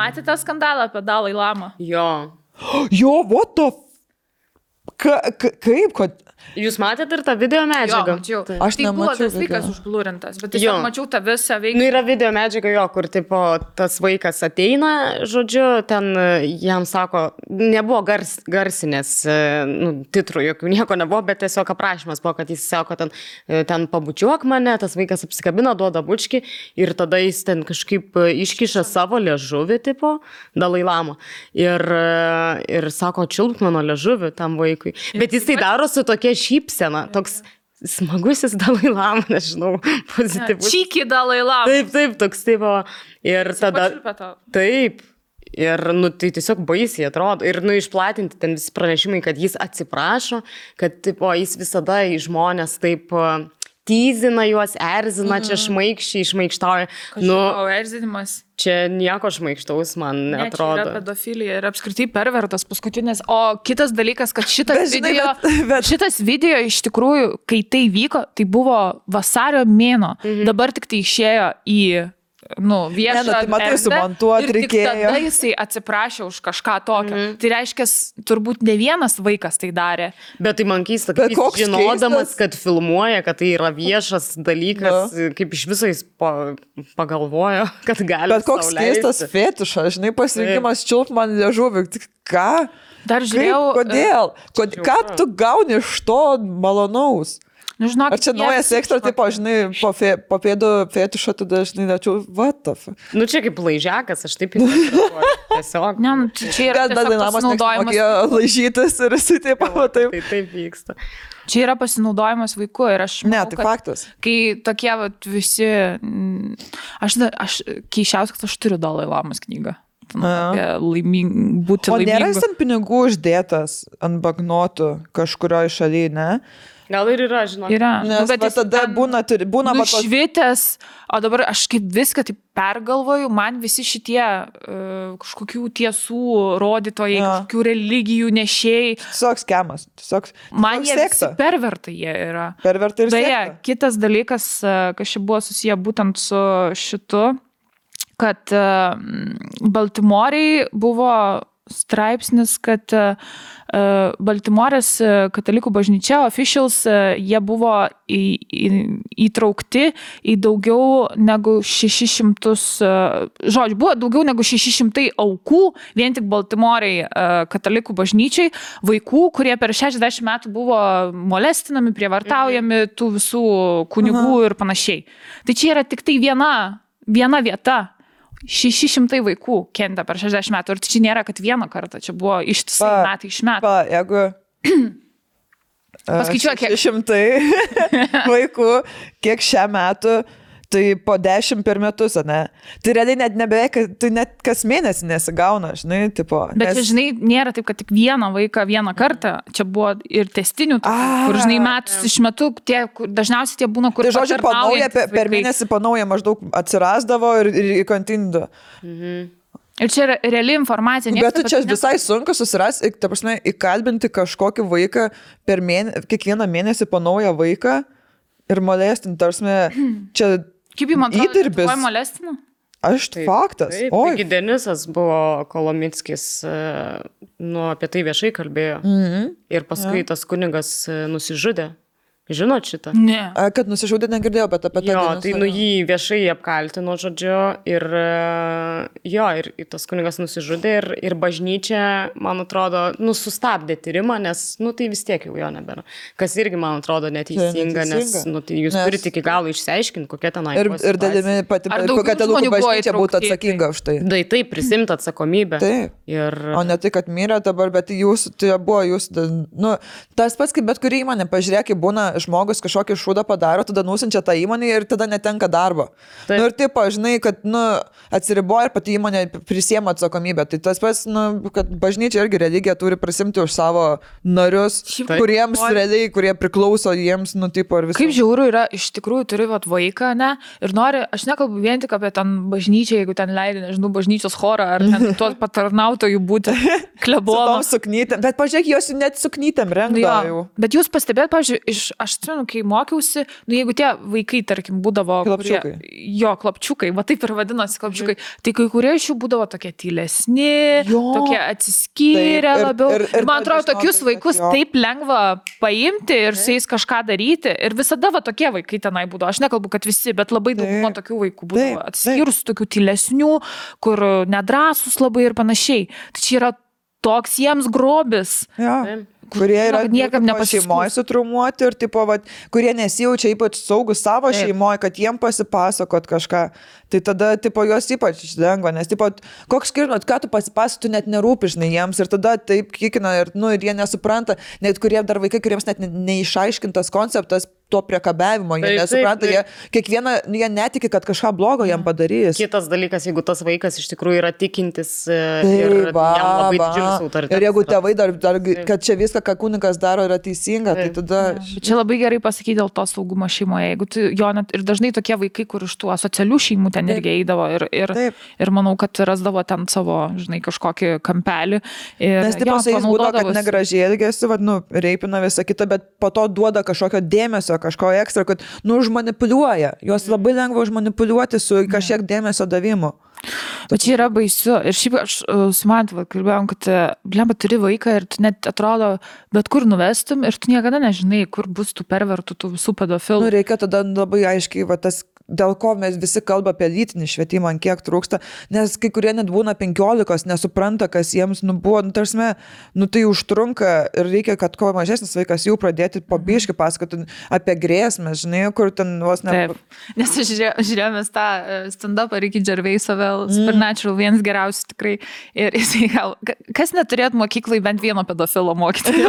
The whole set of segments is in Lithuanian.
Matėte skandalą apie Dalai Lamą? Jo. Jo, what the... Kaip, kad... Jūs matėte ir tą video medžiagą? Jo, mačiau. Aš tai buvo nemačiau tas vaikas video. užblurintas, bet tiesiog mačiau tą visą veiklą. Nu, yra video medžiaga jo, kur tipo, tas vaikas ateina, žodžiu, ten jam sako, nebuvo garsinės titrų, jokių nieko nebuvo, bet tiesiog aprašymas buvo, kad jis sako, ten pabučiuok mane, tas vaikas apsikabina, duoda bučkį ir tada jis ten kažkaip iškiša savo liežuvį, tipo, Dalai Lama. Ir sako, čiulpk mano liežuvį tam vaikui. Bet jis tai daro su tokia šypsena, toks smagusis Dalai Lama, nežinau, pozityvus. Čyki Dalai Lama. Taip, toks taip. Ir tada... Taip. Ir, tai tiesiog baisiai atrodo. Ir, išplatinti ten visi pranešimai, kad jis atsiprašo, kad, tipo, jis visada į žmonės taip tyzina juos, erzina, čia šmaikštauja. Erzinimas. Čia nieko šmaikštaus man neatrodo. Čia yra pedofilija ir apskritai pervertas paskutinis. O kitas dalykas, kad šitas video iš tikrųjų, kai tai vyko, tai buvo vasario mėnuo. Dabar tik tai išėjo į viešą tai matai, sumontuot reikėjo. Ir tik tada jisai atsiprašė už kažką tokio. Tai reiškia, turbūt ne vienas vaikas tai darė. Bet tai man keista, kad jis žinodamas, kad filmuoja, kad tai yra viešas dalykas, kaip iš viso jis pagalvojo, kad gali. Bet koks keistas fetišas, žinai, pasirinkimas čiulp man liežuvį. Ką? Dar žiūrėjau. Kodėl? Ką tu gauni iš to malonaus? Žinok, ar čia naujas ekstra, tipo, žinai, po pėdų fetišo, tada, žinai, dačiau, what the fuck? Čia kaip laižiakas, aš taip įsivaizduoju. Tiesiog. Ne, čia yra pasinaudojimas. Laižytas ir jisai taip. Taip vyksta. Čia yra pasinaudojimas vaiku ir aš manau, tai faktas. Kai tokie visi... Aš keišiausias, kad aš turiu Dalai Lamos knygą. Būti laimingu. O nėra jis ant pinigų uždėtas ant bagnotų kažkurioje šalyje, ne? Gal ir yra, žinok. Yra. Nes tada būna nušvitęs, o dabar aš kaip viską taip pergalvoju, man visi šitie kažkokių tiesų rodytojai, kažkokių religijų nešėjai. Tiesiog skemas. Man jie visi pervertai jie yra. Pervertai ir sekta. Kitas dalykas, kas čia buvo susiję būtent su šitu, kad Baltimorėj buvo straipsnis, kad Baltimorės katalikų bažnyčia, officials, jie buvo įtraukti į daugiau negu 600, buvo daugiau negu 600 aukų, vien tik Baltimorėj katalikų bažnyčiai, vaikų, kurie per 60 metų buvo molestinami, prievartaujami tų visų kunigų ir panašiai. Tai čia yra tik tai viena vieta. 600 vaikų kentė per 60 metų. Ir čia nėra, kad vieną kartą. Čia buvo ištisai metai iš metų. Jeigu paskaičiuok, 600 vaikų, kiek šią metų, tai po 10 per metus, ne? Tai realiai net nebeveik, tai net kas mėnesį nesigauna, žinai, tipo. Bet čia, žinai, nėra taip, kad tik vieną vaiką vieną kartą. Čia buvo ir testinių, kur, žinai, metus iš metų, dažniausiai tie būna, kur... Tai žodžiu, panauja, per mėnesį panauja maždaug atsirasdavo ir kontinuo. Ir čia yra reali informacija. Bet tu čia visai sunku susirasti, ta prasme, įkalbinti kažkokį vaiką kiekvieną mėnesį panauja vaiką ir molestinti, tarsi, čia... Kaip jums atrodo, tuoj molestina? Aš faktas. Taigi Denisas buvo Kolomickis, apie tai viešai kalbėjo. Ir paskui tas kunigas nusižudė. Žinot šitą? Ne. Kad nusižudė negirdėjau, bet apie tai. Jo, tai jį viešai apkaltino, žodžiu, ir tas kunigas nusižudė ir bažnyčia, man atrodo, sustabdė tyrimą, nes, tai vis tiek jau jo nebėra. Kas irgi, man atrodo, neteisinga, nes, tai jūs turite iki galo išsiaiškinti, kokia ten buvo situacija. Ir dalimi pati, kokia telukų bažnyčia būtų atsakinga už tai. Taip, prisimti atsakomybę. Taip. O ne tai, kad mirė dabar, bet tas pats, kaip bet kuri įmonė, pažiūrėk, būna žmogus kažkokį šūdą padaro, tada nusinčia tą įmonę ir tada netenka darbo. Ir taip, žinai, kad atsiriboja ir pati įmonė prisiema atsakomybę. Tai tas pats, kad bažnyčia irgi religija turi prisimti už savo narius, kuriems realiai, kurie priklauso jiems, ir visą. Kaip žiauru yra, iš tikrųjų turi vaiką, ne? Ir nori, aš nekalbu vien tik apie ten bažnyčią, jeigu ten leidai, nežinau, bažnyčios chorą, ar tuos patarnautojų būti klebono. Bet pažiūrėk, jos net suknytėm rengdavo. Bet jūs pastebėt, pavyzdžiui, aš aš atsimenu, kai mokiausi, nu jeigu tie vaikai, tarkim, būdavo... Klapčiukai. Klapčiukai, va taip ir vadinosi klapčiukai, tai kai kurie iš jų būdavo tokie tylesni, tokie atsiskyrę labiau. Ir man atrodo, tokius vaikus taip lengva paimti ir su jais kažką daryti. Ir visada va tokie vaikai tenai būdavo. Aš nekalbu, kad visi, bet labai daug tokių vaikų būdavo atsiskyrus, tokių tylesnių, kur nedrąsus labai ir panašiai. Tai čia yra toks jiems grobis. Kurie yra niekam šeimoje sutrumuoti ir tipo, vat, kurie nesijaučia ypač saugus savo šeimoje, kad jiem pasipasakot kažką. Tai tada tipo, juos ypač lengva, nes tipo, koks skirtumas, ką tu pasipasakot, tu net nerūpi, žinai, jiems ir tada taip kikina ir, nu, ir jie nesupranta, net kurie dar vaikai, kuriems net neišaiškintas konceptas to priekabiavimo, jie nesupranta, jie netiki, kad kažką blogo jam padarys. Kitas dalykas, jeigu tas vaikas iš tikrųjų yra tikintis ir jam labai didžiulis autoritetas. Ir jeigu tėvai dar kad čia viską, ką kunigas daro, yra teisinga, tai tada... Čia labai gerai pasakyti dėl to saugumo šeimoje. Jeigu tu, ir dažnai tokie vaikai, kur iš tų asocialių šeimų ten irgi eidavo ir manau, kad rasdavo ten savo, žinai, kažkokį kampelį. Nes tipo su jais būdavo, kad negražiai elgėsi, reipina visą kitą, bet po to duoda kažkokio dėmesio, kažko ekstra, kad, nu, užmanipuliuoja. Juos labai lengva užmanipuliuoti su kažkiek dėmesio davimu. O čia yra baisu. Ir šiaip aš su Mantu kalbėjom, kad, blemba, turi vaiką ir tu net atrodo, bet kur nuvestum ir tu niekada nežinai, kur bus tų pervertų, tų visų pedofilų. Nu, reikia tada labai aiškiai, tas dėl ko mes visi kalba apie lytinį švietimą, kiek trūksta, nes kai kurie net būna 15, nesupranta, kas jiems buvo, tarsime, tai užtrunka ir reikia, kad kuo mažesnis vaikas jau pradėti po biškį pasakoti apie grėsmę, žinai, kur ten vos ne... Taip, nes žiūrėjome tą stand-upą Ricky Gervaisą vėl, Supernatural, vienas geriausių tikrai, ir jisai gal, kas neturėt mokyklai bent vieno pedofilo mokyti?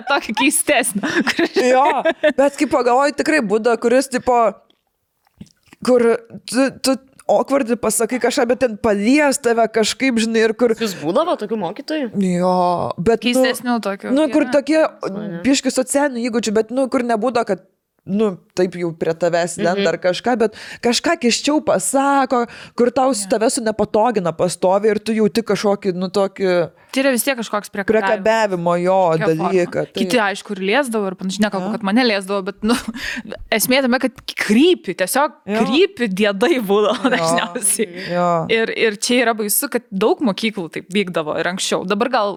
Tokį keistesnį. Jo, bet kaip pagalvoju, tikrai būda, kuris tipo, kur tu awkwardly pasakai kažką, bet ten palies tave kažkaip, žinai, ir kur... Jūs būdavo tokių mokytojų? Jo, bet... Keistesnių tokių. Nu, kur tokie biški socialinių įgūdžių, bet, nu, kur nebūdo, kad taip jau prie tavęs lenda ar kažką, bet kažką kiščiau pasako, kur tau tave su nepatogina pastovi ir tu jauti kažkokį, tokį... Tai yra vis tiek kažkoks priekabiavimo jo dalyką. Kiti, aišku, ir liesdavo ir panašiai, nekalbu, kad mane liesdavo, bet, esmė tame, kad krypi, tiesiog krypi diedai būdavo dažniausiai. Ir čia yra baisu, kad daug mokyklų taip vykdavo ir anksčiau. Dabar gal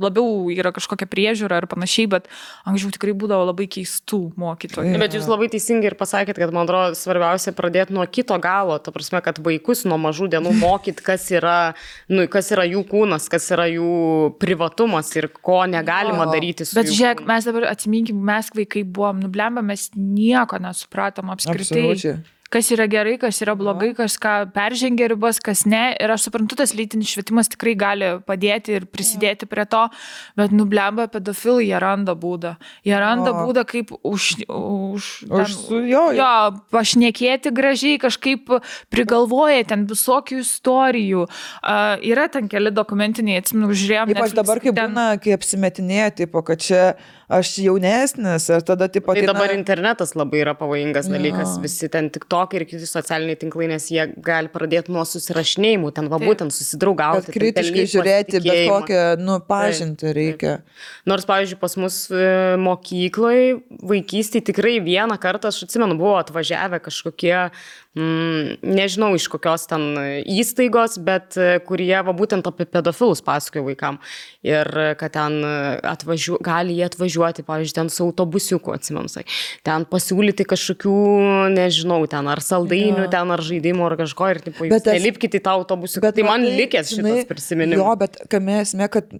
labiau yra kažkokia priežiūra ir panašiai, bet anksčiau tikrai būdavo labai keistų mokytojų. Bet jūs labai teisingai ir pasakėt, kad, man atrodo, svarbiausia pradėti nuo kito galo, ta prasme, kad vaikus nuo mažų dienų mokyti, kas yra jų kūnas, kas yra jų privatumas ir ko negalima daryti su jų. Bet žiūrėk, mes dabar atsiminkim, mes vaikai buvom, blemba, mes nieko nesupratom apskritai. Absoliučiai. Kas yra gerai, kas yra blogai, kas ką peržengia ribas, kas ne. Ir aš suprantu, tas lytinis švietimas tikrai gali padėti ir prisidėti prie to, bet blemba, pedofilai, jie randa būdą. Jie randa būdą, kaip pašnekėti gražiai, kažkaip prigalvoja ten visokių istorijų. Yra ten keli dokumentiniai, atsimenu, žiūrėjom. Ypač dabar, kai būna, kai apsimetinėja, tipo, kad čia aš jaunesnis, ir tada tipo... Tai dabar internetas labai yra pavojingas dalykas, visi ten TikTok ir kiti socialiniai tinklai, nes jie gali pradėti nuo susirašinėjimų, ten būtent susidraugauti. Bet kritiškai žiūrėti, bet kokią, pažinti reikia. Nors, pavyzdžiui, pas mus mokykloje, vaikystėje tikrai vieną kartą, aš atsimenu, buvo atvažiavę kažkokie, nežinau iš kokios ten įstaigos, bet kurie būtent apie pedofilus pasakojo vaikam. Ir kad ten gali jie atvažiuoti, pavyzdžiui, ten su autobusiuku, atsimenu, ten pasiūlyti kažkokių, nežinau, ten ar saldainių, ten ar žaidimų, ar kažko, ir tipo, jūs nelipkite į tą autobusiuką. Tai man likęs šitas prisiminimas. Jo, bet kame esmė, kad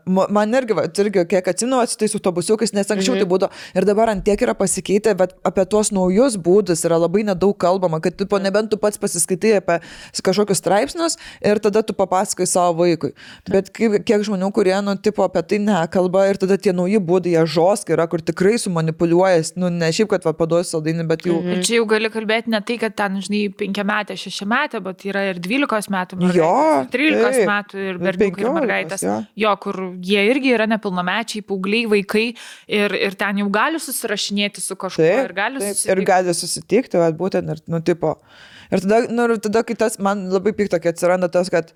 man irgi kiek atsimenu, su tais autobusiukais, nes anksčiau tai būdavo. Ir dabar ant tiek yra pasikeitę, bet apie tuos naujus būdus yra labai nedaug kalbama, kad tipo, nebent tu pats pasiskaitai apie kažkokius straipsnius ir tada tu papasakai savo vaikui. Bet kiek žmonių, kurie, tipo, apie tai nekalba ir tada tie nauji būdai, jie žoskai yra, kur tikrai sumanipuliuojas, ne šiaip, kad paduosi saldainį, bet jau... Ir čia jau gali kalbėti ne tai, kad ten, žinai, 5 metė, 6 metė, bet yra ir 12 metų mergaitės, 13 metų ir berniukai ir mergaitės. Jo, kur jie irgi yra nepilnamečiai, paaugliai, vaikai ir ten jau gali susirašinėti su kažkuo ir gali susitikti. Ir gali susitikti, būtent, ir, tipo... Ir tada, kai tas man labai pikta, kai atsiranda tas, kad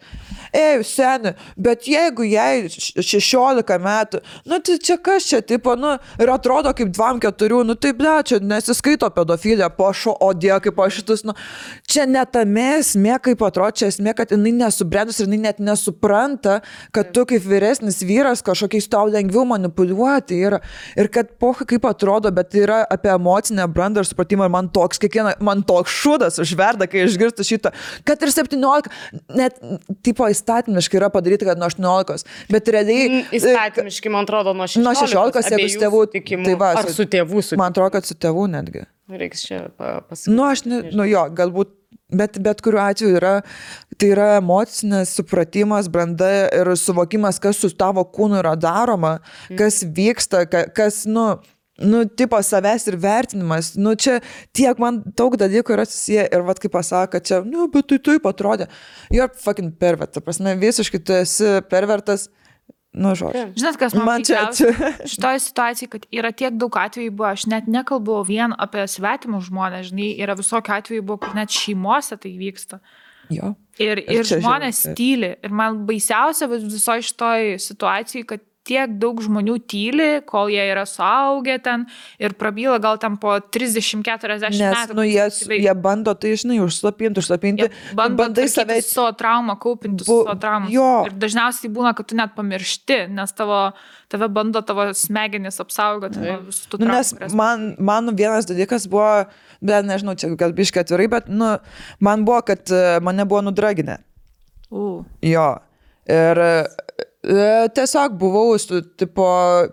seni, bet jeigu jai 16 metų, tai čia kas čia, tipo, nu, ir atrodo kaip 2-4, nu, taip, ne, čia nesiskaito pedofilija, o die, kaip aš šitus, nu, čia netame esmė, kaip atrodo, čia esmė, kad jinai nesubrendus ir jinai net nesupranta, kad tu kaip vyresnis vyras kažkokiais tau lengviau manipuliuoti yra. Ir kad poha kaip atrodo, bet yra apie emocinę brandą ir supratimą ir man toks šūdas užverda, kai išgirstu šitą, kad ir 17, net, tipo, įstatymiškai yra padaryti, kad nuo 18, bet realiai... Įstatymiškai, man atrodo, nuo 16. Nuo 16, jeigu su tėvų tikimų, tai va, ar su tėvų sutikimų. Man atrodo, kad su tėvų netgi. Reiks čia pasakyti. Nu, aš jo, galbūt, bet kuriuo atveju tai yra emocinis supratimas, branda ir suvokimas, kas su tavo kūnu yra daroma, kas vyksta, kas, tipo savęs ir vertinimas. Nu, čia tiek man daug dalykų yra susiję ir vat kaip pasako, kad čia, bet tai taip atrodė. You're fucking pervert, ta prasme, visiškai tu esi pervertas. Nu, žodžiu. Žinot, kas man pikčiausia šitoje situacijoje, kad yra tiek daug atvejų buvo, aš net nekalbu vien apie svetimus žmonės, žinai, yra visokių atvejų buvo, kur net šeimose tai vyksta. Jo. Ir žmonės tyli. Ir man baisiausia visoje šitoje situacijoje, kad tiek daug žmonių tyli, kol jie yra suaugę ten ir prabyla gal ten po 30-40 metų. Nes, jie bando tai, žinai, užslapinti. Bandai save savo traumą, kaupinti savo traumą. Ir dažniausiai būna, kad tu net pamiršti, nes tave bando tavo smegenis apsaugoti. Nes man vienas dalykas buvo, bet nežinau, čia gal biškai atvirai, bet man buvo, kad mane buvo nudraginę. Jo. Ir tiesiog buvau, tipo,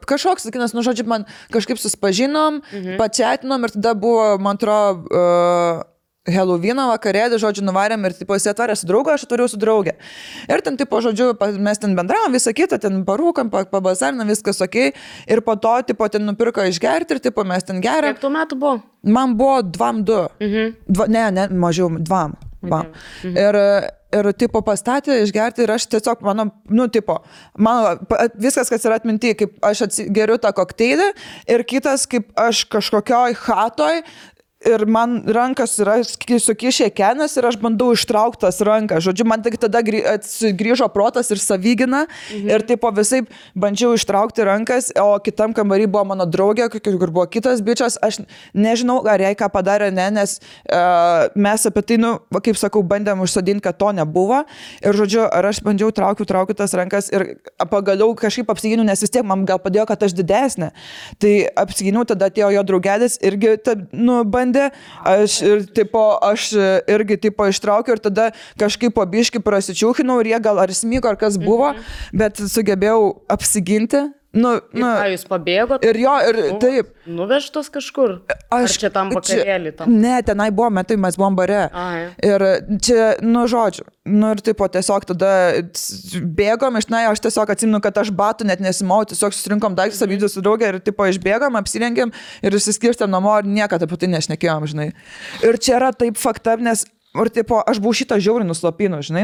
kažkoks, sakinas, žodžiu, man kažkaip susipažinom, pačiatinom ir tada buvo, man atrodo, Helovino vakarėlį, žodžiu, nuvarėm ir, tipo, jis atvarė su draugu, aš atvariau su draugė. Ir ten, tipo, žodžiu, mes ten bendravom, visą kitą, ten parūkam, pabazarinam, viskas okei. Ir po to, tipo, ten nupirko išgerti ir, tipo, mes ten geriam. Kiek tų metų buvo? Man buvo 2-2. Ne, mažiau, 2. Ir, tipo, pastatė išgerti ir aš tiesiog, mano, viskas, kas yra atminti, kaip aš geriu tą kokteilį ir kitas, kaip aš kažkokioj hatoj ir man rankas yra sukišę kenas ir aš bandau ištraukti tas rankas. Žodžiu, man tik tada grįžo protas ir savigina ir tipo visai bandžiau ištraukti rankas, o kitam kambarį buvo mano draugė, kur buvo kitas bičias. Aš nežinau, ar jai ką padarė, nes mes apie tai, kaip sakau, bandėm užsodinti, kad to nebuvo. Ir žodžiu, ar aš bandžiau traukti tas rankas ir pagaliau kažkaip apsiginiau, nes vis tiek man gal padėjo, kad aš didesnė. Tai apsiginiau, tada atėjo jo draugelis irgi, aš irgi tipo ištraukiau ir tada kažkaip po biškį prasičiūkinau ir jie gal ar smyko, ar kas buvo, bet sugebėjau apsiginti. Jūs pabėgot? Ir jo, ir taip. Nuvežtos kažkur? Ar čia tam vakarėlį? Ne, tenai buvo, mes buvom bare. Ir čia, žodžiu, ir tipo tiesiog tada bėgom, aš tiesiog atsimenu, kad aš batų net nesimau, tiesiog susirinkom daiktus abydus su draugė ir tipo išbėgom, apsirengėm ir išsiskirstėm namo ir niekada apie tai nešnekėjom, žinai. Ir čia yra taip fakta, nes ir tipo, aš buvau šitą žiauriai nuslopinu, žinai,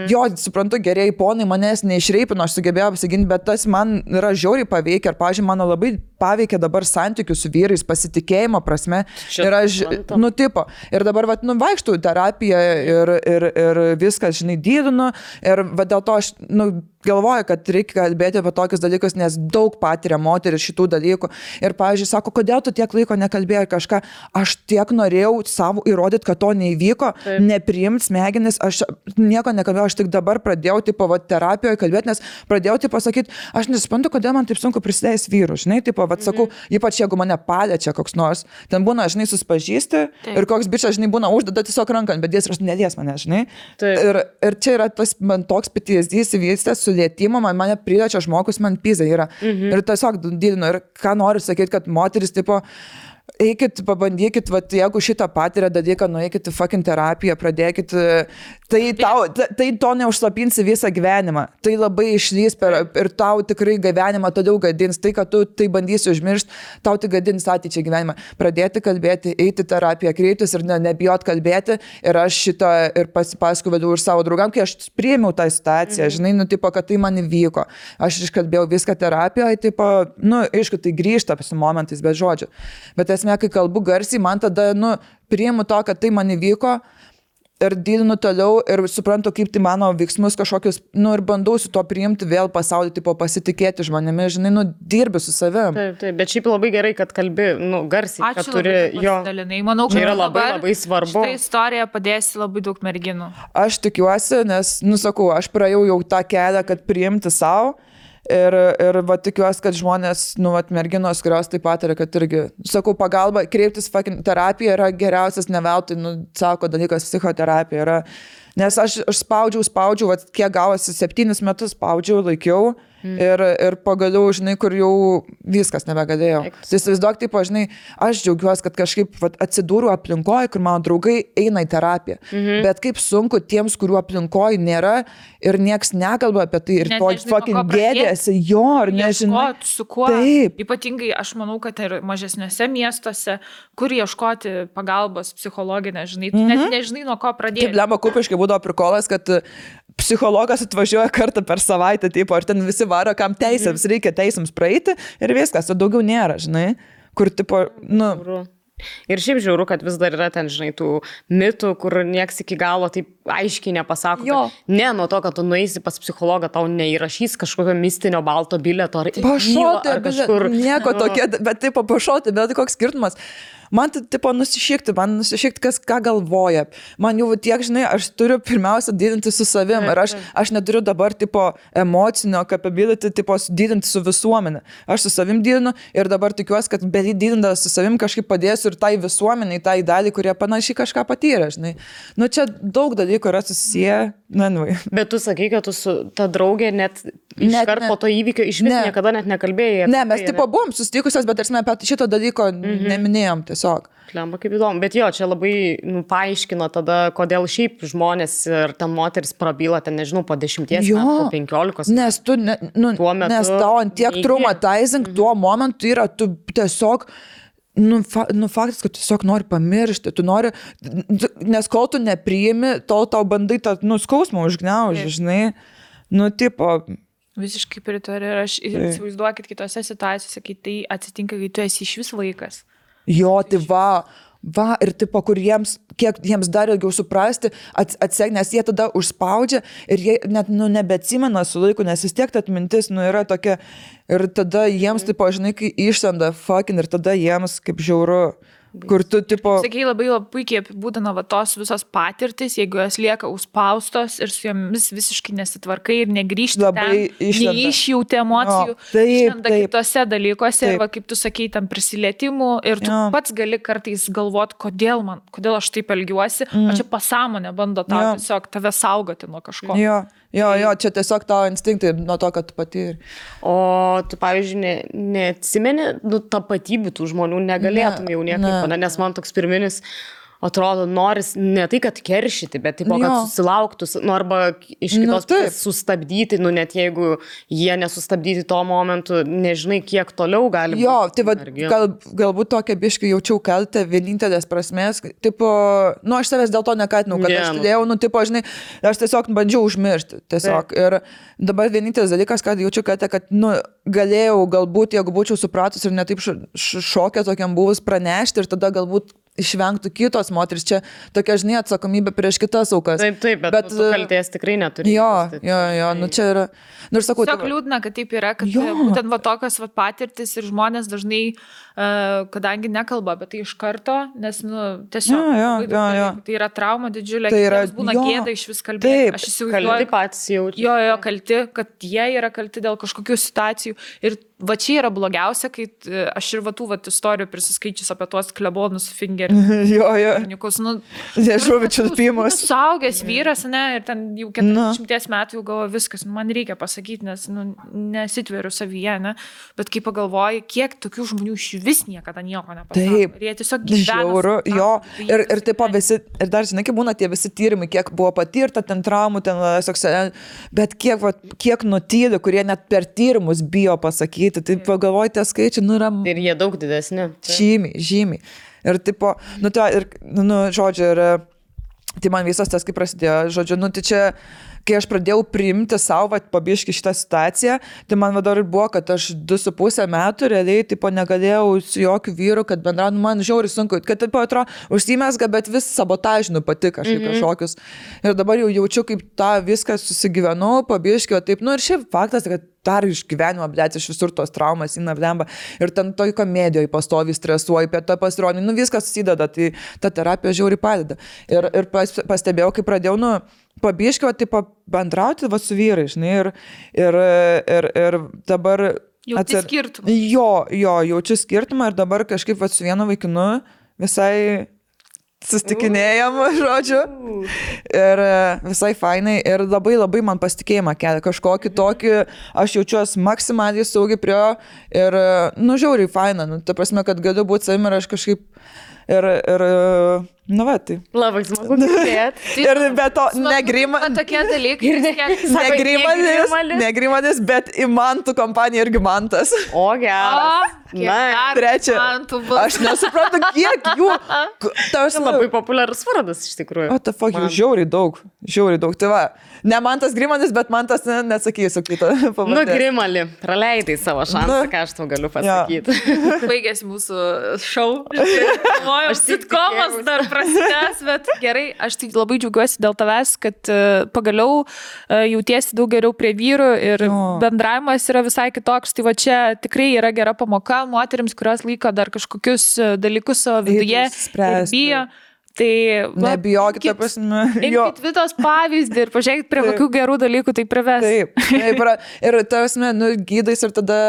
jo, suprantu, gerieji ponai manęs neišreipino, aš sugebėjau apsiginti, bet tas man yra žiauriai paveikia ir, pavyzdžiui, mano labai paveikia dabar santykių su vyrais, pasitikėjimo prasme. Ir aš, ir dabar, vaikštau į terapiją ir viskas, žinai, dydinu ir dėl to aš, galvoju, kad reikia kalbėti apie tokius dalykus, nes daug patiria moteris šitų dalykų. Ir, pavyzdžiui, sako, kodėl tu tiek laiko nekalbėjai kažką, aš tiek norėjau savo įrodyti, kad to neįvyko, nepriimt smegenis, aš nieko nekalbėjau, aš tik dabar pradėjau, terapijoje kalbėti, nes pradėjau, pasakyti, aš nesuprantu, kodėl man taip sunku prisidėjęs vyrų, žinai, sakau, ypač jeigu mane paliečia koks nors, ten būna, žinai, suspažįsti ir koks bičas, žinai, būna uždeda tiesiog ranką, bet jis nelies mane, žinai. Ir čia yra tas man toks PTSD įsivystęs su lietimu, mane priliečia žmogus, man pizai yra. Ir tiesiog didinu. Ir ką noriu sakyti, kad moteris, eikit, pabandykit, jeigu šitą patiria dalyką, nueikit į fucking terapiją, pradėkit, tai to neužslapinsi visą gyvenimą. Tai labai išlys ir tau tikrai gyvenimą toliau gadins. Tai, kad tu tai bandysi užmiršti, tau tai gadins ateičiai gyvenimą. Pradėti kalbėti, eiti terapiją, kreiptis ir nebijot kalbėti. Ir aš šitą ir pasipasakau vėliau ir savo draugam, kai aš priėmiau tą situaciją, žinai, kad tai man įvyko. Aš iškalbėjau viską terapijoje, aišku, tai grįžta su momentais, be žodžių. Bet esmė, kai kalbu garsiai, man tada, priimu to, kad tai man įvyko ir didinu toliau ir suprantu, kaip tai mano veiksmus kažkokius, nu ir bandau su to priimti vėl pasaulį, tipo pasitikėti žmonėmis, žinai, nu dirbi su savim. Taip, bet šiaip labai gerai, kad kalbi, nu, garsiai, Ačiū kad turi labai, jo. pasidalinai. Manau, kad Čia yra labai, dabar labai svarbu. šitą istoriją padėsi labai daug merginų. Aš tikiuosi, nes, nusakau, aš praėjau jau tą kelią, kad priimti savo. Ir va tikiuosi, kad žmonės, nu, va, merginos, kurios taip pat yra, kad irgi, sakau, pagalba, kreiptis terapija yra geriausias, ne veltui, nu, sako dalykas, psichoterapija yra. Nes aš spaudžiau, va, kiek gavosi 7 metus spaudžiau, laikiau. Ir pagaliau, žinai, kur jau viskas nebegalėjau. Tai įsivaizduok, taip, žinai, aš džiaugiuosi, kad kažkaip vat, atsidūriau aplinkoje, kur mano draugai eina į terapiją. Bet kaip sunku tiems, kurių aplinkoje nėra ir nieks nekalba apie tai ir Net to nežinai, fucking nuo ko pradėti. gėdėsi, jo, ar nežinai. Ieškot, su kuo. Taip. Ypatingai aš manau, kad ir mažesniuose miestuose, kur ieškoti pagalbos psichologinę, žinai, tu net nežinai, nuo ko pradėti. Taip, lemba kupiškai būdavo prikolas, kad psichologas atvažiuoja kartą per savaitę, taip, ar ten visi varo, kam teisėms reikia teisėms praeiti ir viskas, o daugiau nėra, žinai, kur, tipo, nu... Ir šiaip žiūriu, kad vis dar yra ten, žinai, tų mitų, kur nieks iki galo taip aiškiai nepasako. Ne, nuo to, kad tu nueisi pas psichologą, tau neįrašys kažkokio mistinio balto bilieto ar pašauti, kažkur. Nieko tokia, bet taip pašauti, bet koks skirtumas. Man tai, tipo, nusišikti, kas ką galvoja. Man jau tiek, žinai, aš turiu pirmiausia didinti su savim. Ir aš neturiu dabar, tipo, emocinio capability, tipo, didinti su visuomenė. Aš su savim didinu ir dabar tikiuosi, kad didintas su savim kažkaip padėsiu ir tai visuomeniai, tai dalį, kurie panašiai kažką patyrė, žinai. Nu, čia daug dalykų yra susiję. Bet tu sakai, kad tu su ta draugė net iškart po to įvykio iš vis niekada net nekalbėjai. Ne, mes tipo buvom susitikusios, bet tarsi apie šito dalyko neminėjom tiesiog. Klemba, kaip įdomu. Bet jo, čia labai paaiškino tada, kodėl šiaip žmonės ir ten moteris prabyla, ten nežinau, po 10 metų, po 15. Nes tu, nes tau ant tiek traumatizing tuo momentu yra, tu tiesiog... faktas, kad tu tiesiog nori pamiršti, tu nori, nes kol tu nepriimi, tol tau bandai tą, skausmą užgniaužti, žinai, tipo... Visiškai pritariu ir aš įsivaizduokit kitose situacijose, kai tai atsitinka, kai tu esi iš vis vaikas. Jo, tai va, ir tipo, kur kiek jiems dar ilgiau suprasti, atsek, nes jie tada užspaudžia ir jie net, nebeatsimena su laiku, nes vis tiek ta atmintis, yra tokia, ir tada jiems, tipo, žinai, kai išsenda fucking, ir tada jiems kaip žiauru. Kur tu, tipo... Sakai, labai puikiai apibūdina va tos visos patirtis, jeigu jos lieka užspaustos ir su jomis visiškai nesitvarkai ir negrįžti ten, neišjauti emocijų, išlenda kitose dalykuose ir va, kaip tu sakei, tam prisilietimų ir tu pats gali kartais galvoti, kodėl aš taip elgiuosi, o čia pasąmonė bando tau tiesiog tave saugoti nuo kažko. Jo, čia tiesiog tavo instinktai nuo to, kad tu patyri. O tu, pavyzdžiui, neatsimeni tapatybių tų žmonių, negalėtum jau niekaip, nes man toks pirminis atrodo, noris ne tai, kad keršyti, bet taip, kad susilauktų, arba iš kitos pusės sustabdyti, net jeigu jie nesustabdyti to momentu, nežinai, kiek toliau gali būti. Jo, tai va, galbūt tokia biškai jaučiau kaltę vienintelės prasmės, tipo, aš savęs dėl to nekatinau, kad aš turėjau, tipo, žinai, aš tiesiog bandžiau užmiršti, tiesiog. Ir dabar vienintelis dalykas, kad jaučiu kaltę, kad, galėjau galbūt, jeigu būčiau supratus ir netaip šokę tokiam buvus pranešti ir tada galbūt išvengtų kitos moteris. Čia tokia, žinai, atsakomybė prieš kitas aukas. Taip, bet tu kaltės tikrai neturi. Jo, čia yra. Ir sakau, tiesiog liūdna, kad taip yra, kad būtent va tokios va patirtis ir žmonės dažnai, kadangi nekalba apie tai iš karto, nes, tiesiog tai yra trauma didžiulė, tai yra, būna gėda iš vis kalbėti. Aš įsivaizduoju. Kalti patys jaučiu. Jo, kalti, kad jie yra kalti dėl kažkokių situacijų. Ir va čia yra blogiausia, kai aš ir va tų istorijų prisiskaičius apie tuos klebonus fingerius. Jo. Nežuvičius pimus. Suaugęs vyras, ir ten jau 40 metų jau galvoju viskas, man reikia pasakyti, nes nesitveriu savyje, bet kai pagalvoju, kiek tokių žmonių iš vis niekada nieko nepasako. Taip. Ir jie tiesiog gyvena. Žiauru, jo. Ir taip visi, ir dar žinai, kaip būna tie visi tyrimai, kiek buvo patirta ten traumų, ten seksualinė, bet kiek nutyli, kurie net per tyrimus bijo pasakyti. Tai pagalvojate, tie skaičiai, yra... Ir jie daug didesni. Žymiai. Ir tipo, žodžiu, ir tai man visas tas, kaip prasidėjo, žodžiu, tai čia kai aš pradėjau priimti savo pabiški šitą situaciją, tai man vadar ir buvo, kad aš 2,5 metų realiai tipo negalėjau su jokiu vyru, kad bendrauju, man žiauriai sunku, kad taip atrodo, užsimesga, bet vis sabotažinu pati kažkaip kažkokius. Ir dabar jau jaučiu, kaip tą viską susigyvenau, pabiški, o taip, nu ir šiaip faktas, kad dar iš gyvenimo, blėt, iš visur tos traumas įna blemba. Ir ten toj komedijoje pastovi stresuoji, apie tą pasirodį, nu viskas susideda, tai ta terapija žiauriai padeda. Ir pastebėjau, kai pradėjau, nu, pabiškio, tipo, bendrauti va su vyrai, žinai, ir dabar... Jauti skirtumą. Jo, jaučiu skirtumą ir dabar kažkaip va su vienu vaikinu visai sustikinėjom, žodžiu, ir visai fainai, ir labai labai man pasitikėjimą kelia, kažkokį tokį, aš jaučiuosi maksimaliai saugiai prie jo, ir, nu, žiauriai faina, nu, ta prasme, kad galiu būti savim ir aš kažkaip, ir nu, va, tai. Labai smagu girdėti. Ir be to, negrimanis. Tokie dalykai. Negrimanis, bet įmantų kompanija irgi mantas. O, geras. Na, trečia. Aš nesuprantu, kiek jų. Tas labai populiarus vardas, iš tikrųjų. O, ta fuck, jų žiauriai daug. Tai va, ne mantas Grimanis, bet mantas, nesakysiu kitą pavardės. Nu, Grimali, praleidai savo šansą, ką aš tau galiu pasakyti. Baigėsi mūsų šou. Aš sitkomas dar prasidės, bet gerai, aš tik labai džiaugiuosi dėl tavęs, kad pagaliau jautiesi daug geriau prie vyrų ir bendravimas yra visai kitoks. Tai va čia tikrai yra gera pamoka moterims, kurios laiko dar kažkokius dalykus savo viduje ir bijo. Tai nebijokit, ta prasme. Imkit Vitos pavyzdį ir pažiūrėkit, prie kokių gerų dalykų tai prives. Taip. Ir ta prasme, nu, gydais ir tada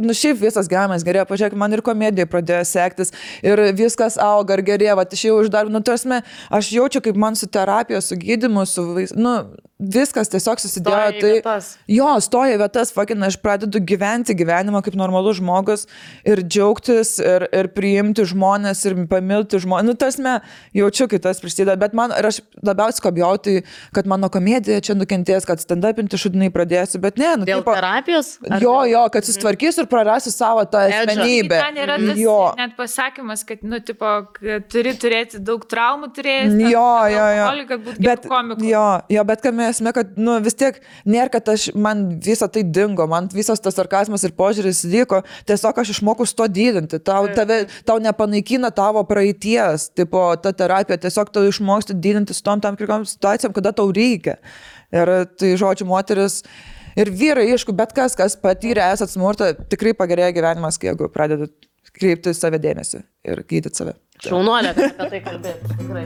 nu, šiaip visas gyvenimas gerėjo, pažiūrėk, man ir komedija pradėjo sektis ir viskas auga ir gerėjo, va, aš jau uždarbinu, nu, tarsi, aš jaučiu, kaip man su terapija, su gydymu, nu, viskas tiesiog susidėjo, stoja vietas, fucking, aš pradedu gyventi gyvenimą kaip normalus žmogus ir džiaugtis ir priimti žmonės ir pamilti žmonės, nu, tarsi, jaučiu, kai tas prisideda, bet man, ir aš labiausiai kabjau, tai, kad mano komedija čia nukentės, kad stand-upinti šudinai pradėsiu, bet ne, nu, dėl terapijos? Jo, kad susitvarkysiu ir prarasiu savo tą asmenybę. Ten yra tas net pasakymas, kad, nu, tipo, turi turėti daug traumų, jo. Kad būtų gerų komikų. Jo, bet kad esmė, kad, nu, vis tiek nėra, kad man visą tai dingo, man visas tas sarkazmas ir požiūris liko, tiesiog aš išmokau su to didinti, tau nepanaikina tavo praeities, tipo, ta terapija, tiesiog tau išmoksti didinti su tom tam tikrom situacijom, kada tau reikia. Ir tai, žodžiu, moteris ir vyrai, aišku, bet kas patyrė esat smurtą, tikrai pagerėja gyvenimas, jeigu pradedat kreipti save dėmesį ir gydyti save. Šaunuolė, apie tai kalbėti, tikrai.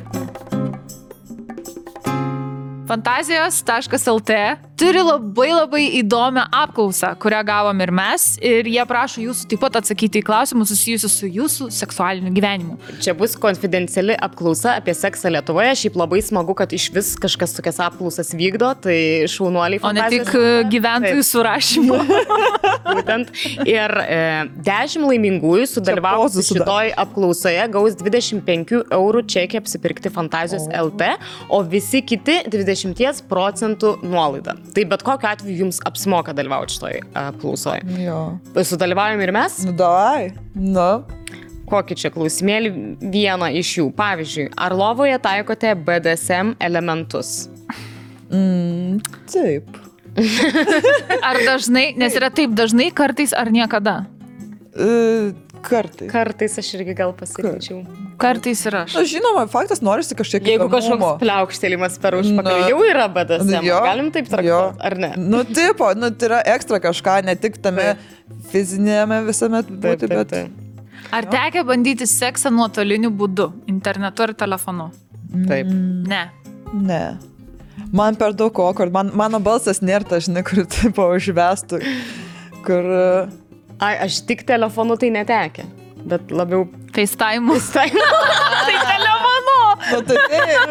Fantazijos.lt turi labai įdomią apklausą, kurią gavom ir mes, ir jie prašo jūsų taip pat atsakyti į klausimus susijusius su jūsų seksualiniu gyvenimu. Čia bus konfidenciali apklausa apie seksą Lietuvoje, šiaip labai smagu, kad iš vis kažkas tokias apklausas vykdo, tai šaunuoliai O fantazijos. ne tik gyventojų surašymu. Būtent. Ir 10 laimingųjų sudalyvavusių šitoj apklausoje gaus 25 eurų čekį apsipirkti Fantazijos LT, o visi kiti 20% nuolaidą. Tai bet kokiu atveju jums apsimoka dalyvauti šitoj apklausoje. Jo. Sudalyvaujam ir mes? Nu, davai. Nu. Kokį čia klausimėlį? Vieną iš jų. Pavyzdžiui, ar lovoje taikote BDSM elementus? Taip. Ar dažnai, nes yra taip dažnai, kartais ar niekada? Kartais. Kartais aš irgi gal pasakyčiau. Kartais ir aš. Na, žinoma, faktas norisi kažkiek Jeigu kažkoks pliaukštėlimas per užpakalį jau yra BDSM, galim taip traktuoti, ar ne? Nu, tipo, nu, tai yra ekstra kažką, ne tik tame fizinėme visame būti, bet... Ar tekia bandyti seksą nuotoliniu būdu, internetu ar telefonu? Taip. Ne. Man per daug awkward, mano balsas nėra ta, žinai, kur tipo užvestų, kur... Aš tik telefonu tai netekia, bet labiau... FaceTime. Tai telefonu! Nu, tai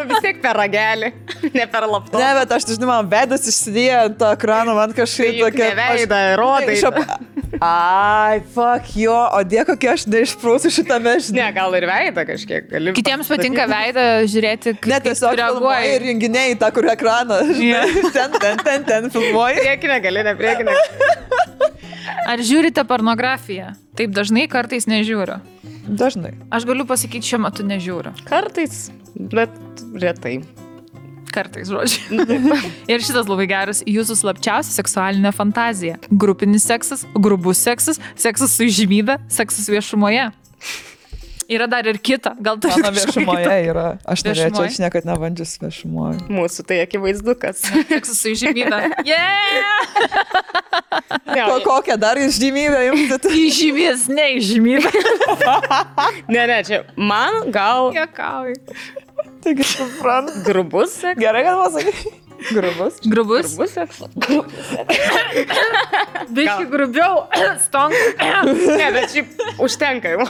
vis tiek per ragelį, ne per laptopą. Ne, bet aš, žinai, man veidas išsidėjo ant to ekrano, man kažkaip tokia... Ne veidą, rodai. Ai, fuck jo, o dėko, kokie aš neišprūsiu šitame, žinai. Ne, gal ir veidą kažkiek gali. Kitiems patinka veidą žiūrėti, kaip ne, tiesiog reaguoja. Ir renginiai tą, kur ekraną, žinai, ten filmuoji. Priekinė gali, ne priekinė. Ar žiūrite pornografiją? Taip dažnai, kartais nežiūriu. Dažnai. Aš galiu pasakyti, šiuo metu nežiūriu. Kartais, bet retai. Kartais, žodžiu. Ir šitas labai geras. Jūsų slapčiausia seksualinė fantazija. Grupinis seksas, grubus seksas, seksas su įžymybė, seksas viešumoje. Yra dar ir kita. Gal tai Mano viešumoje yra. Aš norėčiau, Viešumoje? aš niekad nevandžius viešumoje. Mūsų tai akivaizdukas. seksas su įžymybė. Yeah! Kokią dar išžymybę jums? Įžymės, ne įžymybė. Ne, čia man gal Jokauju. Taigi, suprantu. grubus seksas. Gerai, kad pasakai. Grubus. Grubus. Grubus seksas. Biški grubiau. Stonk. Ne, bet šiaip užtenka jau.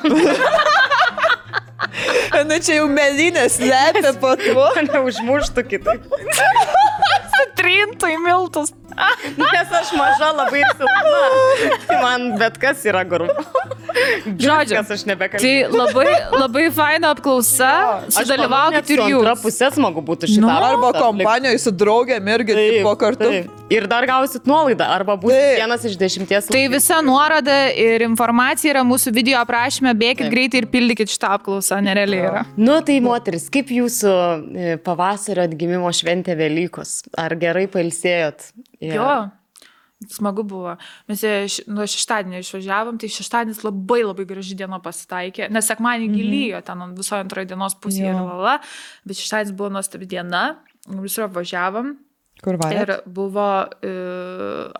Nu čia jau melinės lepia po tuo. Neužmuštų kitaip. Trintų į miltus. Nes aš maža labai ir silpna. Tai man bet kas yra grubu. Žodžiu, Kas aš nebekalbėjau. tai labai, labai faina apklausa. Sudalyvaukit ir Antra jūs. pusė smagu būtų šitą. Nu, Arba kompanijoje su draugėm irgi po kartu. Ir dar gausit nuolaidą, arba bus Taip. 1 iš 10. Tai visa nuoroda ir informacija yra mūsų video aprašyme. Bėkit greitai ir pildykit šitą apklausą. Nerealiai yra. Nu tai moteris, kaip jūsų pavasario atgimimo šventė Velykos? Ar gerai pailsėjot? Jo. Smagu buvo. Mes nuo šeštadienio išvažiavom, tai šeštadienis labai labai graži diena pasitaikė, nes sekmadienį gilyjo ten visoje antroje dienos pusėje, bet šeštadienis buvo nuostabi diena, visur apvažiavom. Kur valė? Ir buvo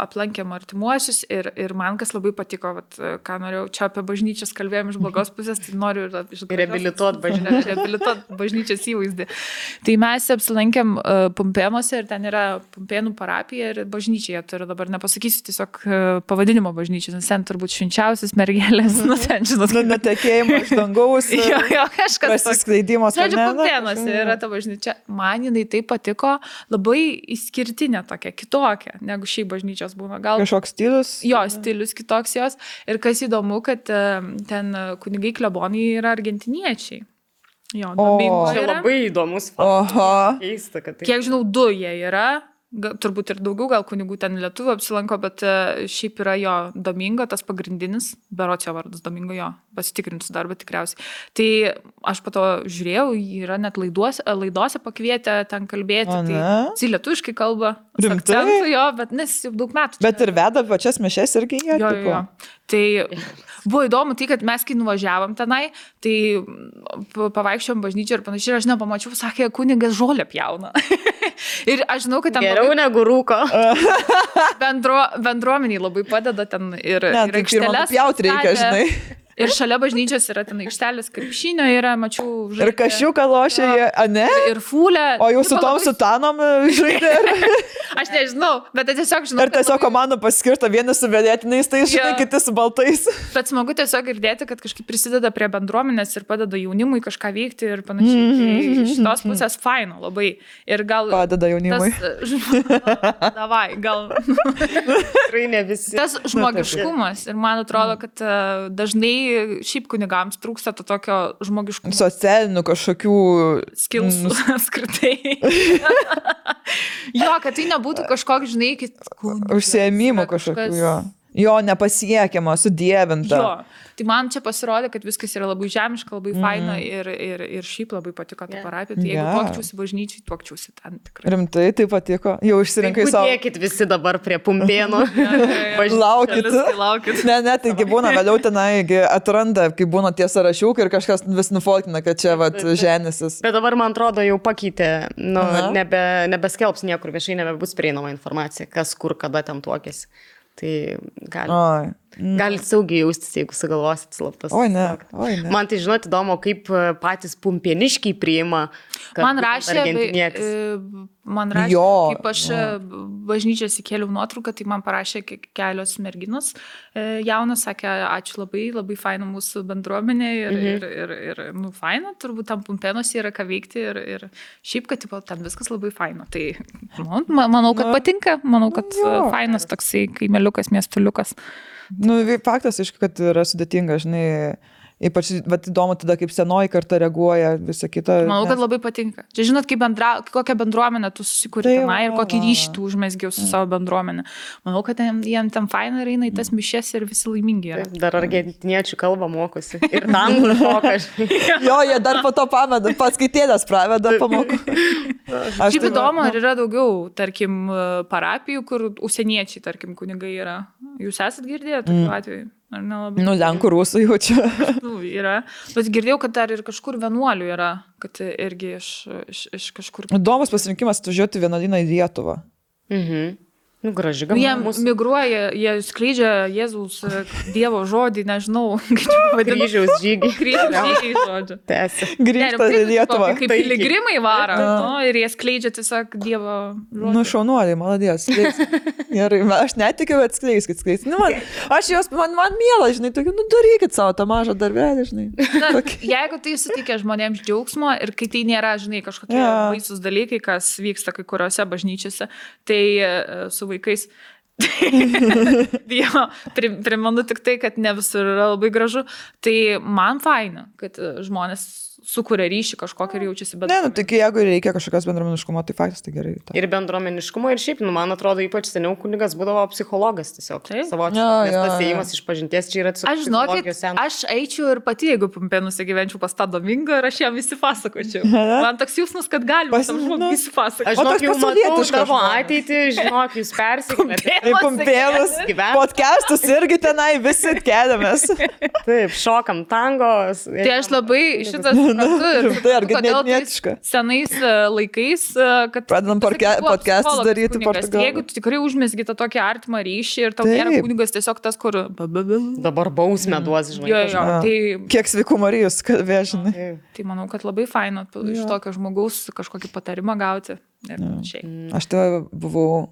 aplankėm artimuosius ir man kas labai patiko, vat, ką norėjau, čia apie bažnyčias kalbėjom iš blogos pusės, tai noriu Reabilituot bažnyčios įvaizdį. Tai mes apsilankėm Pumpėnuose ir ten yra Pumpėnų parapija ir bažnyčia, turiu dabar nepasakysiu tiesiog pavadinimo bažnyčios, nes ten turbūt švenčiausias mergelės, nu ten žinot. Nutekėjimo iš dangaus. Jo, kažkas. Pasiskleidimas. Žodžiu, Pumpėnuose yra ta bažnyčia. Man jinai taip patiko, labai išskirtinė tokia, kitokia, negu šiaip bažnyčios būna. Gal Kažkoks stilius. jo stilius kitoks jos. Ir kas įdomu, kad ten kunigai klebonai yra argentiniečiai. Jo, Domingo Čia yra. labai įdomus Oho. keista, kad tai. Kiek žinau, 2 jie yra. Turbūt ir daugiau, gal kunigų ten lietuvių apsilanko, bet šiaip yra jo Domingo, tas pagrindinis, berots jo vardas Domingo, jo, pasitikrinsiu dar, bet tikriausiai. Tai aš po to žiūrėjau, jį yra net laidose pakvietę ten kalbėti, tai lietuviškai kalba, su Rimtai? akcentu jo, bet nes jau daug metų. Bet ir veda pačias mišes irgi jie. Jo. Tai buvo įdomu tai, kad mes kai nuvažiavom tenai, tai pavaikščiom bažnyčią ir panašiai, aš nepamačiau, sakė, kunigas žolę pjauna. Ir aš žinau, kad ten Geriau negu rūko. bendruomeniai labai padeda ten ir Ne, tai pirmą pjauti reikia, žinai. Ir šalia bažnyčios yra ten aikštelės krepšinio, yra, mačiau, Ir kašiuką lošia jie, a ne? Ir fūlę. O jau su tom sutanom žaidė. Aš nežinau, bet tiesiog žinau. Ir tiesiog komandų paskirta, vieni su vėlėtiniais, tai žinai, Jo. kiti su baltais. Bet smagu tiesiog girdėti, kad kažkaip prisideda prie bendruomenės ir padeda jaunimui kažką veikti ir panašiai. Tai iš tos pusės faino labai. Ir gal... Padeda jaunimui. Davai, gal... Tikrai ne visi. Tas žmogiškumas. Ir man atrodo, kad dažnai šiaip kunigams trūksta to tokio žmogiškumo. Socialinių kažkokių... Skilsų skirtai. Jo, kad tai nebūtų kažkoks, žinai, Užsiėmimų kažkokių jo. Jo, nepasiekiama, sudievinta. Jo, tai man čia pasirodė, kad viskas yra labai žemiška, labai faina ir šiaip labai patiko ta parapija. Tai jeigu tuokčiausi bažnyčiai, tuokčiausi ten tikrai. Rimtai, tai patiko. Jau išsirinkai savo. Dėkit visi dabar prie Pumpėnų. Laukit. Ne, taigi būna vėliau tenai atranda, kai būna tie sąrašiukai ir kažkas vis nufolkina, kad čia vat ženesis. Bet dabar, man atrodo, jau pakeitė, nebeskelbs niekur viešai, nebebus prieinama informacija, kas kur, kada ten tuokėsi. Tai galit saugiai jaustis, jeigu sugalvosit slaptas. Oi, ne. Man tai, žinot, įdomu, kaip patys pumpėniškiai priima. Man rašė, kaip aš bažnyčios įkėliau nuotrauką, tai man parašė kelios merginos jaunos, sakė, ačiū labai, labai faina mūsų bendruomenė ir faina, turbūt tam Pumpėnuose yra ką veikti ir šiaip, kad ten viskas labai faina. Tai manau, kad patinka, manau, kad fainas toksai kaimeliukas, miestuliukas. Nu, faktas, aišku, kad yra sudėtinga, žinai, Ypač vat, įdomu tada, kaip senoji karta reaguoja, visą kitą. Manau, kad labai patinka. Čia žinot, kokią bendruomenę tu susikūrė tenai ir kokį ryšį tu užmesgiau su savo bendruomenė. Manau, kad jiem ten faina ir eina į tas mišes ir visi laimingi yra. Dar argentiniečių kalbą mokosi. Ir tanglų moka. Jo, jie dar po to pameda, paskaitėlės praveda pamokų. Šiaip įdomu, ar yra daugiau, tarkim, parapijų, kur užsieniečiai, tarkim, kunigai yra. Jūs esat girdėję tokiu atveju? Ar nelabai? Nu, lenkų rusų jaučiu. Nu, yra. Bet girdėjau, kad dar ir kažkur vienuolių yra, kad irgi iš kažkur. Įdomus pasirinkimas atvažiuoti vienuolyną į Lietuvą. Nu, graži Jie migruoja, jie skleidžia Jėzaus Dievo žodį, nežinau, kaip čia vadinasi. Kryžiaus žygį. Kryžiaus žygį, žodžiu. Tęsi. Grįžta į Lietuvą. Kaip piligrimai varo, nu, ir jie skleidžia tiesiog Dievo žodį. Nu, šaunuoliai, maladės. Gerai, aš netikiu, bet skleiskit. Nu, man miela, žinai, tokiu, nu, darykit savo tą mažą darbelį, žinai. Na, jeigu tai suteikia žmonėms džiaugsmo ir kai tai nėra, žinai, kažkokie baisus dalykai, kas vyksta kai kuriuose bažnyčiose, tai su vaikais. Jo, primenu tik tai, kad ne visur yra labai gražu. Tai man faina, kad žmonės sukuria ryšį kažkokį ir jaučiasi Ne, nu, tik jeigu reikia kažkokios bendruomeniškumo, tai faktas tai gerai. Ta. Ir bendruomeniškumo, ir šiaip, nu, man atrodo, ypač seniau kunigas būdavo psichologas tiesiog. Savočiai. Nes tas ėjimas iš pažinties čia yra psichologijos. Aš eičiau ir pati, jeigu Pumpėnuose gyvenčiau pas tą Domingą ir aš jam visi pasakočiau. Man toks jausmas, kad galima tam žmogui visi pasakoti. Aš žinok, jau matau tavo ateitį, žinok, jūs persikėlėte. Pumpėnus, podcastus irgi tenai visi keliamės. Taip, šokam tango. Tai aš labai šitas Tai argentinietiška. Senais laikais, kad pradedam podcastus daryti Portugalą. Jeigu tu tikrai užmesgi tą tokį artimą ryšį ir tau nėra kunigas tiesiog tas, kur dabar bausmę duos, žinai. Tai kiek sveikų Marijos kalbė, žinai. Tai manau, kad labai faina iš tokio žmogaus kažkokį patarimą gauti. Aš tai buvau,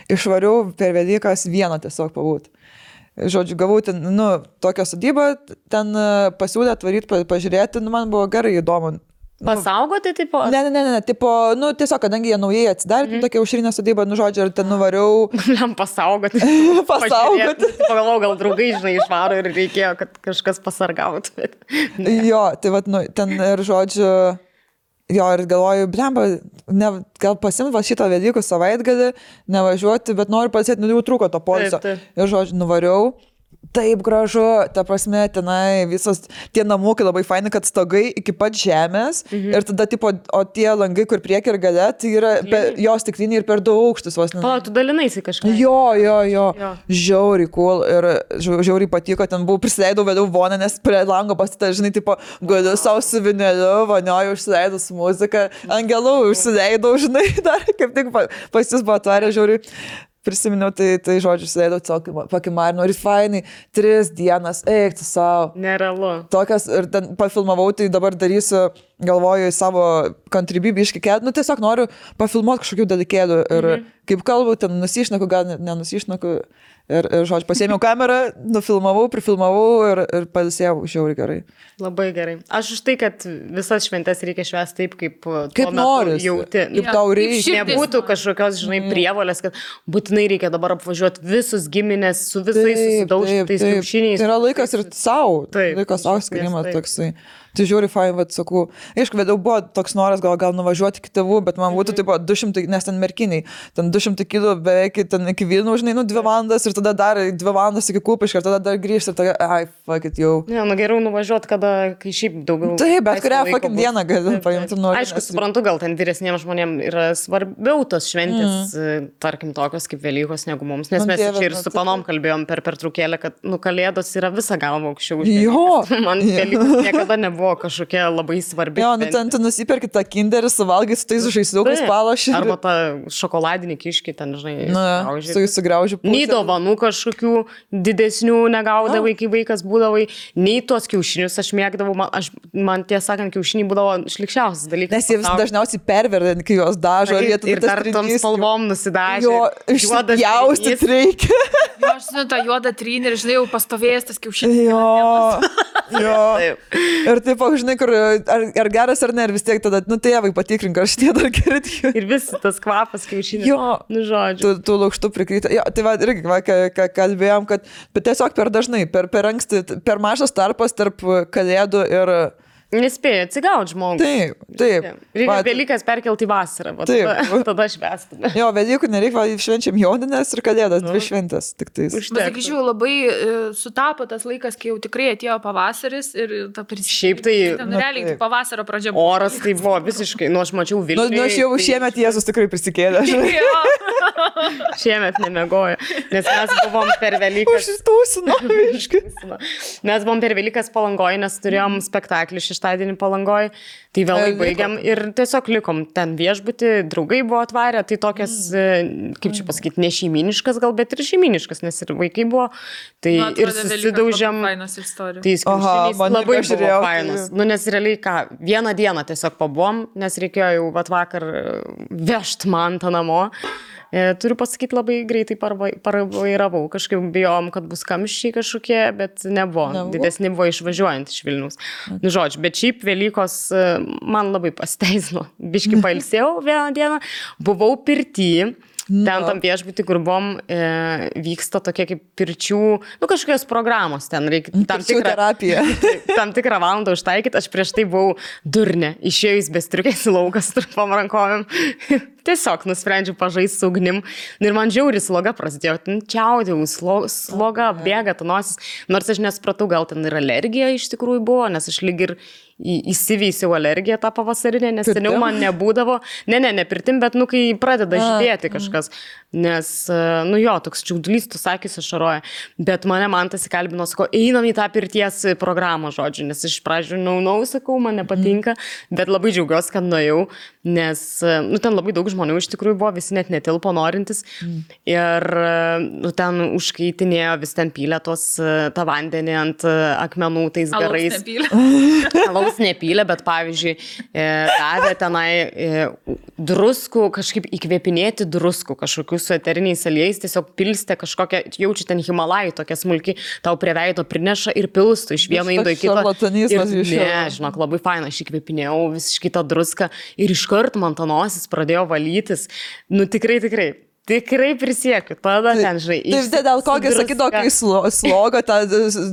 išvariau per Velykas vieną tiesiog pabūt. Žodžiu, gavau ten, nu, tokią sodybą, ten pasiūlė atvaryti, pažiūrėti, nu, man buvo gerai įdomu. Pasaugoti, tipo? Ne, tipo, nu, tiesiog, kadangi jie naujai atsidarė, tokia aušrinė sodyba, nu, žodžiu, ir ten nuvariau. Jam pasaugoti. Pagalvojau, gal draugai, žinai, išvaro ir reikėjo, kad kažkas pasargautų. Jo, tai vat, nu, ten ir žodžiu, jo, ir galvoju, blemba, gal pasimti šitą Velykų savaitgalį, nevažiuoti, bet noriu pasėti, nu, jau trūko to poilsio. Ir žodžiu, nuvariau. Taip gražu, ta prasme, tenai visas tie namukai labai faini, kad stogai iki pat žemės ir tada, tipo, o tie langai, kur prieki ir gale, tai yra jos stikliniai ir per daug aukštus vos. O, tu dalinaisi kažką. Jo. Žiauriai cool ir žiauriai patiko, ten buvau, prisileidau vėliau vonę, nes prie lango pasitą, žinai, tipo, galiu savo su vineliu, vanioju, užsileidau su muzika, angelų užsileidau, žinai, dar kaip tik pas jūs buvo atvarę, žiauriai. Prisiminiau, tai žodžiu, sėdėjau tiesiog pakimarinu ir fainai, 3 dienas, eik tu savo. Nerealu. Tokias, ir ten pafilmavau, tai dabar darysiu, galvoju, į savo kontribybį iškikėt, nu tiesiog noriu pafilmuoti kažkokių dalykėlių ir kaip kalbu, ten nusišneku, gal nenusišneku. Ir žodžiu, pasėmiau kamerą, nufilmavau, prifilmavau ir pailsėjau žiauriai gerai. Labai gerai. Aš už tai, kad visas šventes reikia švęsti taip, kaip nori jauti. Kaip tau reikia. Nebūtų kažkokios, žinai, prievolės, kad būtinai reikia dabar apvažiuoti visus giminės su visais susidaužytais kiaušiniais. Tai yra laikas ir savo. Laikas savo skirimas toksai. Tai žiūri, fain, vat, sakau, aišku, vėliau buvo toks noras gal nuvažiuoti iki tėvų, bet man būtų taip 200, nes ten merkiniai, ten 200 kilų beveik ten iki Vilnių, žinai, 2 valandas ir tada dar 2 valandas iki Kupiškio ir tada dar grįžti ir tada, fuck it, jau. Ne, nu geriau nuvažiuoti, kai šiaip daugiau. Taip, bet kurią fuck it dieną gali paimti nori. Aišku, suprantu, gal ten vyresniems žmonėms yra svarbiau tos šventės, tarkim, tokios kaip Velykos negu mums, nes mes čia ir su panom kalbėjom per pertraukėlę, kad, nu, Kalėdos yra visą galvą aukščiau. Man Velykos niekada nebuvo kažkokia labai svarbi. Jo, nu ten tu nusipirki tą kinderį, suvalgai su tais žaisliukais palošį. Arba tą šokoladinį kiškį ten, žinai, sugrauži. Nei dovanų kažkokių didesnių negaudavai, kai vaikas būdavai, nei tuos kiaušinius aš mėgdavau, man tiesą sakant, kiaušiniai būdavo šlikščiausias dalykas. Nes jie vis dažniausiai perverda, kai juos dažo. Ir dar tom spalvom nusidažė. Jo, išjaustyt reikia. Jo, aš žinau, tą juodą trynį ir, žinai, jau pastovėjęs tas kiaušinis. Jo. Ir taip tipo, žinai, kur ar geras ar ne, ir vis tiek tada, nu tėvai patikrink, ar šitie dar geri. Ir vis tas kvapas kiaušinių. Jo, Nu, žodžiu. tu lukštų prikryta. Jo, tai va, irgi, va, ką kalbėjom, kad tiesiog per dažnai, per anksti, per mažas tarpas tarp kalėdų ir... Nespėja atsigauti žmogų. Taip. Reikia Velykas perkelti į vasarą. Taip. Tada švęstume. Jo, Velykų nereikia, švenčiam Jonines ir Kalėdas, dvi šventės. Tik tais. Pasakyčiau, labai sutapo tas laikas, kai jau tikrai atėjo pavasaris ir ta Šiaip tai... realiai tai pavasario pradžia buvo. Oras tai buvo visiškai, nu aš mačiau Vilnių. Nu, aš jau šiemet Jėzus tikrai prisikėlė. Šiemet nemiegojo, nes mes buvom per Velykas. Užsitūsino, aiškiai. Mes buvom per Velykas Palangoje, nes turėjom spektaklį šeštadienį Palangoje, tai vėlai baigiam ir tiesiog likom ten viešbutį, draugai buvo atvarę, tai tokias, kaip čia pasakyti, ne šeiminiškas gal, bet ir šeiminiškas, nes ir vaikai buvo, tai ir susidaužėm. Tai skiaušiniais labai buvo fainas. Nu, nes realiai ką, vieną dieną tiesiog pabuvom, nes reikėjo jau vakar vežt mantą namo. Turiu pasakyti, labai greitai parvairavau. Kažkaip bijom, kad bus kamščiai kažkokie, bet nebuvo. Didesni buvo išvažiuojant iš Vilniaus. Nu, žodžiu, bet šiaip Velykos man labai pasiteisino. Biški pailsėjau vieną dieną. Buvau pirty. Ten tam viešbutį, kur buvom, vyksta tokie kaip pirčių, nu kažkokios programos, ten reikia tam tikrą valandą užtaikyti. Aš prieš tai buvau durnė, išėjus be striukės į lauką su trumpom rankovėm. Tiesiog nusprendžiau pažaisti su ugnim. Ir man žiauri sloga prasidėjo. Čiaudėjau, sloga, bėga ta nosis. Nors aš nesupratau, gal ten ir alergija iš tikrųjų buvo, nes aš lyg ir įsiveisiau alergiją tą pavasarinę, nes seniau man nebūdavo. Ne pirtim, bet nu kai pradeda žydėti kažkas. Nes, nu jo, toks čiaudulys, tu sakys, ašaroja. Bet man tas įkalbino, sako, einam į tą pirties programą, žodžiu. Nes iš pradžių, sakau, man nepatinka. Bet labai džiaugiuosi, kad nuėjau. Nes, nu ten labai daug žmonių iš tikrųjų buvo, visi net netilpo norintis. Ir nu, ten užkaitinėjo, vis ten pylė tą vandenį ant akmenų tais garais. Alaus nepylė, bet pavyzdžiui, davė tenai druskų, kažkaip įkvėpinėti druskų, kažkokius su eteriniais aliejais, tiesiog pilstė kažkokią, jaučiu ten Himalajų, tokia smulki, tau prie veido prineša ir pilstų iš vieno indo į kitą. Ne, žinok, labai faina, aš įkvėpinėjau visiškai tą druską ir iškart man ta nosis pradėjo valytis. Nu tikrai prisiekiu, tada ten, žinai. Tai dėl kokio sakydavo, kai sloga, tą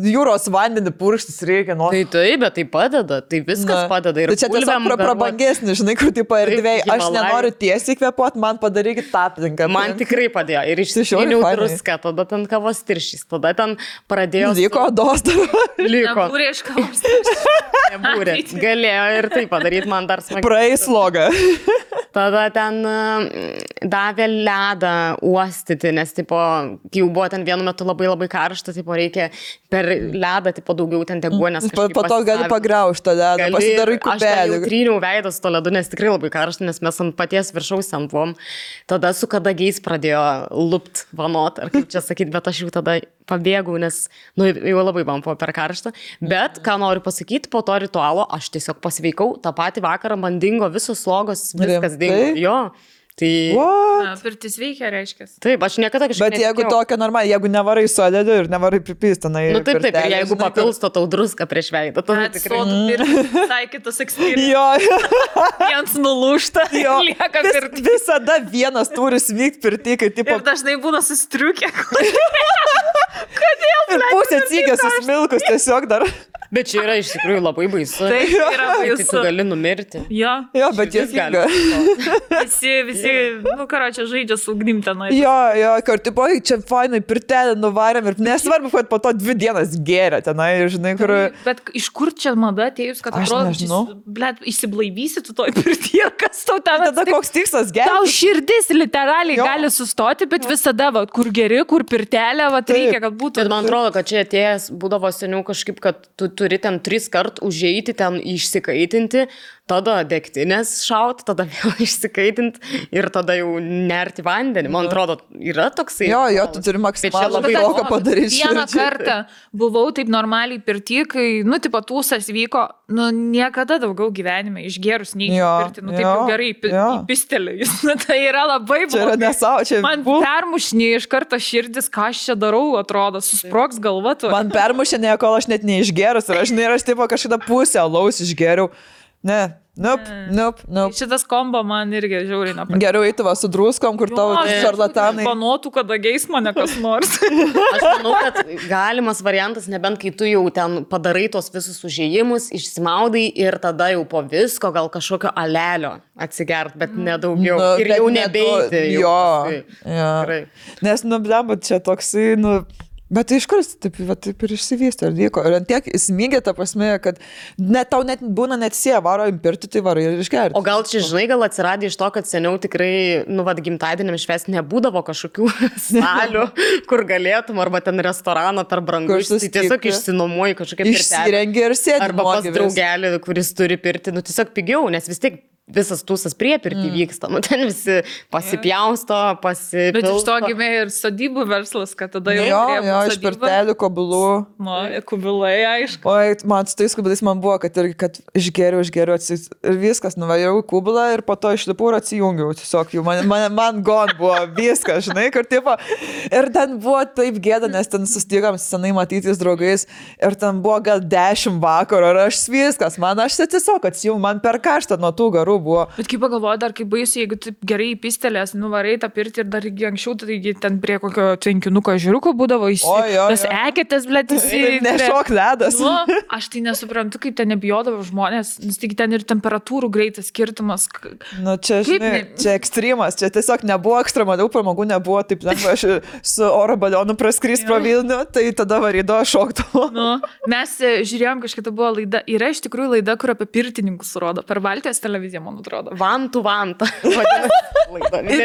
jūros vandenį purkštis reikia. Tai bet tai padeda, tai viskas padeda. Ir tai čia tiesiog prabangesnis, žinai, kur tipo erdvėj. Aš nenoriu tiesiai kvėpuoti, man padarykit tą aplinką. Man tikrai padėjo. Ir išsiskyniau druską, tada ten kavos tiršys, tada ten pradėjo... Liko odos dar. Liko. Nebūrė iš kavos tiršys. Nebūrė. Galėjo ir tai padaryti man dar smagiai. Praeis slogą. Tada ten davė ledą uostyti, nes tipo, jau buvo ten vienu metu labai karšta, tipo, reikia per ledą tipo, daugiau ten deguonės. Po to gali pagraužti tą ledą, pasidarai kubelį. Aš jau tryniau veidą su to ledu, nes tikrai labai karšta, nes mes ant paties viršaus ten buvom. Tada su kadagiais pradėjo lupt vanot, ar kaip čia sakyti, bet aš jau tada pabėgau, nes nu, jau labai man buvo per karštą. Bet, ką noriu pasakyti, po to ritualo aš tiesiog pasveikau, tą patį vakarą man dingo visos slogos, viskas dingo. Jo. Tai... Pirtis veikia, reiškia. Taip, aš niekada kažkaip... Bet jeigu tokia normaliai, jeigu nevarai su ledu ir nevarai pripystinai... Nu taip, ir jeigu papilsto tau druską prieš veidą, tada tikrai... Visai kitas eksperimentas. Jo. Jiems nulūžta, lieka pirtis. Visada vienas turi svykti pirti, kai tipo... Ir dažnai būna sustriukę. Kodėl? Ir pusė cygės susmilkus tiesiog dar... Bet čia yra iš tikrųjų labai baisu. Tai yra baisu. Tai tu gali numirti. Jo, bet jis gali. Visi, nu, čia žaidžia su ugnim tenai. Jo, kur, tipo, čia fainai pirtelį nuvarėm ir nesvarbu, kad po to 2 dienas gėrė tenai, žinai, kur... Bet iš kur čia mada atėjus, kad atrodo, blet, išsiblaivysi tu toj pirtyje, kas tau ten... Tada koks tikslas gėrė? Tau širdis literaliai gali sustoti, bet visada, va, kur geri, kur pirtelė, va, reikia, kad būtų... Bet man atrodo, kad čia atėjęs būdavo seniau kažkaip, kad tu turi ten 3 kart užeiti, ten išsikaitinti, tada degtinės šaut, tada vėl išsikaitint ir tada jau nerti vandenį. Man atrodo, yra toksai. Jo, tu turi maksimalų labai daug padaryti. Vieną kartą buvau taip normaliai pirty, kai, tipo, tūsas vyko, niekada daugiau gyvenime išgerus neįpirti, taip jau gerai įpistelė. Tai yra labai blogai. Čia yra nesau, čia man permušinė iš karto širdis, ką aš čia darau, atrodo, susproks galva tu. Man permušinė, kol aš net neišgerus ir aš tipo kažkada pusę alaus išgeriau. Ne. Nope. Šitas kombo man irgi žiauriai nepatinka. Geriau eiti su druskom, kur tavo šarlatanai. Panotų, kada geis mane kas nors. Aš manau, kad galimas variantas, nebent kai tu jau ten padarai tos visus užėjimus, išsimaudai ir tada jau po visko gal kažkokio alelio atsigert, bet nedaugiau. Ir jau nebeiti. Jo. Nes, bet čia toksai, bet iš kur taip ir išsivystė ir vyko. Ir ant tiek įsmygė ta prasme, kad tau net būna net varo impirti, tai varai ir išgerti. O gal čia, žinai, gal atsiradė iš to, kad seniau tikrai, gimtadieniam švęsti nebūdavo kažkokių salių, kur galėtum, arba ten restoraną per brangu. Tai tiesiog išsinuomuoji kažkokią pirtelę. Išsirengi ir sėdi. Arba pas draugelį, kuris turi pirti, tiesiog pigiau, nes vis tiek visas tūsas prie pirtį vyksta. Ten visi pasipjausto, pasipilsto. Bet iš to gimė ir sodybų verslas, kad tada jau Jo, iš pirtelių, kubilų. Kubilai, aišku. Oi, man su tais kubilais man buvo, kad išgeriau ir viskas, nuvažiavau į kubilą ir po to išlipau ir atsijungiau. Tiesiog jau man gon buvo viskas, žinai, kur tipo. Ir ten buvo taip gėda, nes ten sustigom senai matytis draugais ir ten buvo gal 10 vakaro ir aš viskas, aš tiesiog atsijungiau, man per karštą nuo tų garų buvo. Bet kaip pagalvoju, dar kaip baisiai, jeigu taip gerai įpistelės, nuvarai tą pirtį ir dar anksčiau, taigi ten prie kokio tvenkinuko žiūruko būdavo tas eketės, blėt, nešok ledas. Aš tai nesuprantu, kaip ten nebijodavo žmonės, nes tik ten ir temperatūrų greitas skirtumas. Čia, žinai, čia ekstremas, čia tiesiog nebuvo ekstremalių pramogų, nebuvo taip lengva, aš su oro balionu praskrist pro Vilnių, tai tada varydavo šoktų. Mes žiūrėjom, kažkaip buvo laida, yra iš tikrųjų laida, kur apie pirtininkus rodo, per Baltijos televiziją, man atrodo. Vantų vantą.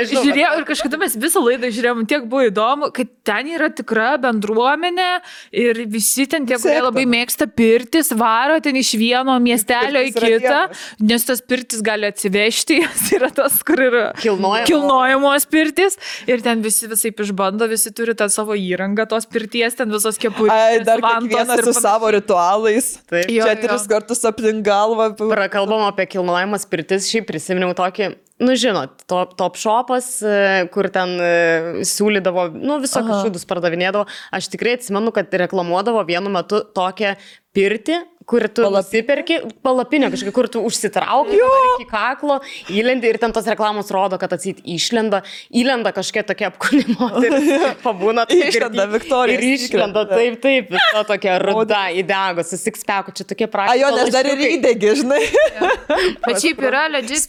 Žiūrėjau ir kažkada mes visą laidą žiūrėjom, tiek buvo įdomu, kad ten yra tikra bendruomenė ir visi ten tie, kurie labai mėgsta pirtis, varo ten iš vieno miestelio į kitą, nes tas pirtis gali atsivežti, jis yra tas, kur yra kilnojamos pirtis ir ten visi visaip išbando, visi turi tą savo įrangą, tos pirties, ten visos kepurės. Dar kiekvienas su savo ritualais. Taip. Čia 3 kartus aplink galvą. Prakalbam apie kilnojamas pirtis, šiaip prisiminiau tokį, žinot, top shopas, kur ten siūlydavo, visokius šūdus pardavinėdavo. Aš tikrai atsimenu, kad reklamuodavo vienu metu tokią pirtį, kur tu nusiperki, palapinę kažkokią, kur tu užsitrauki iki kaklo, įlendi ir ten tos reklamos rodo, kad atsit įlenda kažkokia tokia apkūnimo, pabūna taip išlenda Viktorija. Ir išlenda taip, viso tokia ruda, įdegus, su six-packu, čia tokie prašymai. Jo, nes dar ir įdegi, žinai. Bet šiaip yra legit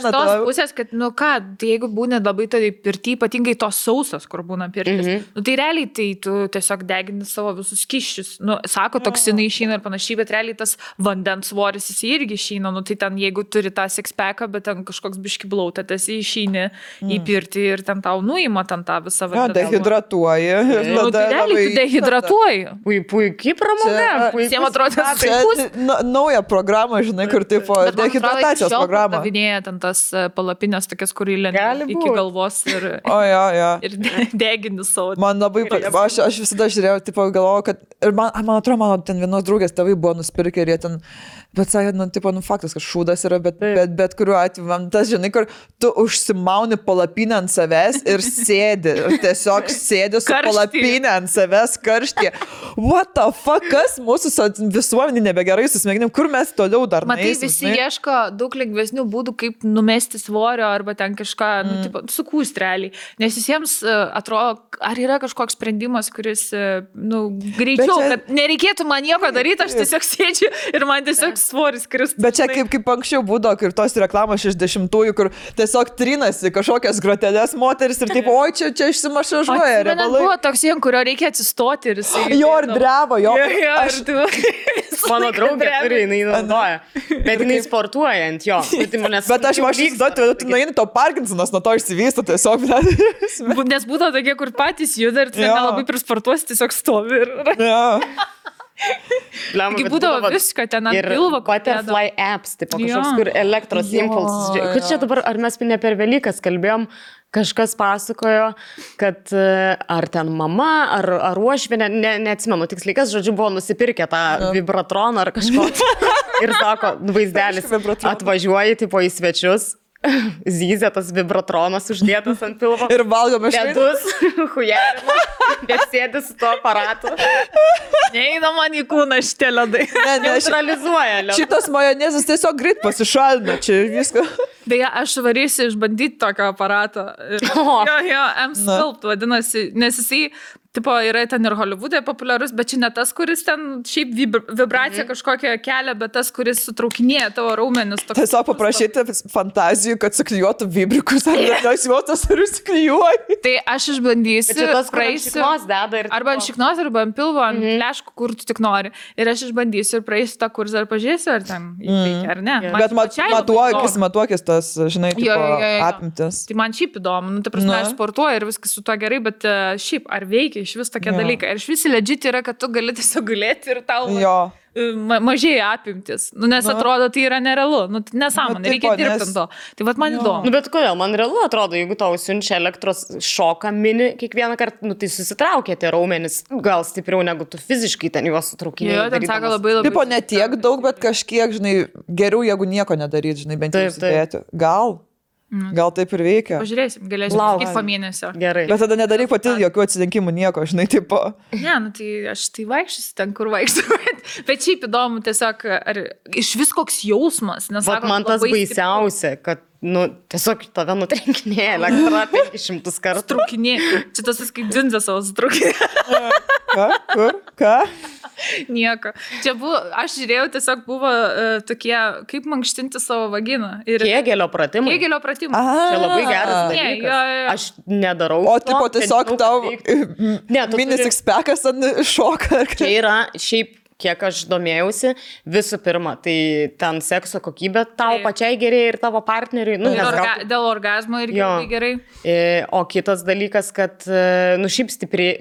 tos pusės, kad, tai jeigu būna labai tai pirty, ypatingai tos sausas, kur būna pirtis, tai realiai tai tu tiesiog degini savo visus kiščius. Sako, toksinai išeina ir panašiai, bet realiai tas vandens svoris jis irgi išeina, tai ten jeigu turi tą six-packą, bet ten kažkoks biški blautėtas įšeini į pirtį ir ten tau nuima ten tą visą vandenį. Dehidratuoji. Tai realiai tu dehidratuoji. Puikiai pramoga. Visiems atrodo, nauja programa, žinai, kur tipo dehidratacijos programa. Davinėja ten tas palapinės tokias, kur įlenda iki galvos ir degini savo. Man labai, aš visada žiūrėjau, tipo galvojau, kad ir man atrodo, mano ten vienos draugės tėvai buvo nusipirkę ir jie ten, bet sakė, faktas, kad šūdas yra, bet kuriuo atveju, man tas, žinai, kur tu užsimauni palapinę ant savęs ir sėdi, ir tiesiog sėdi su palapinę ant savęs karštyje. What the fuck, kas mūsų visuomenį nebegerai susmėginim, kur mes toliau dar matai, visi ieško daug lengvesnių būdų, kaip numesti svorio arba ten kažką, sukūst realiai. Nes visiems atrodo, ar yra kažkoks sprendimas, kuris, greičiau, kad nereikėtų man nieko daryti, aš tiesiog sėdžiu ir man tiesiog svoris kristų. Bet čia kaip anksčiau būdavo, ir tos reklamos 60-ųjų, kur tiesiog trinasi kažkokias grotelės moteris ir taip, oi, čia išsimašažuoja. Buvo toks jiem, kurio reikia atsistoti ir jisai... Jo, ir drebo, jo. Mano draugė turi, jinai naudoja. Bet jinai sportuoja ant jo. Bet aš įsivaizduoju, tu nueini, to Parkinsonas nuo to išsivysto tiesiog. Nes būdavo tokie, kur patys juda ir nelabai prisportuosi, tiesiog stovi. Taigi būdavo viską ten ant pilvo. Ir butterfly apps, tipo kažkoks, Jo. kur elektros Jo. impulsas. Kad čia dabar, ar mes ne per Velykas kalbėjom, kažkas pasakojo, kad ar ten mama, ar uošvienė, neatsimenu tiksliai, kas, žodžiu, buvo nusipirkę tą vibratroną ar kažko. Ir sako, vaizdelis, atvažiuoji, tipo į svečius. Zyzė tas vibratronas uždėtas ant pilvo. Ir valgome Ledus, hujerina, bet sėdi su tuo aparatu. Neina man į kūną šitie ledai. Neutralizuoja ledus. Šitas majonezas tiesiog greit pasišalina, čia viską. Beje, aš varysiu išbandyti tokio aparato. Jo, M-Sculpt vadinasi, nes jisai, tipo, yra ten ir Hollywood'e populiarus, bet čia ne tas, kuris ten šiaip vibraciją kažkokią kelia, bet tas, kuris sutraukinėja tavo raumenis. Tiesiog paprašyti fantazijų, kad suklijuotų vibrikus, ar nes juotas ar įsiklijuoji. Tai aš išbandysiu, Čia tas, kur ant praeisiu. šiknos deda ir... Arba ant šiknos, arba ant pilvo, ant leškų, kur tu tik nori. Ir aš išbandysiu ir praeisiu tą kursą ir pažiūrėsiu, ar ten įveikia, ar ne. Man Bet pačiai labai įdomu. matuokis tas, žinai, tipo, Jo. apimtis. Tai man šiaip įdomu, nu, ta prasme, aš sportuoju ir viskas su tuo gerai, bet šiaip, ar veikia iš vis tokie dalykai. Ir iš vis legit yra, kad tu gali tiesiog gulėti ir tau Jo. mažėja apimtis. Nu, nes atrodo, tai yra nerealu. Nu, tai nesąmonė, Nu, reikia tipo, dirbti nes- ant to. Tai vat man įdomu. Nu, bet kodėl, man realu atrodo, jeigu tau siunčia elektros šoką mini kiekvieną kartą, nu, tai susitraukia tie raumenys, gal stipriau negu tu fiziškai ten juos sutraukinėjai. Jo, ten sako labai labai. Tipo, ne tiek daug, bet kažkiek, žinai, geriau, jeigu nieko nedaryt, žinai, bent jau Taip, taip. įsidėti. Gal taip ir veikia. Pažiūrėsim, galėsim Lauk. sakyti po mėnesio. Gerai. Bet tada nedaryk pati jokių atsidinkimų, nieko, žinai, tipo. Ne, nu tai aš tai vaikščiosiu ten, kur vaikščiu. Bet šiaip įdomu tiesiog, ar iš vis koks jausmas. Nes, Vat sako, man tas labai baisiausia, kad, nu, tiesiog tave nutrenkinėja elektra 500 kartų. Trukinė. Čia tas kaip dzinzė savo strukinė. Ką? Kur? Ką? Nieko. Čia buvo, aš žiūrėjau, tiesiog buvo tokie, kaip mankštinti savo vaginą. Ir Kėgelio pratimai. Kėgelio pratimai. Čia labai geras Ne, dalykas. jo. Aš nedarau. O, to, tipo, bet tiesiog žinau, tau kad reiktų. Ne, tu minis turi- ekspekas ant šoka. Čia yra šiaip, kiek aš domėjausi, visų pirma, tai ten sekso kokybė tau Taip. pačiai gerėja ir tavo partneriui. Nu, Ir nes gal- dėl orgazmo irgi Jo. labai gerai. O kitas dalykas, kad, nu, šiaip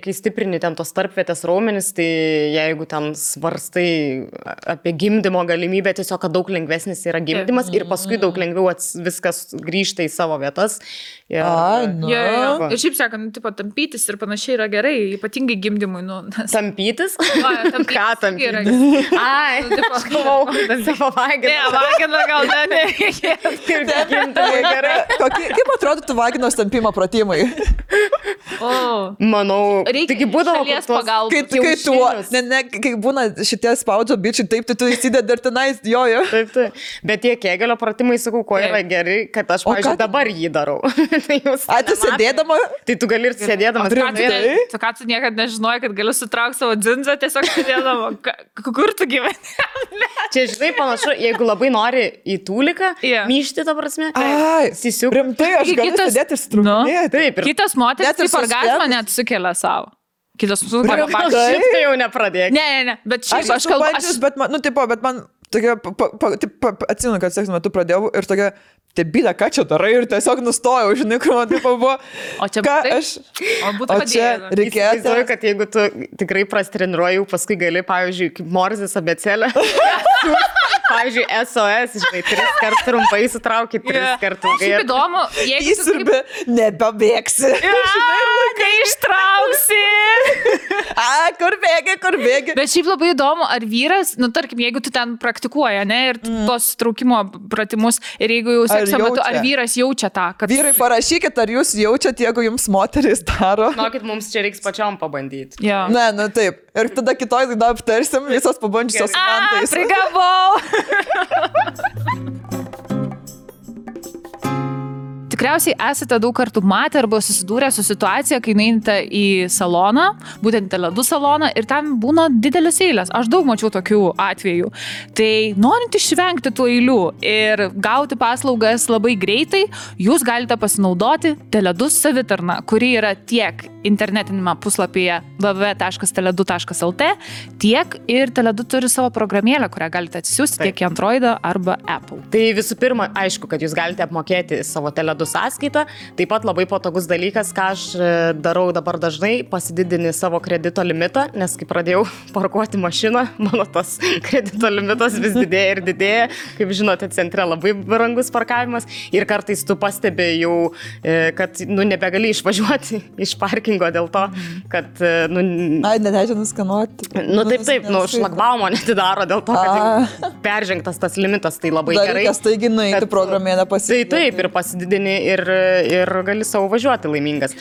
kai stiprini ten tos tarpvietės raumenis, tai jeigu ten svarstai apie gimdymo galimybę, tiesiog, kad daug lengvesnis yra gimdymas ir paskui daug lengviau viskas grįžta į savo vietas. Ir, Ai, nu. Jo, jo, jo. Va. Ir šiaip sakant, tipo, tampytis ir panašiai yra gerai, ypatingai gimdymui. Nu, nes... Tampytis? tampytis Ką irgi tampytis? yra. Ai, Nu, tipo, aš galvau, savo vaginą. Ne, vagina gal nereikia. Ir gimdymui gerai. Kaip atrodytų vaginos tampimo pratimai? O, Manau, reikia taigi būdavo šalies kur tuos- pagalbos. Kai tu, kai būna šitie spaudžio bičiai, taip, tai tu įsidedi ir tenais, jojo. Taip, taip. Bet tie kėgelio pratimai, sakau, ko yra Taip. gerai, kad aš, O pavyzdžiui, ką- dabar jį darau. Tai jūs A, tu nematot. sėdėdama? Tai tu gali ir sėdėdamas. ką tu, kalbėti. tu ką tu niekada nežinojai, kad galiu sutraukti savo dzinzą tiesiog sėdėdama. Kur tu gyveni? Čia, žinai, panašu, jeigu labai nori į tūliką, Jo. myšti, ta prasme, Ai, sisiuk. rimtai, aš Taigi galiu kitas- sėdėti ir struktūrėti. Taip, ir Kitas moteris Net ir taip orgazmą suspendus. net sukelia savo. Kitas gal sukelia. šitą jau nepradėk. Ne, bet šiaip aš kalbu. Bet man, nu, tipo, bet man tokia, atsimenu, kad sekso metu pradėjau ir tokia, tebylė, ką čia darai ir tiesiog nustojau, žinai, kur man tipo buvo. O čia ką būtų taip? aš... O būtų O čia padėję. reikėtų... Įsivaizduoju, kad jeigu tu tikrai prastreniruoji, paskui gali, pavyzdžiui, kaip Morzės abėcėlė. Pavyzdžiui, SOS, žinai, 3 kartus trumpai sutraukit, 3 kartus Šiaip įdomu, jeigu tu Įsirbė, nebebėgsi. Neištrauksi. A, kur bėgi? Bet šiaip labai įdomu, ar vyras, nu tarkim, jeigu tu ten praktikuoji, ne, ir tos traukimo pratimus, ir jeigu jau sekso metu, jaučia? ar vyras jaučia tą, kad... Vyrai, parašykit, ar jūs jaučiat, jeigu jums moteris daro. Žinokit, mums čia reiks pačiom pabandyti. Jo. Ne, nu taip. Ir tada kitoj laidoj aptarsim visos pabandžiusios mantais. Prigavau. Tikriausiai esate daug kartų matę arba susidūrę su situacija, kai einate į saloną, būtent Tele2 saloną, ir ten būna didelis eilės. Aš daug mačiau tokių atvejų. Tai norint išvengti tų eilių ir gauti paslaugas labai greitai, jūs galite pasinaudoti Tele2 savitarną, kuri yra tiek internetinėme puslapyje www.tele2.lt, tiek ir Tele2 turi savo programėlę, kurią galite atsisiųsti tiek į Androidą arba Apple. Tai visų pirma, aišku, kad jūs galite apmokėti savo Tele2 sąskaitą. Taip pat labai patogus dalykas, ką aš darau dabar dažnai, pasididini savo kredito limitą, nes kai pradėjau parkuoti mašiną, mano tas kredito limitas vis didėja ir didėja. Kaip žinote, centre labai brangus parkavimas ir kartais tu pastebi jau, kad nebegali išvažiuoti iš parkingo dėl to, kad... Ai, neleidžia nuskanuoti. Taip, šlagbaumo netidaro dėl to, kad peržengtas tas limitas, tai labai gerai. Dalykas, taigi nueiti programėlę pasididinti. Taip, ir pasididini ir gali savo važiuoti laimingas.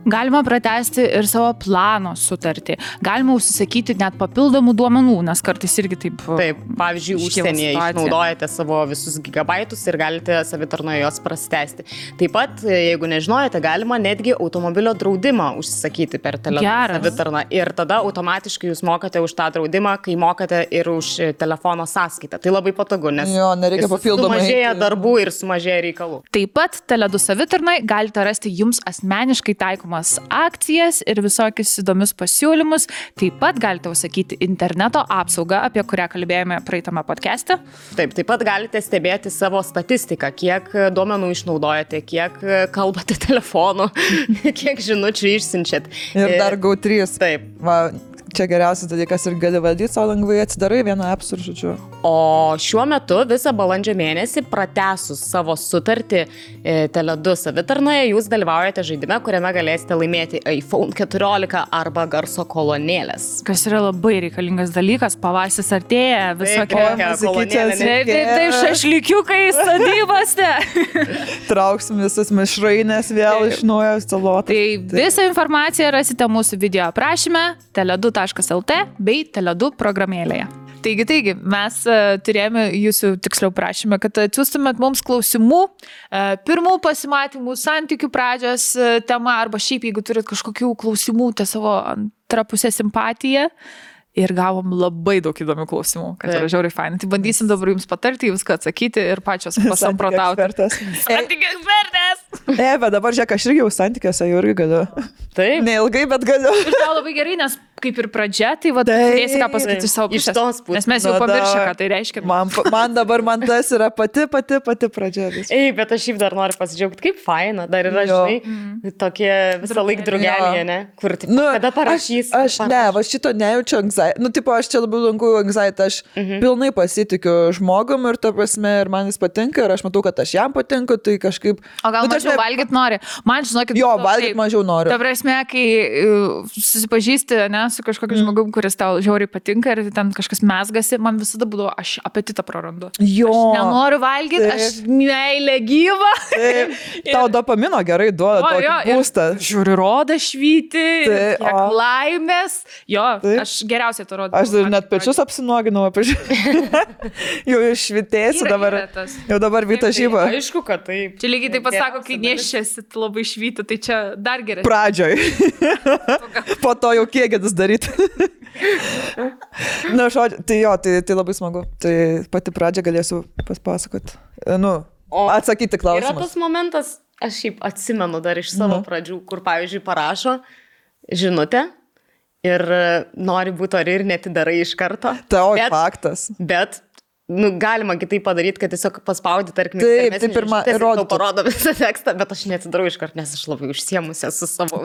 Galima pratesti ir savo plano sutartį. Galima užsisakyti net papildomų duomenų, nes kartais irgi taip... Taip, pavyzdžiui, užsienyje išnaudojate savo visus gigabaitus ir galite savitarnoje jos prasitęsti. Taip pat, jeigu nežinojate, galima netgi automobilio draudimą užsisakyti per savitarną. Ir tada automatiškai jūs mokate už tą draudimą, kai mokate ir už telefono sąskaitą. Tai labai patogu, nes nereikia papildomai. Sumažėja darbų ir sumažėja reikalų. Taip pat Tele2 savitarnai galite rasti jums asmeniškai taikomas akcijas ir visokius įdomius pasiūlymus. Taip pat galite užsakyti interneto apsaugą, apie kurią kalbėjome praeitame podcast'e. Taip pat galite stebėti savo statistiką, kiek duomenų išnaudojate, kiek kalbate telefonu, kiek žinučių išsiunčiat. Ir dar GO3. Taip. Va, čia geriausias dalykas ir gali valdyti savo lengvai, atsidarai vieną appsų ir žodžiu. O šiuo metu visą balandžio mėnesį pratęsus savo sutartį Tele2 savitarnoje, jūs dalyvaujate žaidime, kuriame galėsite laimėti iPhone 14 arba garso kolonėlės. Kas yra labai reikalingas dalykas, pavasaris artėja, visokie šašlykiukai sodybose. Trauksim visas mišrainės vėl iš naujo salotą. Tai visą informaciją rasite mūsų video aprašyme, tele2.lt bei Tele2 programėlėje. Taigi, mes turėjome jūsų tiksliau prašymę, kad atsiųstumėt mums klausimų, pirmų pasimatymų, santykių pradžios tema, arba šiaip, jeigu turit kažkokių klausimų, tai savo antrapusę simpatiją. Ir gavom labai daug įdomių klausimų, kad yra žiauriai fainai. Tai bandysim dabar jums patarti, viską atsakyti ir pačios pasamprotauti. Santykių ekspertas! Bet dabar žiūrėk, aš irgi jau santykiuose jau irgi galiu. Taip. Neilgai, bet galiu. Ir tau labai gerai, nes kaip ir pradžia, tai turėsi ką pasakyti iš savo pusės. Nes mes jau pamiršę, ką tai reiškia. Man tas yra pati pradžia. Bet aš šiaip dar noriu pasidžiaugti, kaip faina. Dar yra, žinai, tokie visą laiką drugelyje, ne? Kur, kada parašys. Aš šito nejaučiu anxiety. Aš čia labai lankau anxiety. Aš pilnai pasitikiu žmogum ir ta prasme, ir man jis patinka, ir aš matau, kad aš jam patinku, tai kažkaip... O gal mažiau valgyt nori? Man, žinokit... Jo, valgyt mažiau noriu. Ta prasme, kai susipažįsti, ne, su kažkokiu žmogum, kuris tau žiauriai patinka ir ten kažkas mesgasi, man visada būdavo, aš apetitą prarandu. Jo. Aš nenoriu valgyti, aš meilė gyva. Tau dopamino gerai duoda tokį būstą. Žiūri, roda švyti, kiek laimės. Jo, aš geriausiai to rodau. Aš dar net pečius apsinuoginau, jau išvitėsiu dabar. Jau dabar vyta žyba. Aišku, kad taip. Čia lygiai taip pat sako, kai neščiasi labai švyti, tai čia dar geriau. Pradžioj. Po to jau kiekėdus daryti. Na, žodžiu, tai labai smagu. Tai pati pradžia galėsiu paspasakoti. Atsakyti klausimus. Yra tas momentas, aš šiaip atsimenu dar iš savo pradžių, kur, pavyzdžiui, parašo žinutę ir nori būti ori ir netidarai iš karto. Faktas. Bet galima kitaip padaryti, kad tiesiog paspaudi, tarkim, taip pirmą tau parodo visą tekstą, bet aš netidarau iškart, nes aš labai užsiemusi su savo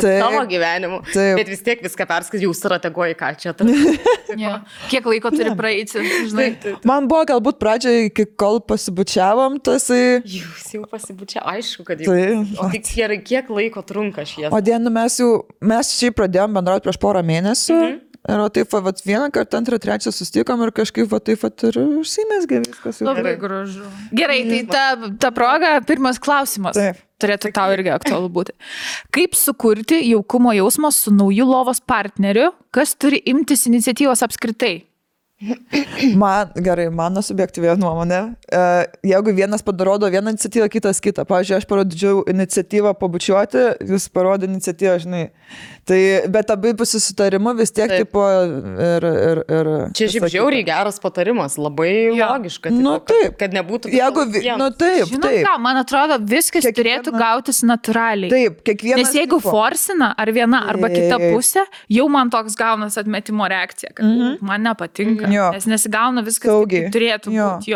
gyvenimu. Bet vis tiek viską perskaičiu, jau strateguoju, ką čia. Kiek laiko turi praeiti, žinai. Man buvo galbūt pradžioje, iki kol pasibučiavom, tasai... Jūs jau pasibučiavo, aišku, kad jau. O tik kiek laiko trunka šie. O dienu mes šiaip pradėjom bendrauti prieš porą mėnesių. Ir taip, vieną kartą, antrą, trečią susitikom ir kažkaip taip ir užsimesgė viskas. Labai gražu. Gerai, tai ta proga, pirmas klausimas. Taip. Turėtų tau irgi aktualu būti. Kaip sukurti jaukumo jausmą su nauju lovos partneriu, kas turi imtis iniciatyvos apskritai? Mano subjektyvė nuomonė, jeigu vienas parodo vieną iniciatyvą, kitas kitą. Pavyzdžiui, aš parodžiau iniciatyvą pabučiuoti, jūs parodė iniciatyvą, žinai. Tai, bet abipusį sutarimu vis tiek tipo ir... Čia šiaip žiauriai geras patarimas, labai logiška. Taip. Kad nebūtų... Taip. Žinot ką, man atrodo, viskas turėtų gautis natūraliai. Taip, kiekvienas... Nes jeigu forsina ar viena arba kita pusė, jau man toks gaunas atmetimo reakcija, kad man nepatinka. Nes nesigauna viskas, kaip turėtų būti.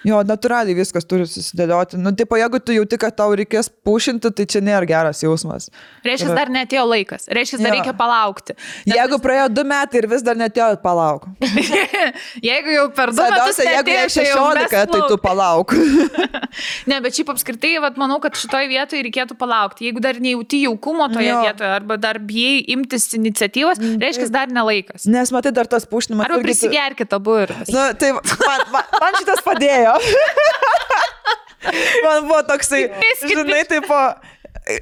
Jo, natūraliai viskas turi susidėlioti. Nu, tipo, jeigu tu jauti, kad tau reikės pušinti, tai čia nėra geras jausmas. Reiškia, dar netėjo laikas. Reiškia, dar reikia palaukti. Jeigu praėjo 2 metai ir vis dar netėjo, palauk. Jeigu jau per 2 metus Svarbiausia, jeigu jie netėjo, 16, tai tu palauk. Ne, bet šiaip apskritai, vat, manau, kad šitoje vietoje reikėtų palaukti. Jeigu dar nejauti jaukumo toje vietoje, arba dar bijai imtis iniciatyvos, reiškia, dar nelaikas. Nes matai, dar tas pušinimas. Arba prisigerkit abu ir. Nu, tai man šitas padėjo. Man buvo toksai, žinai, tipo,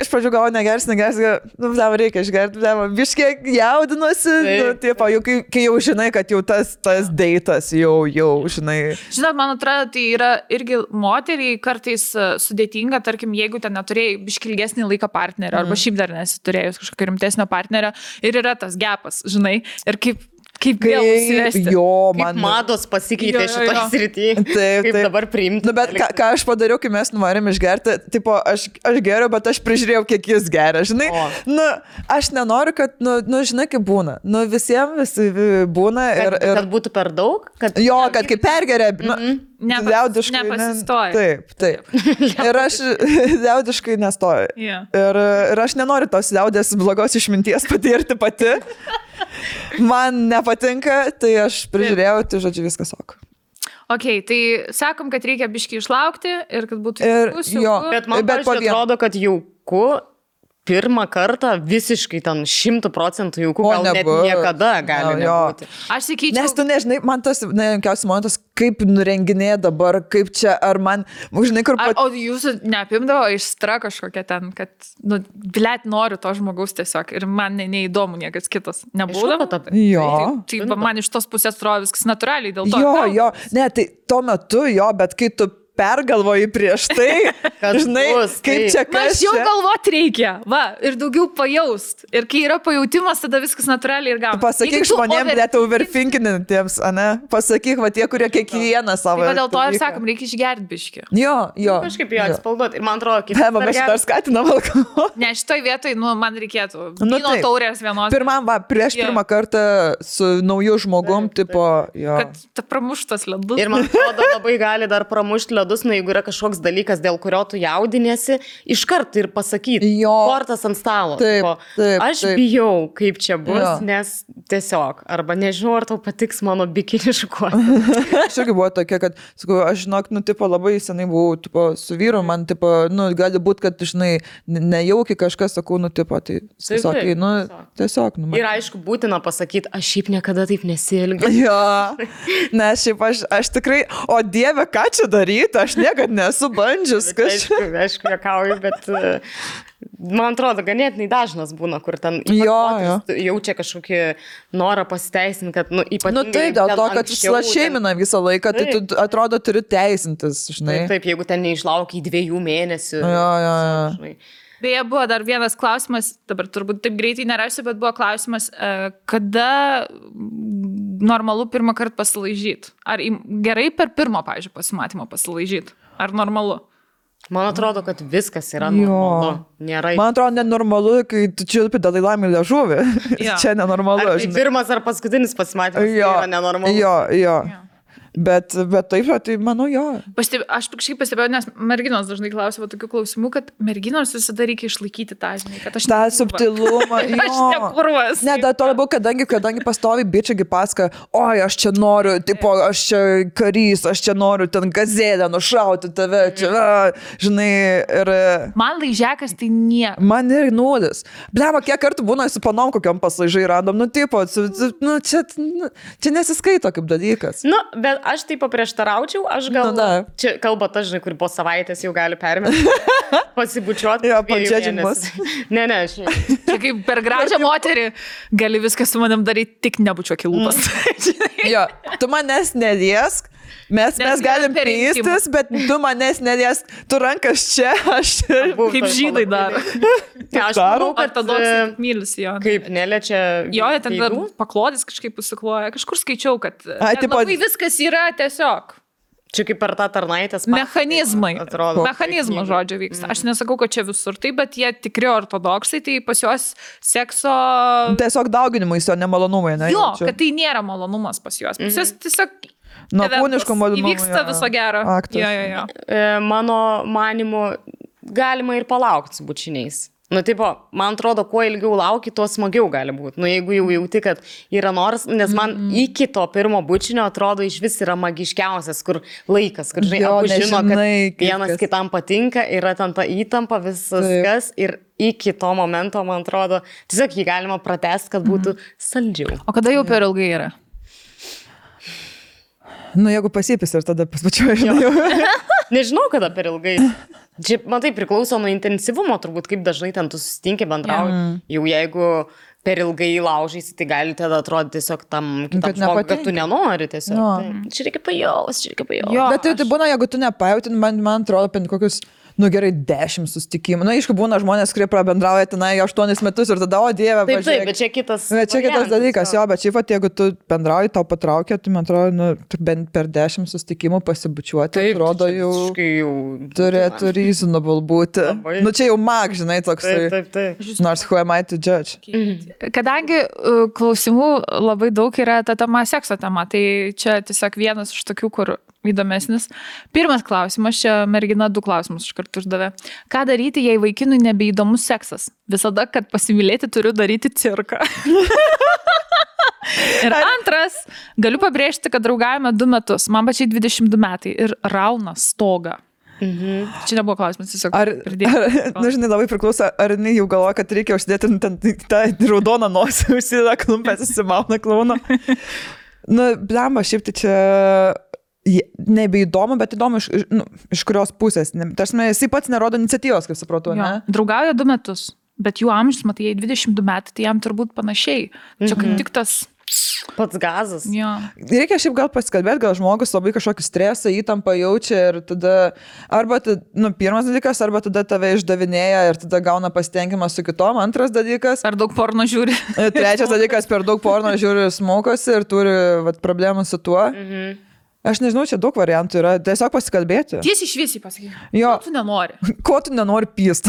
iš pradžių galvoju, negers, nu, reikia išgerti, biškiek jaudinuosi, nu, tipo, jau, kai jau žinai, kad jau tas deitas, jau, žinai. Žinot, man atrodo, tai yra irgi moteriai kartais sudėtinga, tarkim, jeigu ten neturėjai biškilgesnį laiką partnerio, arba šiaip dar nesiturėjus kažkokio rimtesnio partnerio, ir yra tas gepas, žinai, ir kaip vėl užsivesti. Jo, man mados pasikeitė šitoje srityje. Taip. Dabar priimti. Nu, bet ką aš padariau, kai mes nuvarėm išgerti, tipo, aš geriau, bet aš prižiūrėjau, kiek jis geria, žinai. Nu, aš nenoriu, kad, nu, žinai, kaip būna. Nu, visiems būna ir... Kad būtų per daug? Jo, kad kaip pergeria, nu, liaudiškai. Nepasistoja. Taip. Ir aš liaudiškai nestoju. Ir aš nenoriu tos liaudės blogos išminties patirti pati. Man nepatinka, tai aš prižiūrėjau, tai žodžiu viskas ok. Ok, tai sakom, kad reikia biškį išlaukti ir kad būtų jauku. Bet man atrodo, kad jauku pirmą kartą visiškai ten 100% jauku, gal net niekada gali nebūti. Aš sakyčiau... Nes tu nežinai, man tas nejankiausias momentas, kaip nurenginė dabar, kaip čia, ar man, žinai, kur... O jūsų neapimdavo aistra kažkokia ten, kad, nu, blėt, noriu to žmogaus tiesiog ir man neįdomu niekas kitas. Nebūdavo? Jo. Tai man iš tos pusės atrodo viskas natūraliai dėl to. Jo, ne, tai tuo metu jo, bet kai tu pergalvoji prieš tai, žinai, kaip čia kas. Aš jau galvot reikia, va, ir daugiau pajaust. Ir kai yra pajautimas, tada viskas natūraliai ir gauna. Pasakyk žmonėm, net overthinkinintiems, ane? Pasakyk, va, tie, kurie kiekvieną savo... Tai dėl to ir sakom, reikia išgerti biškį. Jo. Kažkaip jo atspalduoti. Ir man atrodo, kaip... Mes dar skatinam alkoholį. Ne, šitoj vietoj, nu, man reikėtų vyno taurės vienos. Prieš pirmą kartą su nauju žmogum, tipo, jo. Kad ta pramuštas ledus. Ir man atrodo, labai gali dar pramušti ledus, nu, jeigu yra kažkoks dalykas, dėl kurio tu jaudinėsi, iškart ir pasakyti, kortas ant stalo. Taip. Aš bijau, kaip čia bus, nes tiesiog, arba nežinau, ar tau patiks mano bikiniškuoti. Aš irgi buvo tokia, kad, sakau, aš žinok, nu, tipo, labai senai buvau, tipo, su vyru, man, tipo, nu, gali būti, kad, žinai, nejaukiai kažkas, sakau, nu, tipo, tai, sakai, nu, tiesiog, nu, ir aišku, būtina pasakyti, aš šiaip niekada taip nesielgiu. Jo, nes šiaip aš tikrai, o Dieve, ką čia daryti, aš niekad nesu bandžius kažką. Aišku, juokauju, bet man atrodo, ganėtinai dažnas būna, kur ten jaučia kažkokį norą pasiteisinti, kad, nu, ypatingai... Nu, tai dėl to, kad šeimina visą laiką, tai tu, atrodo, turi teisintis, žinai. Taip, jeigu ten neišlaukia 2 mėnesių. Jo. Beje, buvo dar vienas klausimas, dabar turbūt taip greitai nerasiu, bet buvo klausimas, kada normalu pirmą kartą pasilaižyti? Ar gerai per pirmą, pavyzdžiui, pasimatymą pasilaižyti? Ar normalu? Man atrodo, kad viskas yra normalu. Nėra... Man atrodo, nenormalu, kai tu čiulpi Dalai-Lamai liežuvį. Čia nenormalu. Ar tai pirmas ar paskutinis pasimatymas yra nenormalu? Jo. Bet taip, tai manau, jo. Aš kažkaip pastebėjau, nes merginos dažnai klausia tokių klausimų, kad merginos visada reikia išlaikyti tą, žinai, kad aš tą subtilumą. Aš nekurvas. Ne, dar to labiau, kadangi pastovi bičiagi pasaka, oi, aš čia noriu, tipo, aš čia karys, aš čia noriu ten gazelę nušauti tave, čia, žinai, ir... Man laižekas tai nieko. Man ir nulis. Blema, kiek kartų būna su panom kokiam paslaižai random, nu, tipo, nu, čia nesiskaito kaip dalykas. Nu, bet aš taip paprieštaraučiau, aš gal... Čia kalba ta, žinai, kur po savaitės jau gali permesti, pasibučiuoti. Jo, padžiadžimas. Ne, aš... Čia kaip per gražią moterį gali viską su manim daryti, tik nebučiuok į lūpas. Jo, tu manęs neliesk, mes galim pystis, bet tu manęs neliesk, tu rankas čia, aš čia. Kaip žydai daro. Aš manau, kad ortodoksai mylisi jo. Kaip neliečia... Jo, ten paklodis kažkaip pasikloja. Kažkur skaičiau, kad labai viskas yra tiesiog. Čia kaip per tą tarnaitės... Mechanizmai. Mechanizmo žodžio vyksta. Aš nesakau, kad čia visur tai, bet jie tikri ortodoksai, tai pas juos sekso... Tiesiog dauginimais, o ne malonumai, ne? Jo, kad tai nėra malonumas pas juos. Pas juos tiesiog... nuo kūniško malonumo. Įvyksta viso gero. Aktas. Jo. Mano manimu, galima ir palaukti su bučiniais. Nu, tipo, man atrodo, kuo ilgiau lauki, tuo smagiau gali būti. Nu, jeigu jau jauti, kad yra noras, nes man iki to pirmo bučinio atrodo iš vis yra magiškiausias, kur laikas, kur, žinai, abu žino, kad vienas kitam patinka, yra ten ta įtampa, viskas ir iki to momento, man atrodo, tiesiog jį galima pratęsti, kad būtų saldžiau. O kada jau per ilgai yra? Nu, jeigu pasipis ir tada paspačiuoju, žinai. Nežinau, kada per ilgai. Čia, man tai priklauso nuo intensyvumo, turbūt, kaip dažnai ten tu susitinki, bendrauji. Jau jeigu per ilgai laužysi, tai gali tada atrodyti tiesiog tam kitam žmogui, kad tu nenori tiesiog. No. Tai, čia reikia pajausti. Bet tai būna, jeigu tu nepajauti, man atrodo, apie kokius, nu gerai, 10 susitikimų. Na, aišku, būna žmonės, kurie prabendrauja tenai 8 metus ir tada, o dieve, taip, taip, bet čia kitas. Bet čia kitas dalykas, jo, bet šiaip, jeigu tu bendrauji, tau patraukia, tai man atrodo, nu, bent per 10 susitikimų pasibučiuoti, taip, atrodo, jau turėtų reasonable būti. Labai. Nu, čia jau mag, žinai, toks. Taip. Nors who am I to judge? Kadangi klausimų labai daug yra ta tema, sekso tema, tai čia tiesiog vienas iš tokių, kur įdomesnis. Pirmas klausimas, čia mergina 2 klausimus iš karto uždavė. Ką daryti, jei vaikinui nebeįdomus seksas? Visada, kad pasimylėti, turiu daryti cirką. Ir antras, galiu pabrėžti, kad draugavome 2 metus, man pačiai 22 metai ir rauna stogą. Čia nebuvo klausimas, tiesiog pridėti. Nu, žinai, labai priklauso, ar jinai jau galvoja, kad reikia uždėti tą raudoną nosį, užsideda klumpės, įsimauna klauną. Nu, blemba, šiaip tai čia nebeįdomu, bet įdomu iš kurios pusės. Tarsi, jisai pats nerodo iniciatyvos, kaip supratau, ne? Draugauja 2 metus, bet jų amžius, matai, jei 22 metai, tai jam turbūt panašiai. Čia kaip tik tas pats gazas. Jo. Reikia šiaip gal pasikalbėti, gal žmogus labai kažkokį stresą, įtampą jaučia ir tada arba, pirmas dalykas, arba tada tave išdavinėja ir tada gauna pasitenkimą su kitom, antras dalykas. Per daug porno žiūri. Trečias dalykas, per daug porno žiūri smokosi ir turi problemų su tuo. Aš nežinau, čia daug variantų yra, tiesiog pasikalbėti. Tiesiai šviesiai pasakyk. Jo. Ko tu nenori? Ko tu nenori pyst?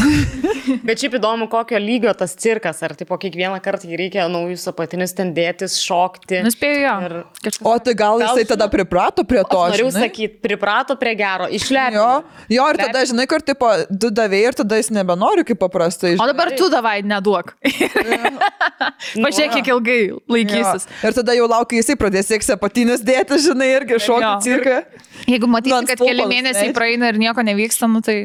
Bet šiaip įdomu, kokio lygio tas cirkas, ar tipo kiekvieną kartą jį reikia naujus apatinius ten dėtis, šokti. Nuspėjau jo. Ir... O tai gal jisai tada priprato prie to, Noriu sakyti, priprato prie gero, išlepino. Jo, ir tada, žinai, kur tipo, tu davėjai ir tada jis nebenori kaip paprastai. O dabar tu davai, neduok. Pažiūrėk, kiek ilgai laikysis. Jo. Ir tada jau laukia, jisai pradės sėks apatinius dėti, žinai, irgi šokti cirką. Jeigu matysi, kad keli mėnesiai praeina ir nieko nevyksta, nu tai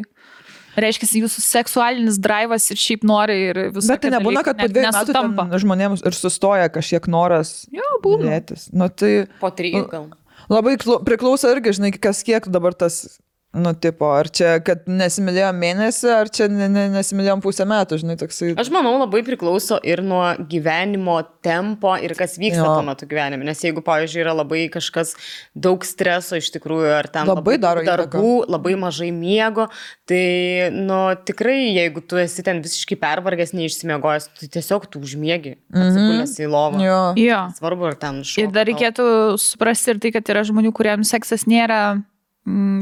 reiškia, jūsų seksualinis drivas ir šiaip nori ir visą. Bet tai nebūna, kad po 2 metų žmonėms ir sustoja kažkiek noras dėtis. Nu, tai, po 3 gal. Labai priklauso irgi, žinai, kas kiek dabar tas, nu, tipo, ar čia, kad nesimylėjom mėnesį, ar čia nesimylėjom pusę metų, žinai, toksai. Aš manau, labai priklauso ir nuo gyvenimo tempo ir kas vyksta tuo metu gyvenime. Nes jeigu, pavyzdžiui, yra labai kažkas daug streso iš tikrųjų, ar ten labai daro darbų, labai mažai miego, tai, nu, tikrai, jeigu tu esi ten visiškai pervargęs, neišsimiegojęs, tai tiesiog tu užmiegi, atsigulęs į lovą. Jo. Svarbu, ar ten šoka. Ir dar reikėtų suprasti ir tai, kad yra žmonių, kuriems seksas nėra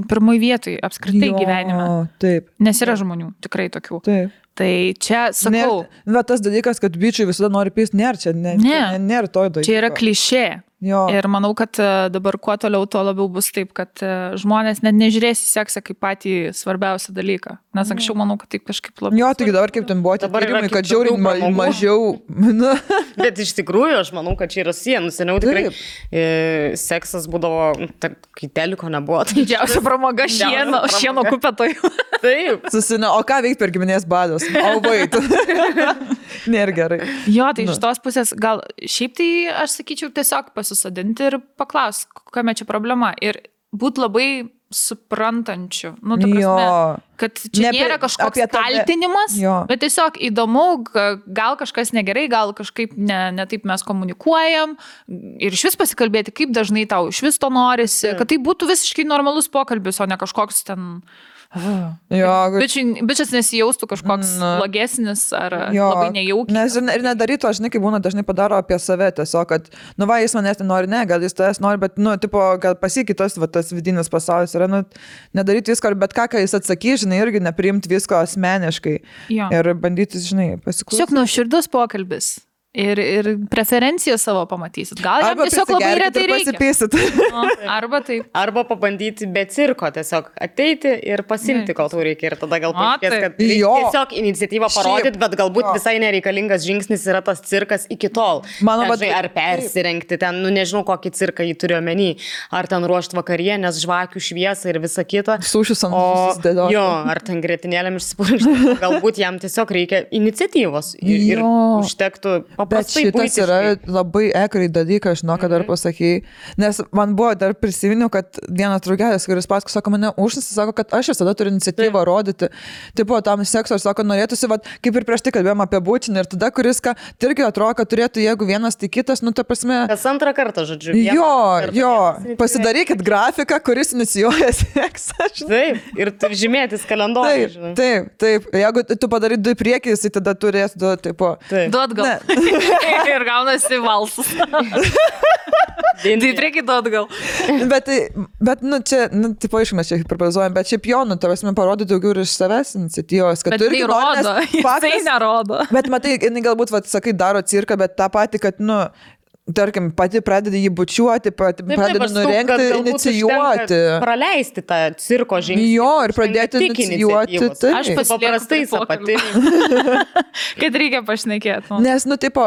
pirmoj vietoj apskritai gyvenime. Taip. Nes yra žmonių, tikrai tokių. Taip. Tai čia, sakau. Bet tas dalykas, kad bičiai visada nori pysti, nėra čia, nėra to dalyko. Čia yra klišė. Jo. Ir manau, kad dabar kuo toliau, tuo labiau bus taip, kad žmonės net nežiūrės į seksą kaip patį svarbiausią dalyką. Nes anksčiau manau, kad taip kažkaip labai. Jo, tik dabar kaip ten buvo tyrimai, kad žiauriai mažiau. Bet iš tikrųjų, aš manau, kad čia yra sienų. Seniau tikrai seksas būdavo, kai teliko nebuvo. Didžiausia pramoga šieno kupetojų. Taip. O ką veikti per giminės badus? O vait. Nėra gerai. Jo, tai iš tos pusės gal šiaip tai aš sakyčiau tiesiog pasisadinti ir paklaus, kokia čia problema. Ir būti labai suprantančiu. Nu, ta prasme, kad čia nėra kažkoks kaltinimas, bet tiesiog įdomu, gal kažkas negerai, gal kažkaip ne taip mes komunikuojam ir iš vis pasikalbėti, kaip dažnai tau iš vis to norisi, kad tai būtų visiškai normalus pokalbis, o ne kažkoks ten... Bičias nesijaustų kažkoks blogesnis ar labai nejaukis. Ir nedarytų, žinai, kaip būna dažnai padaro apie save tiesiog, kad, nu va, jis manęs nenori, ne, gal jis tavęs nori, bet, nu, tipo, gal pasikitas, va, tas vidinis pasaulis yra, nu, nedaryti visko, bet ką jis atsakys, žinai, irgi nepriimti visko asmeniškai ir bandyti, žinai, pasiklausyti. Tiesiog nuoširdus pokalbis. ir preferenciją savo pamatysit. Gal jam tiesiog labai retai reikia. Arba taip. Arba pabandyti be cirko tiesiog ateiti ir pasimti, kol tau reikia. Ir tada gal paaiškės, kad tiesiog iniciatyvą parodyti, bet galbūt visai nereikalingas žingsnis yra tas cirkas iki tol. Ar persirengti ten, nežinau, kokį cirką jį turiu omeny. Ar ten ruošti vakarienės, žvakių šviesą ir visą kitą. Sušius ant susidėlioti. Jo, ar ten grietinėlėm išsipurkšti. Galbūt jam tiesiog reikia iniciatyvos. Ir užtektų bet šitas yra labai ekrai dalykas, žinau, kad dar pasakėjai, nes man buvo dar prisiminiau, kad vienas draugelis, kuris paskui, sako, mane užsisi, sako, kad aš visada turiu iniciatyvą rodyti, tipo, tam sekso, ir sako, norėtųsi, vat, kaip ir prieš tai kalbėjom apie būtinį, ir tada, kuris, ką, irgi atrodo, kad turėtų, jeigu vienas, tai kitas, nu, ta prasme. Kas antrą kartą, žodžiu. Jo, pasidarykit grafiką, kuris inicijuoja seksą. Taip, ir žymėtis kalendorių. Taip, jeigu tu padarai 2 priekis, tai tada turės 2, tipo. Duot gal. Ir gaunasi valsas. Tai prieki duot gal. Bet nu, čia, tipo, išmės čia hiperbolizuojam, bet šiaip jo, nu, tavęs man parodė daugiau ir iš savęs iniciatyvos, kad tu irgi rodo, jisai nerodo. Bet matai, jinai galbūt, sakai, daro cirką, bet tą patį, kad, nu, tarkim, pati pradeda jį bučiuoti, pradeda nurengti, inicijuoti. Praleisti tą cirko žingsnį. Jo, ir pradėti inicijuoti. Aš paprastai pati. Kad reikia pašnekėti. Nes, nu, tipo,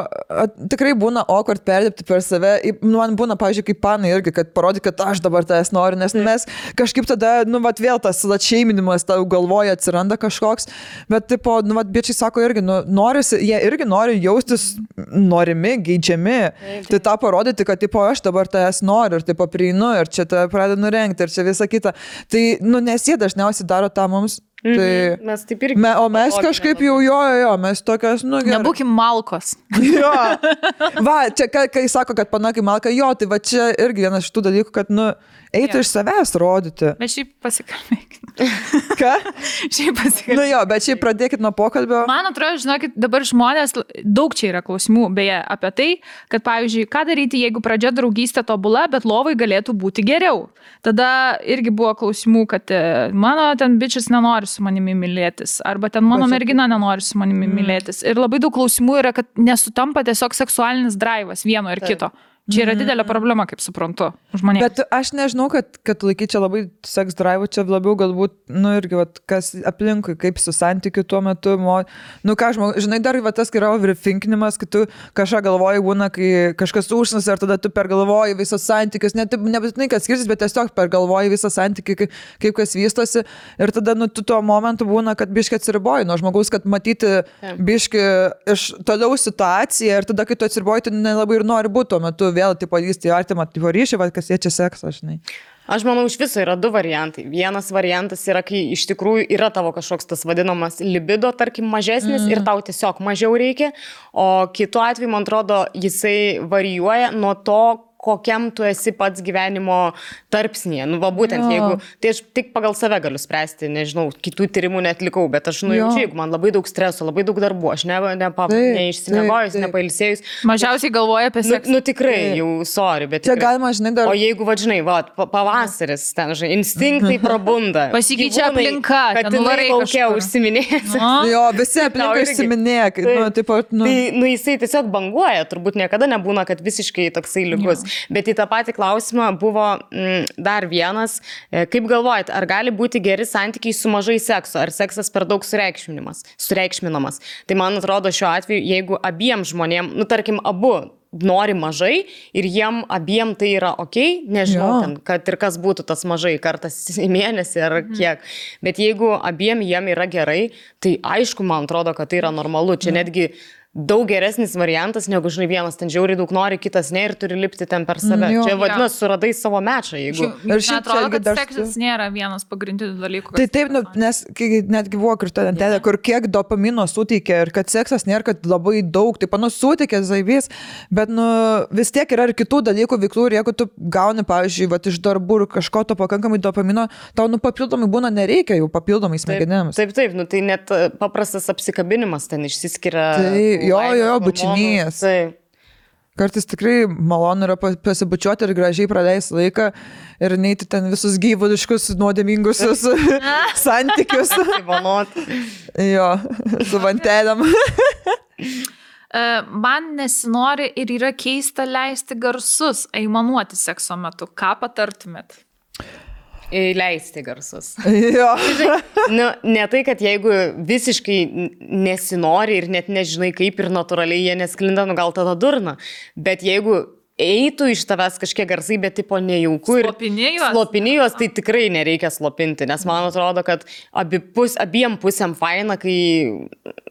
tikrai būna awkward perdėpti per save. Man būna, pavyzdžiui, kaip panai irgi, kad parodė, kad aš dabar tavęs noriu, nes mes kažkaip tada, nu, vat vėl tas atšeiminimas tau galvoje atsiranda kažkoks. Bet, tipo, nu, vat biečiai sako irgi, nu, norisi, jie irgi nori jaustis norimi, geidžiami. Tai tą parodyti, kad, tipo, aš dabar tavęs noriu ir, tipo, prieinu ir čia tave pradedu nurengti ir čia visą kitą. Tai, nu, nes jie dažniausiai daro tą mums. Tai, mes taip irgi. O mes kažkaip jau, mes tokios, nu, gerai. Nebūkim malkos. Jo. Va, čia, kai sako, kad panakai malka, jo, tai va čia irgi vienas iš tų dalykų, kad, nu, eitų iš savęs rodyti. Bet šiaip pasikalbėkit. Ką? Šiaip pasikalbėkit. Nu jo, bet šiaip pradėkit nuo pokalbio. Man atrodo, žinokit, dabar žmonės, daug čia yra klausimų, beje, apie tai, kad, pavyzdžiui, ką daryti, jeigu pradžia draugystė tobula, bet lovai galėtų būti geriau. Tada irgi buvo klausimų, kad mano ten bičias nenori su manimi mylėtis, arba ten mano mergina nenori su manimi mylėtis. Ir labai daug klausimų yra, kad nesutampa tiesiog seksualinis draivas vieno ir kito. Čia yra didelė problema, kaip suprantu, žmonėms. Bet aš nežinau, kad laikyti čia labai seks drive, čia labiau galbūt, nu irgi, vat, kas aplinkui, kaip su santykiu tuo metu, nu ką, žinai, dar va, tas yra overthinkinimas, kai tu kažką galvoji, būna, kai kažkas užsnas, ar tada tu pergalvoji visas santykius, nebūtinai, kad skirsis, bet tiesiog pergalvoji visą santykį, kaip kas vystosi, ir tada, nu, tu tuo momentu būna, kad biški atsiriboji nuo žmogaus, kad matyti biški iš toliau situaciją, ir tada, kai tu atsiriboji, tu nelabai ir nori būti tuo metu vėl, tipo, lysti artimą, tipo, ryšį, va, kas jie čia seksą, žinai. Aš manau, iš viso yra 2 variantai. Vienas variantas yra, kai iš tikrųjų yra tavo kažkoks tas vadinamas libido, tarkim, mažesnis ir tau tiesiog mažiau reikia, o kitu atveju, man atrodo, jisai varijuoja nuo to, kokiam tu esi pats gyvenimo tarpsnėje. Nu, va, būtent, jeigu, tai aš tik pagal save galiu spręsti, nežinau, kitų tyrimų netlikau, bet aš nujaučiu, jeigu man labai daug streso, labai daug darbų, aš neišsimiegojus, nepailsėjus. Mažiausiai galvoja apie seksą. Nu, tikrai, jau, sorry, bet čia tikrai. galima, žinai, dar. O jeigu, va, žinai, va, pavasaris, ten, žinai, instinktai prabunda. Pasikeičia aplinka, kad ten laukia užsiminės. Jo, visi aplinka užsiminėja. Nu, tipo, tai, nu, jisai tiesiog banguoja, turbūt niekada nebūna, kad visiškai toksai lygus. Bet į tą patį klausimą buvo dar vienas. Kaip galvojat, ar gali būti geri santykiai su mažai sekso, ar seksas per daug sureikšminamas? Tai man atrodo šiuo atveju, jeigu abiem žmonėm, nu tarkim, abu nori mažai ir jiem abiem tai yra okei, nežinau, ten, kad ir kas būtų tas mažai, kartas į mėnesį ar kiek. Bet jeigu abiem jiem yra gerai, tai aišku, man atrodo, kad tai yra normalu. Čia netgi daug geresnis variantas, negu, žinai, vienas ten žiauriai daug nori, kitas ne ir turi lipti ten per save. Čia vadinasi, suradai savo mečą, jeigu. Ir šiaip atrodo, kad seksas nėra vienas pagrindinių dalykų. Tai taip, nu, nes netgi buvo kritodentelė, kur kiek dopamino suteikia ir kad seksas nėra, kad labai daug, taip, nu, suteikia zaibys, bet, nu, vis tiek yra ir kitų dalykų veiklų ir jeigu tu gauni, pavyzdžiui, va, iš darbų ir kažko to pakankamai dopamino, tau, nu, papildomai būna nereikia jau papildomai smegenėms. Taip, nu, tai net paprastas apsikabinimas ten išsiskiria. Jo, bučinys. Kartais tikrai malonu yra pasibučiuoti ir gražiai praleisti laiką ir neiti ten visus gyvuliškus, nuodėmingus santykius. Jo, su vantelėm. man nesinori ir yra keista leisti garsus, aimanuoti sekso metu. Ką patartumėt? Leisti garsus. Jo. Nu, ne tai, kad jeigu visiškai nesinori ir net nežinai kaip ir natūraliai jie nesklinda, nu gal tada durna. Bet jeigu eitų iš tavęs kažkiek garsai, bet tipo nejauku ir slopinėjos, tai tikrai nereikia slopinti, nes man atrodo, kad abiem pusėm faina, kai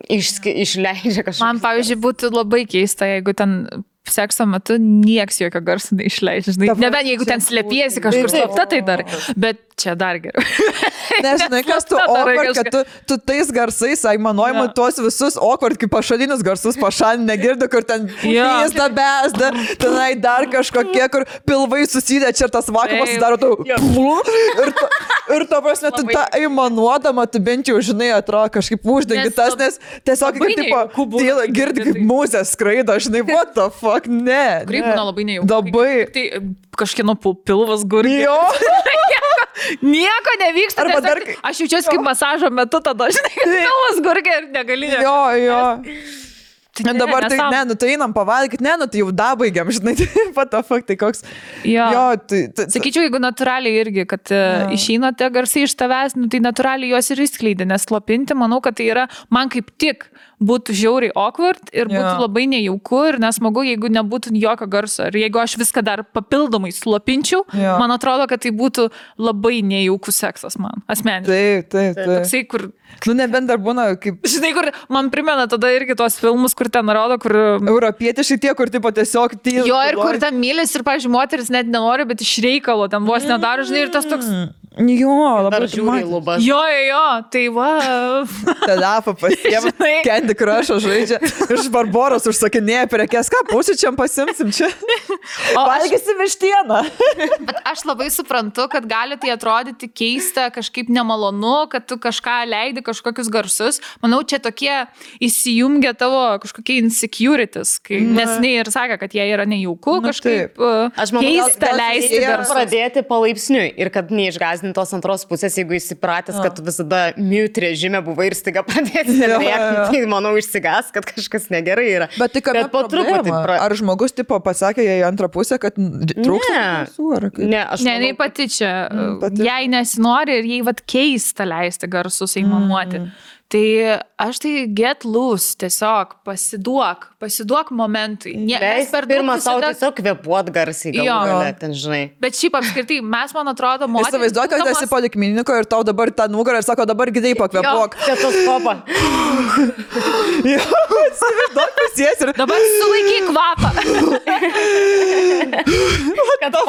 išleidžia kažką. Man, pavyzdžiui, būtų labai keista, jeigu ten sekso metu nieks jokio garso neišleidžia. Nebent jeigu ten slėpiesi kažkur slapta, tai dar. Bet čia dar geriau. Nežinai, kas tu awkward, kad tu tais garsais aimanuojimu tuos visus awkward, kaip pašalinius garsus pašalinį negirdi, kur ten pūsda, besda, tenai dar kažkokie, kur pilvai susidė, čia ir tas vakuumas sudaro tau. Ir to prasme, tu tą aimanuodama, tu bent jau, žinai, atrodo kažkaip uždengi tas, nes tiesiog kaip tipo, girdi kaip mūzės skraido, žinai, what the fuck, ne. Krypūna labai nejauku. Labai. Tai kažkieno pilvas gurgi. Jo. Nieko nevyksta. Aš jaučiuosi kaip masažo metu tada, žinai, kad pilvas gurgi ir negali. Jo. Dabar tai, ne, nu tai einam pavalgyti, ne, nu tai jau dabaigiam, žinai, what the fuck, tai koks. Jo, tai sakyčiau, jeigu natūraliai irgi, kad išeina tie garsai iš tavęs, nu tai natūraliai juos ir išskleidė, nes slopinti, manau, kad tai yra, man kaip tik būtų žiauriai awkward ir būtų labai nejauku ir nesmagu, jeigu nebūtų jokio garso. Ir jeigu aš viską dar papildomai slopinčiau, man atrodo, kad tai būtų labai nejaukus seksas man, asmeniškai. Taip. Toksai, kur... Nu, nebent dar būna kaip... Žinai, kur man primena tada irgi tos filmus, kur ten rodo, kur... Europietiškai tie, kur tipo tiesiog tyli. Jo, ir kur ten mylis ir, pavyzdžiui, moteris net nenori, bet iš reikalo ten vos nedaro, žinai, ir tas toks... Jo, labai žiūri lubas. Jo, tai va. Tada pasiema, Candy Crush'o žaidžia, iš Barboros užsakinėja prekes, ką pusryčiam pasimsim čia. Valgysi vištieną. Bet aš labai suprantu, kad gali tai atrodyti keista, kažkaip nemalonu, kad tu kažką leidi, kažkokius garsus. Manau, čia tokie įsijungia tavo kažkokie insecurities, nes ne ir sakė, kad jie yra nejauku, kažkaip keista leisti garsus. Pradėti palaipsniui ir kad neišgąsdinti tos antros pusės, jeigu įsipratęs, kad tu visada mute režime buvai ir staiga pradėti rėkti, tai manau išsigas, kad kažkas negerai yra. Bet tai kad po truputį. Ar žmogus tipo pasakė jai antrą pusę, kad trūksta garsų? Ne, aš manau, jinai pati čia, jai nesinori ir jai vat keista leisti garsus aimanuoti. Tai aš tai get loose, tiesiog pasiduok momentui. Leis pirmą savo tiesiog kvepuot garsiai, galų ten, žinai. Bet šiaip apskritai, mes, man atrodo, moteris... Įsivaizduok, kad esi polikliniko ir tau dabar tą nugarą ir sako, dabar gidai pakvepuok. Stetoskopą. Jo, įsivaizduok, pasies ir... Dabar sulaikyk kvapą. Kad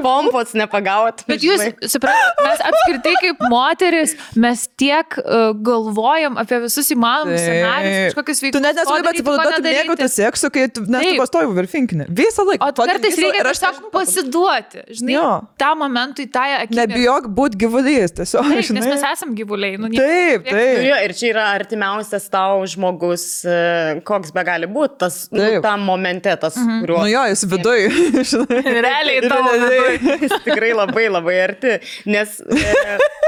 pompos nepagaut. Bet jūs, suprantate, mes apskritai kaip moteris, mes tiek galvojam apie visus įmanomus scenarius, kažkokius veiksmus. Tu net nesugebi atsipalaiduoti mėgauti seksu, kai tu pastoji virfinkinį. Visą laiką. O kartais reikia tiesiog pasiduoti. Žinai, tą momentui, tą akimirką. Nebijok būti gyvulys, tiesiog. Taip, nes mes esam gyvuliai. Taip. Ir čia yra artimiausias tau žmogus, koks be gali būti, tam momente, tas, kuriuo... Nu jo, jis viduj. Realiai tavo viduj. Jis tikrai labai, labai arti. Nes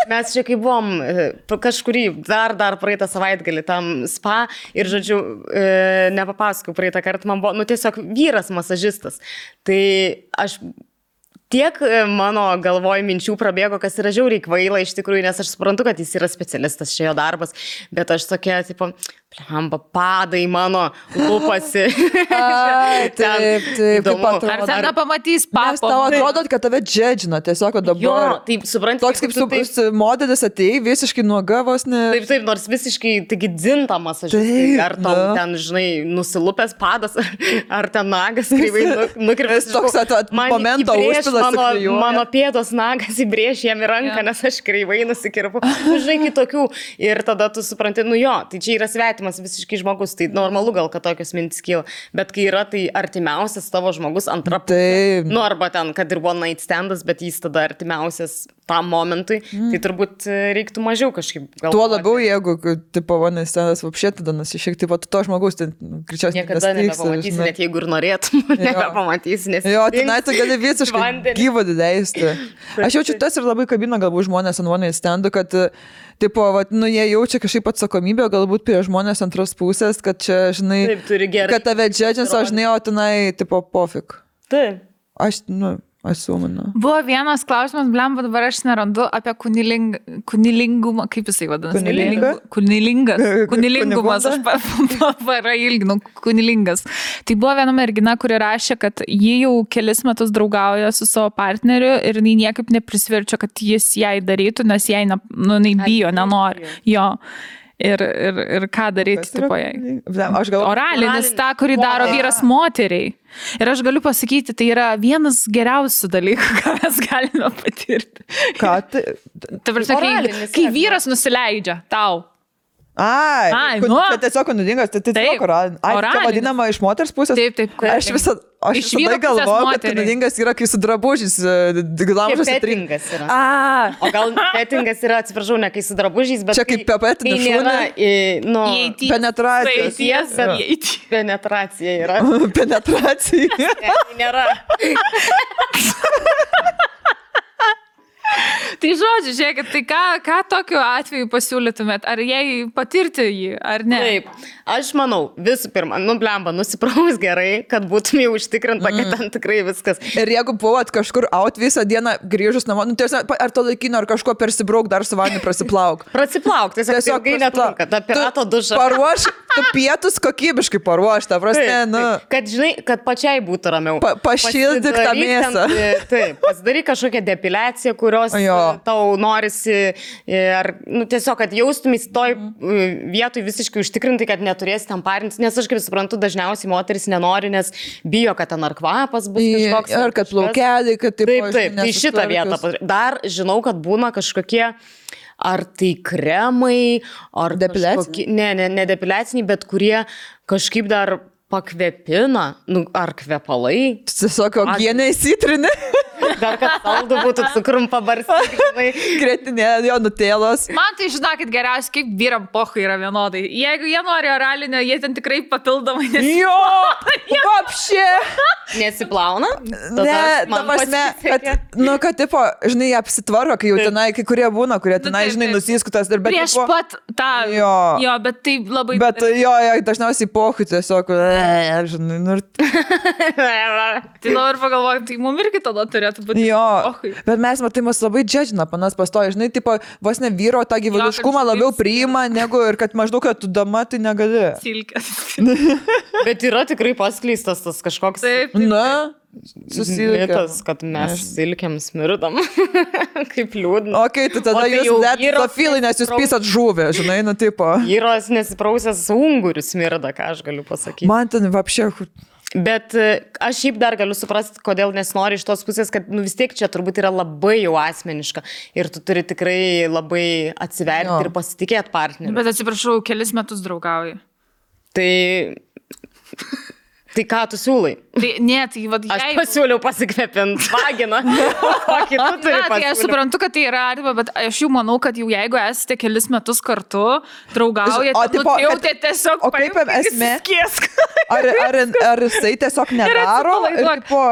mes čia kai buvom kažkurį dar praeitą savaitgalį tam spa ir, žodžiu, nepapasakau, praeitą kartą man buvo, tiesiog vyras masažistas. Tai aš tiek mano galvoj minčių prabėgo, kas yra žiauriai kvaila iš tikrųjų, nes aš suprantu, kad jis yra specialistas, čia jo darbas, bet aš tokia, tipo, padai mano lūpasi. Taip, kaip atrodo. Ar ten nepamatys papo? Nes tau atrodo, kad tave džedžina, tiesiog dabar. Jo, taip, suprantu. Toks kaip modelis atėjai, visiškai nuoga vos ne. Taip, nors visiškai, taigi dzintamas aš. Ar tau ten, žinai, nusilupęs padas, ar ten nagas kreivai nukirpęs. Toks momento užpilas. Mano pėdos nagas įbrėž jam į ranką, nes aš kreivai nusikirpu. Žinai, kitokių. Ir tada tu supranti, tai čia yra svetimas visiškai žmogus, tai normalu gal, kad tokios mintis kyla, bet kai yra tai artimiausias tavo žmogus antra pusė, arba ten, kad ir one night standas, bet jis tada artimiausias tam momentui, tai turbūt reiktų mažiau kažkaip galvoti. Tuo labiau, jeigu, tipo, vanės tenas vapšė, tada nusišiek, tipo, tu to žmogus, tai greičiausiai niekada nebepamatysi, net jeigu ir norėtum, nebepamatysi, nes... Jo, tenai tu gali visiškai gyvo leisti. Aš jaučiu tas ir labai kabina galbūt žmonės ant vanės stendų, kad, tipo, vat, nu, jie jaučia kažkaip atsakomybę, galbūt prie žmonės antros pusės, kad čia, žinai, taip, kad tave džedžins, o žinai, o tenai, tipo, pofik. Taip. Aš, nu... Asuminu. Buvo vienas klausimas, blemba, dabar aš nerandu apie kunilingumą, kaip jisai vadinasi? Kunilingumas, aš parailginu, kunilingas. Tai buvo viena mergina, kuri rašė, kad ji jau kelis metus draugauja su savo partneriu ir jinai niekaip neprisverčia, kad jis jai darytų, nes jai bijo, nenori. Jo. Ir ką daryti, tipo jai. Oralinis, tą, kurį daro vyras moteriai. Ir aš galiu pasakyti, tai yra vienas geriausių dalykų, ką mes galime patirti. Ką tai? Ta prasme, kai vyras nusileidžia tau. Ai, čia tiesiog nuodingas, tai tiesiog oralinis. Ai, čia vadinama iš moters pusės? Taip. Aš visada galvoju, kad nuodingas yra, kai su drabužiais glamžas pettingas yra. O gal pettingas yra, atsiprašau, ne kai su drabužiais, bet čia kaip pepetinis šūnė. Penetracija. Penetracija yra. Penetracija. Nėra. Tai žodžiu, žiūrėkit, tai ką tokiu atveju pasiūlytumėt? Ar jai patirti jį, ar ne? Taip, aš manau, visų pirma, blemba, nusipraus gerai, kad būtum jau užtikrinta, kad ten tikrai viskas. Ir jeigu buvot kažkur out visą dieną grįžus namo, ar to laikino, ar kažko persibrauk, dar su vandeniu prasiplauk. Prasiplauk, tiesiog ilgai netrunka, ta pirato duša. Paruoš, tu pietus kokybiškai paruoš, ta prasme, nu. Kad, žinai, kad pačiai būtų ramiau. Pašildyk tą mėsą. Taip, pasidaryk kažkokią depiliaciją, kurios tau norisi, ar, tiesiog, kad jaustumės toj vietoj visiškai užtikrinti, kad neturėsi ten parintis, nes aš kaip suprantu, dažniausiai moteris nenori, nes bijo, kad ten ar kvapas bus kažkoks. Ar kad plaukeliai, kad taip, tai šitą vietą. Dar žinau, kad būna kažkokie ar tai kremai, ar depiliaciniai? Ne depiliaciniai, bet kurie kažkaip dar pakvepina, ar kvepalai. Tiesiog ogienė įsitrinė. Dar kad saldų būtų cukrum pabarstyti. Gretinė, jo nutėlos. Man tai žinokit geriausiai, kaip vyram pochai yra vienodai. Jeigu jie nori oralinio, jie ten tikrai papildomai nesiplauna. Jo, vapšė. Nesiplauna? Ne, ta prasme, kad, tipo, žinai, apsitvarko, kai jau tenai, kai kurie būna, kurie tenai, žinai, nusiskutas. Prieš pat tą. Jo, bet tai labai... Bet jo, dažniausiai pochai tiesiog, žinai, nu... Tai dabar pagalvojam, tai mum irgi tada turėtų būti. Jo, bet mes matai, mus labai džedžina, panas pastoja, žinai, tipo, vos ne vyro tą gyvuliškumą labiau priima, negu ir kad maždaug, kad tu dama, tai negali. Silkės. Bet yra tikrai paskleistas tas kažkoks... Na, susilkės. Kad mes silkiam smirdam. Kaip liūdna. Ok, tai tada jūs letofilai, nes jūs pisat žuvę, žinai, nu tipo. Vyros nesiprausęs ungurių smirda, ką aš galiu pasakyti. Man ten vapšė... Bet aš šiaip dar galiu suprasti, kodėl nesinori iš tos pusės, kad vis tiek čia turbūt yra labai jau asmeniška ir tu turi tikrai labai atsiverti ir pasitikėti partneriu. Bet atsiprašau, kelis metus draugauji. Tai ką tu siūlai? Aš pasiūliau pasikvepinti vaginą. Kokį tu turi pasiūlyti? Aš suprantu, kad tai yra arba, bet aš jau manau, kad jau jeigu esate kelis metus kartu, draugaujate, jau tai tiesiog Ar jisai tiesiog nedaro?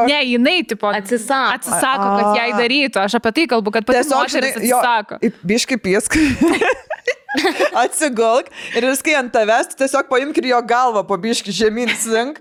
Ne, jinai atsisako, kad jai darytų. Aš apie tai kalbu, kad pati moteris atsisako. Biškai piesk. Atsigulk ir viskai ant tavęs, tu tiesiog paimk ir jo galvą po biškį žemyn slink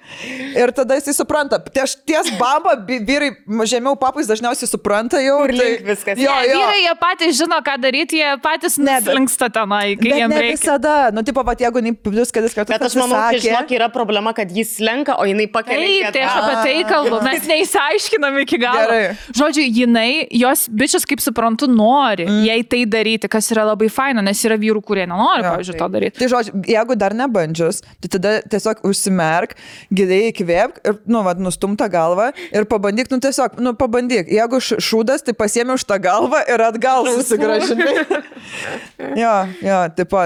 ir tada jisai supranta. Ties bamba, vyrai žemiau papais dažniausiai supranta jau. Ir link viskas. Vyrai jie patys žino, ką daryti, jie patys neslinksta tenai, kai jiems reikia. Bet ne visada. Nu, tipo, pat jeigu plus kelis kartus bet aš manau, kad žinok, yra problema, kad jis slenka, o jinai pakelia. Tai aš apie tai kalbu, mes neįsiaiškinam iki galo. Žodžiu, jinai, jos bičias, kaip suprantu, nori jai tai daryti, kas yra labai faina, nes yra vyrų, kurie nenori, pavyzdžiui, to daryti. Tai žodžiu, jeigu dar nebandžius, tai tada tiesiog užsimerk, giliai įkvėpk ir, nustumta galva ir pabandyk, tiesiog, pabandyk. Jeigu šūdas, tai pasiemi už tą galvą ir atgal susigrąžinai. jo, tipo,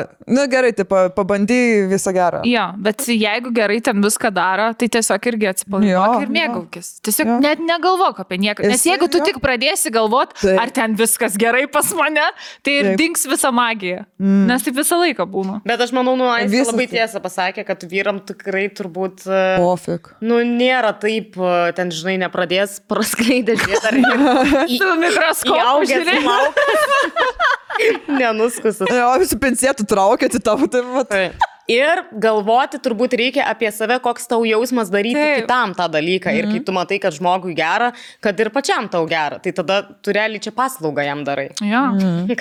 gerai, tipo, pabandy visą gerą. Jo, bet jeigu gerai ten viską daro, tai tiesiog irgi atsipalaiduok ir mėgaukis. Tiesiog net negalvok apie nieką. Nes jeigu tu tik pradėsi galvot, ar ten viskas gerai pas mane, tai ir dings visa magija. Nes taip visą laiką būna. Bet aš manau, Aistė labai tiesą pasakė, kad vyram tikrai turbūt... Pofik. Nėra taip, ten, žinai, nepradės praskleidę žiūrėti. Su mikroskopu žiūrėti. Nenuskusit. Jo, visi pincėtų traukėti tavo, tai... Ir galvoti turbūt reikia apie save, koks tau jausmas daryti kitam tą dalyką. Ir kai tu matai, kad žmogui gera, kad ir pačiam tau gera, tai tada tu realiai čia paslaugą jam darai. Jo.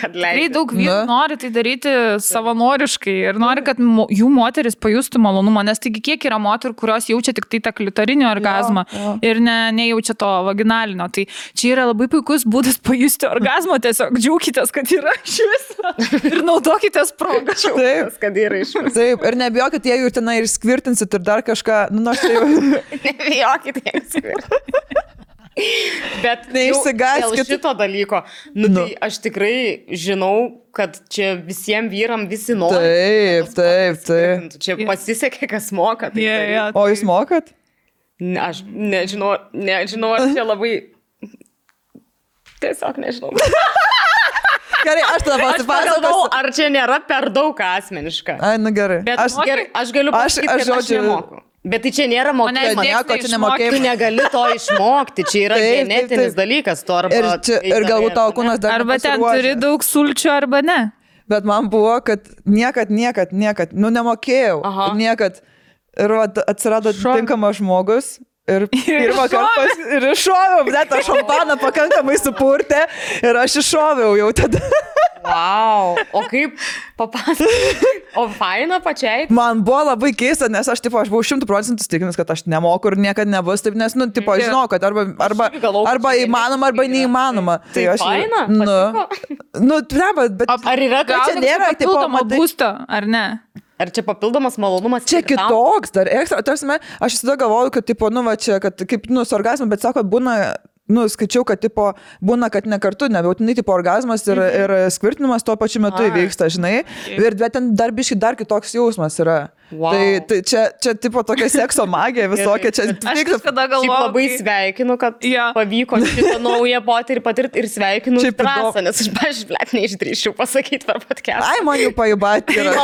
Kad leidai. Daug vyrų nori tai daryti savanoriškai ir nori, kad jų moteris pajustų malonumą, nes taigi kiek yra moterų, kurios jaučia tik tai tą klitorinį orgazmą ir nejaučia to vaginalinio. Tai čia yra labai puikus būdas pajusti orgazmą, tiesiog džiaukitės, kad yra iš viso ir naudokitės progą. Taip, kad yra iš viso. Taip, ir nebijokit, jeigu ir tenai ir skvirtinsit ir dar kažką, aš tai jau... Nebijokit, jeigu skvirtinsit. Bet neišsigaskit dėl šito dalyko, tai aš tikrai žinau, kad čia visiems vyram visi nori. Taip. Čia pasisekė, kas moka. O jūs mokat? Aš nežinau, ar čia labai... Tiesiog nežinau. Gerai, aš tada pasipasakosiu. Ar čia nėra per daug asmeniška? Ai, gerai. Bet aš galiu pasakyti, kad aš nemoku. Bet tai čia nėra mokėti. Tu negali to išmokti. Čia yra genetinis dalykas. Ir galbūt tavo kūnas dar arba ten turi daug sulčių, arba ne. Bet man buvo, kad niekad, nemokėjau. Niekad. Ir atsirado tinkamas žmogus. Ir pirmą kartą ir iššoviau, bet aš šampaną pakankamai supurtė ir aš iššoviau jau tada. Wow, o kaip papasakoju? O faina pačiai? Man buvo labai keista, nes aš buvau 100% stikinus, kad aš nemoku ir niekada nebus taip, nes, žinau, kad arba įmanoma, arba neįmanoma. Tai faina? Patiko? Bet ar yra papildoma būsto, ar ne? Ar čia papildomas malonumas? Čia kitoks, dar ekstra. Tarsime, aš visada galvoju, kad, kad kaip, su orgazmu, bet sako, būna, skaičiau, kad, būna, kad ne kartu, nebūtinai, orgazmas ir skvirtinimas tuo pačiu metu įvyksta, žinai. Ir ten dar biškai dar kitoks jausmas yra. Wow. Tai čia tokia sekso magija visokia. Čia aš kažkada galvoju. Labai sveikinu, kad pavyko šitą naują potyrį patirti ir sveikinu drąsą, nes aš, pažiūrėt, neišdrįščiau pasakyti per podcast. Ai, man jau pajubatė yra.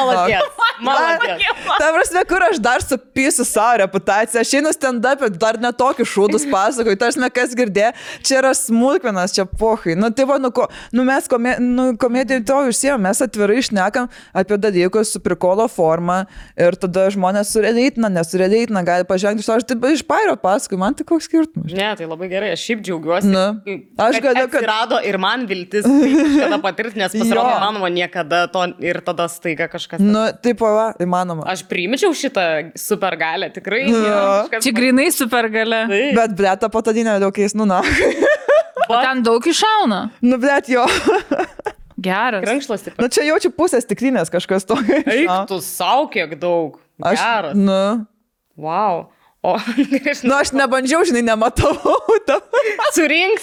Maladies. Ta prasme, kur aš dar supysiu savo reputaciją. Aš einu stand-up, dar netokius šūdus pasakoju. Tarsime, kas girdė, čia yra smulkmenas, čia pohai. Mes komedijoje to užsiejom, mes atvirai šnekam apie dalykus su prikolo forma ir tada žmonės surėdeitina, nesurėdeitina, gali pažengti iš to, aš taip iš pairo paskui, man tai koks skirtumas. Ne, tai labai gerai, aš šiaip džiaugiuosi, aš kad atsirado ir man viltis kažkada patirti, nes pasirodo įmanoma niekada to ir tada staiga kažkas. Taip, įmanoma. Aš priimčiau šitą supergalę, tikrai. Čia grinai supergalę. Bet blėta patadinė daug keis, ten daug iššauna. Blėt jo. Geras. Krankšlas tik. Čia jaučiu pusės stiklinės kažkas to. Eik, tu sau kiek daug. Geras. Wow. Aš nebandžiau, žinai, nematau. Surink.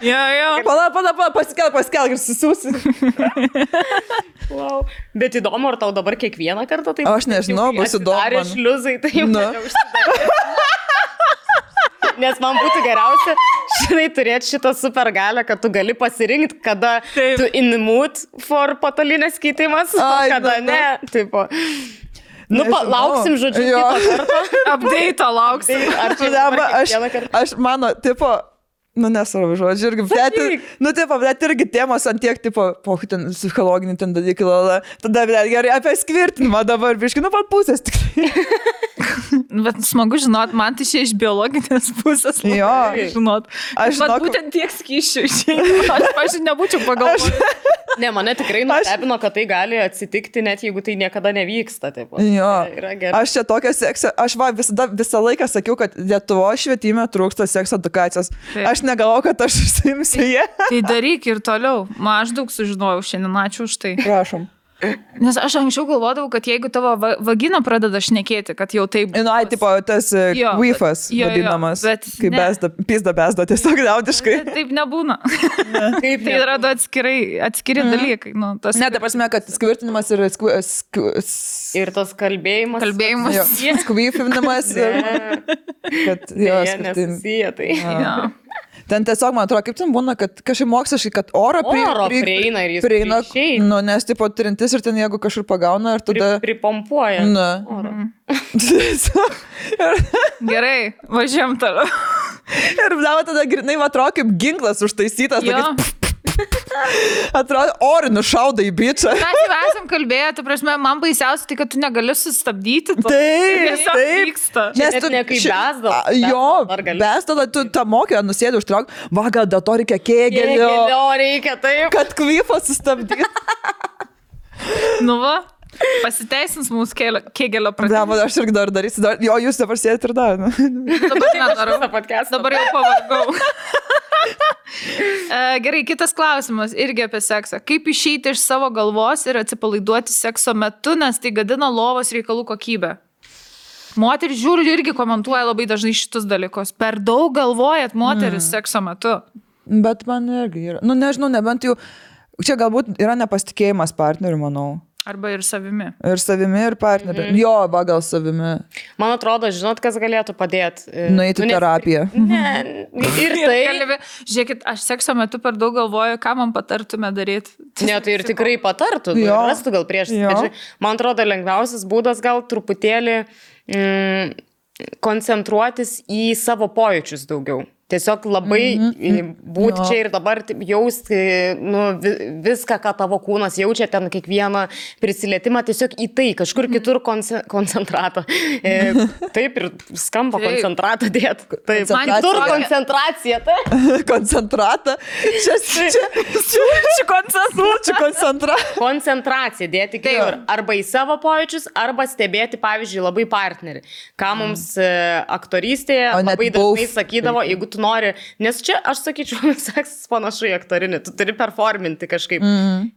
Jo. Pala, paskelk ir susiūsi. Wow. Bet įdomu, ar tau dabar kiekvieną kartą taip? Aš nežinau, bus įdomu. Ar šliuzai, tai jau neužsidarė. Nes man būtų geriausia, žinai, turėti šitą supergalę, kad tu gali pasirinkti, kada tu in mood for patalinės keitimas, kada ne. Tipo. Lauksim, žodžiu, kitą kartą. Update lauksim. Ar čia aš mano, tipo, nesvarbu žodžiu, irgi, bet irgi temos ant tiek, ten psichologinį ten dalykai, tada, gerai, apie skvirtinimą dabar, biškai, pat pusės tikrai. Bet smagu žinot, man tai čia iš biologinės pusės. Žinot. Aš būtent tiek skyšių išėjau. Aš nebūčiau pagalvoti. Ne, mane tikrai nustebino, kad tai gali atsitikti, net jeigu tai niekada nevyksta. Aš čia tokia seksą, aš visą laiką sakiau, kad Lietuvos švietime trūksta sekso edukacijos. Aš negalvoju, kad aš užsiimsiu jie. Tai daryk ir toliau. Aš daug sužinojau šiandien, ačiū už tai. Prašom. Nes aš anksčiau galvodavau, kad jeigu tavo vagina pradeda šnekėti, kad jau taip... Ai, tipo, tas Jo, queefas jo, vadinamas, bet kai ne. pizda besda, tiesiog liaudiškai. Taip nebūna. Kaip Tai yra du atskiri dalykai. Nu, tas Ne, ta prasme, kad skvirtinimas ir Ir tas kalbėjimas. kalbėjimas. skvyfinimas ir kad jo, skirtingi. Nesusiję, tai. Jo. Ten tiesiog, man atrodo, kaip ten būna, kad kažkaip moksliškai, kad oro prieina ir jis prieina, išeina. nu, nes tipo trintis ir ten jeigu kažkur pagauna ir tada... Pripompuoja. Na. Oro. Gerai, važiuojam toliau. Ir tada grinai, man atrodo, kaip ginklas užtaisytas. Jo. Tokiais, atrodo, orinu šauda į bičią. Mes jau esam kalbėję, tu prasme, man baisiausia tai, kad tu negali sustabdyti. Taip, Vyksta. Čia net ne kaip besda. Jo, besda, tu tą mokė, nusėdė užtrauk, va, gal dėl to reikia kėgelio, Reikia, taip. kad kvifą sustabdyti. Nu va, pasiteisins mūsų kėgelio Ne, pradėjimas. aš irgi dar darysiu, jo, jūs dabar sėdit ir dar. Dabar nedarau. Visą podcastą. Dabar jau pavargau. Gerai, kitas klausimas irgi apie seksą. Kaip išeiti iš savo galvos ir atsipalaiduoti sekso metu, nes tai gadina lovos reikalų kokybę? Moteris žiūri irgi komentuoja labai dažnai šitus dalykus. Per daug galvojat moteris sekso metu. Bet man irgi yra. Nu, nežinau, nebent jau. Čia galbūt yra nepasitikėjimas partneriu, manau. Arba ir savimi. Ir savimi, ir partneriu. Jo, va, gal savimi. Man atrodo, žinot, kas galėtų padėti. Nueiti į terapiją. Ne, ir tai. Žiūrėkit, aš sekso metu per daug galvoju, ką man patartume daryti. Ne, tai ir tikrai patartų. Jo. Rastų gal prieš. Jo. Man atrodo, lengviausias būdas gal truputėlį koncentruotis į savo pojūčius daugiau. Tiesiog labai būti čia ir dabar jausti viską, ką tavo kūnas jaučia, ten kiekvieną prisilietimą, tiesiog į tai, kažkur kitur koncentratą. Taip ir skamba koncentratą dėt. Taip, Man kitur tokia- koncentracija. Tai. Koncentratą. Čia koncentratą. Koncentracija dėti kitur. Arba į savo pojūčius, arba stebėti, pavyzdžiui, labai partnerį. Ką mums aktorystėje O net labai dažnai both. sakydavo, jeigu tu nori, nes čia, aš sakyčiau, seksas panašu į aktorinį, tu turi performinti kažkaip.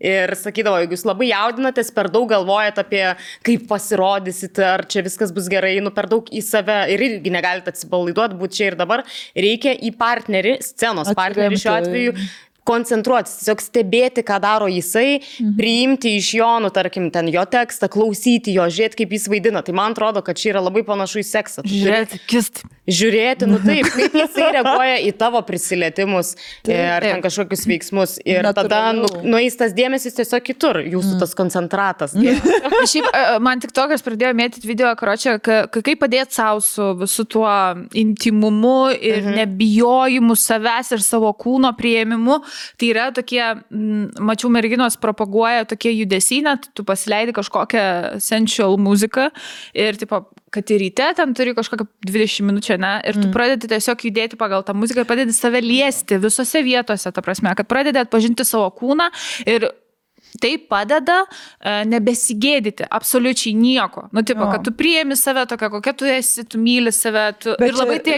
Ir sakydavo, jeigu jūs labai jaudinatės, per daug galvojat apie, kaip pasirodysit, ar čia viskas bus gerai, per daug į save ir irgi negalite atsipalaiduoti, būti čia ir dabar, reikia į partnerį, scenos partnerį šiuo atveju, koncentruotis, tiesiog stebėti, ką daro jisai, priimti iš jo, tarkim, ten jo tekstą, klausyti jo, žiūrėti, kaip jis vaidina. Tai man atrodo, kad čia yra labai panašu į seksą. Tu turi žiūrėti, taip, kaip jisai reaguoja į tavo prisilietimus ar ten kažkokius veiksmus. Ir tada nueis tas dėmesys tiesiog kitur, jūsų tas koncentratas. Šiaip, man tik tokias pradėjo mėtyti video, karočią, kaip padėti savo su visu tuo intimumu ir nebijojimu savęs ir savo kūno priėmimu. Tai yra tokie, mačiau, merginos propaguoja tokie judesiai, net tu pasileidi kažkokią sensual muziką ir, tipo, kad ir ryte ten turi kažkokią 20 minučių, ne, ir tu pradedi tiesiog judėti pagal tą muziką ir pradedi save liesti visose vietose, ta prasme, kad pradedi atpažinti savo kūną ir tai padeda nebesigėdyti absoliučiai nieko. Nu, tipo, kad tu priėmi save tokia, kokia tu esi, tu myli save. Ir labai tie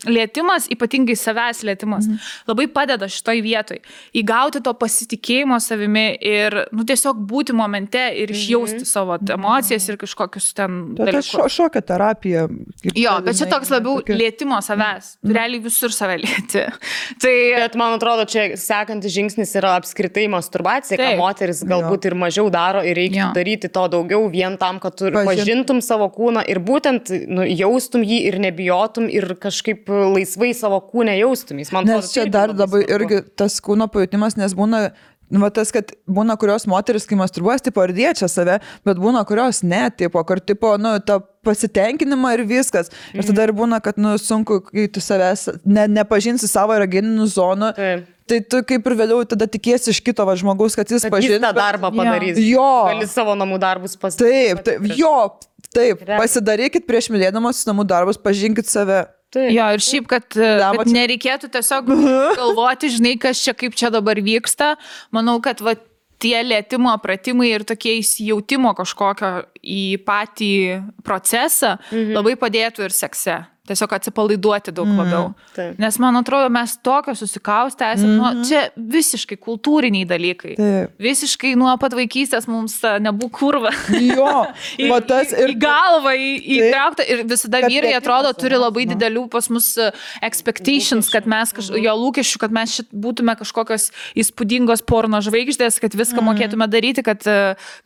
lietimas, ypatingai savęs lietimas, labai padeda šitoj vietoj. Įgauti to pasitikėjimo savimi ir, tiesiog būti momente ir išjausti savo emocijas ir kažkokius ten dalykus. Tai šokio terapija. Jo, bet čia toks labiau lietimo savęs. Realiai visur save lieti. Tai... Bet man atrodo, čia sekantis žingsnis yra apskritai masturbacija, ką moteris galbūt ir mažiau daro ir reikia daryti to daugiau vien tam, kad tu pažintum savo kūną ir būtent jaustum jį ir nebijotum ir kažkaip laisvai savo kūnę jaustum. Nes čia dar labai irgi tas kūno pajutimas, nes būna, tas, kad būna kurios moteris, kai masturbuojas, tipo, ir liečia save, bet būna kurios ne, tipo, kur, tipo, ta pasitenkinimą ir viskas. Ir tada ir būna, kad, sunku, kai tu savęs nepažinsi savo erogeninių zonų. Tai tu kaip ir vėliau tada tikiesi iš kito žmogaus, kad jis pažins. Jis tą darbą padarys. Jo. Gali savo namų darbus pasidaryti. Taip. Pasidarykit prieš mylėdamas namų darbus, pažinkit save. Jo, ir šiaip, kad nereikėtų tiesiog galvoti, žinai, kas čia, kaip čia dabar vyksta. Manau, kad tie lietimo pratimai ir tokie įsijautimo kažkokio į patį procesą labai padėtų ir sekse. tiesiog atsipalaiduoti daug labiau. Taip. Nes man atrodo, mes tokio susikaustę esame, čia visiškai kultūriniai dalykai. Taip. Visiškai nuo pat vaikystės mums nebūk kurva. Jo, va tas į galvą įtraukta ir visada Kad vyrai priekimas atrodo turi labai nu. didelių pas mus expectations, kad mes jo lūkesčių, kad mes būtume kažkokios įspūdingos porno žvaigždės, kad viską mokėtume daryti, kad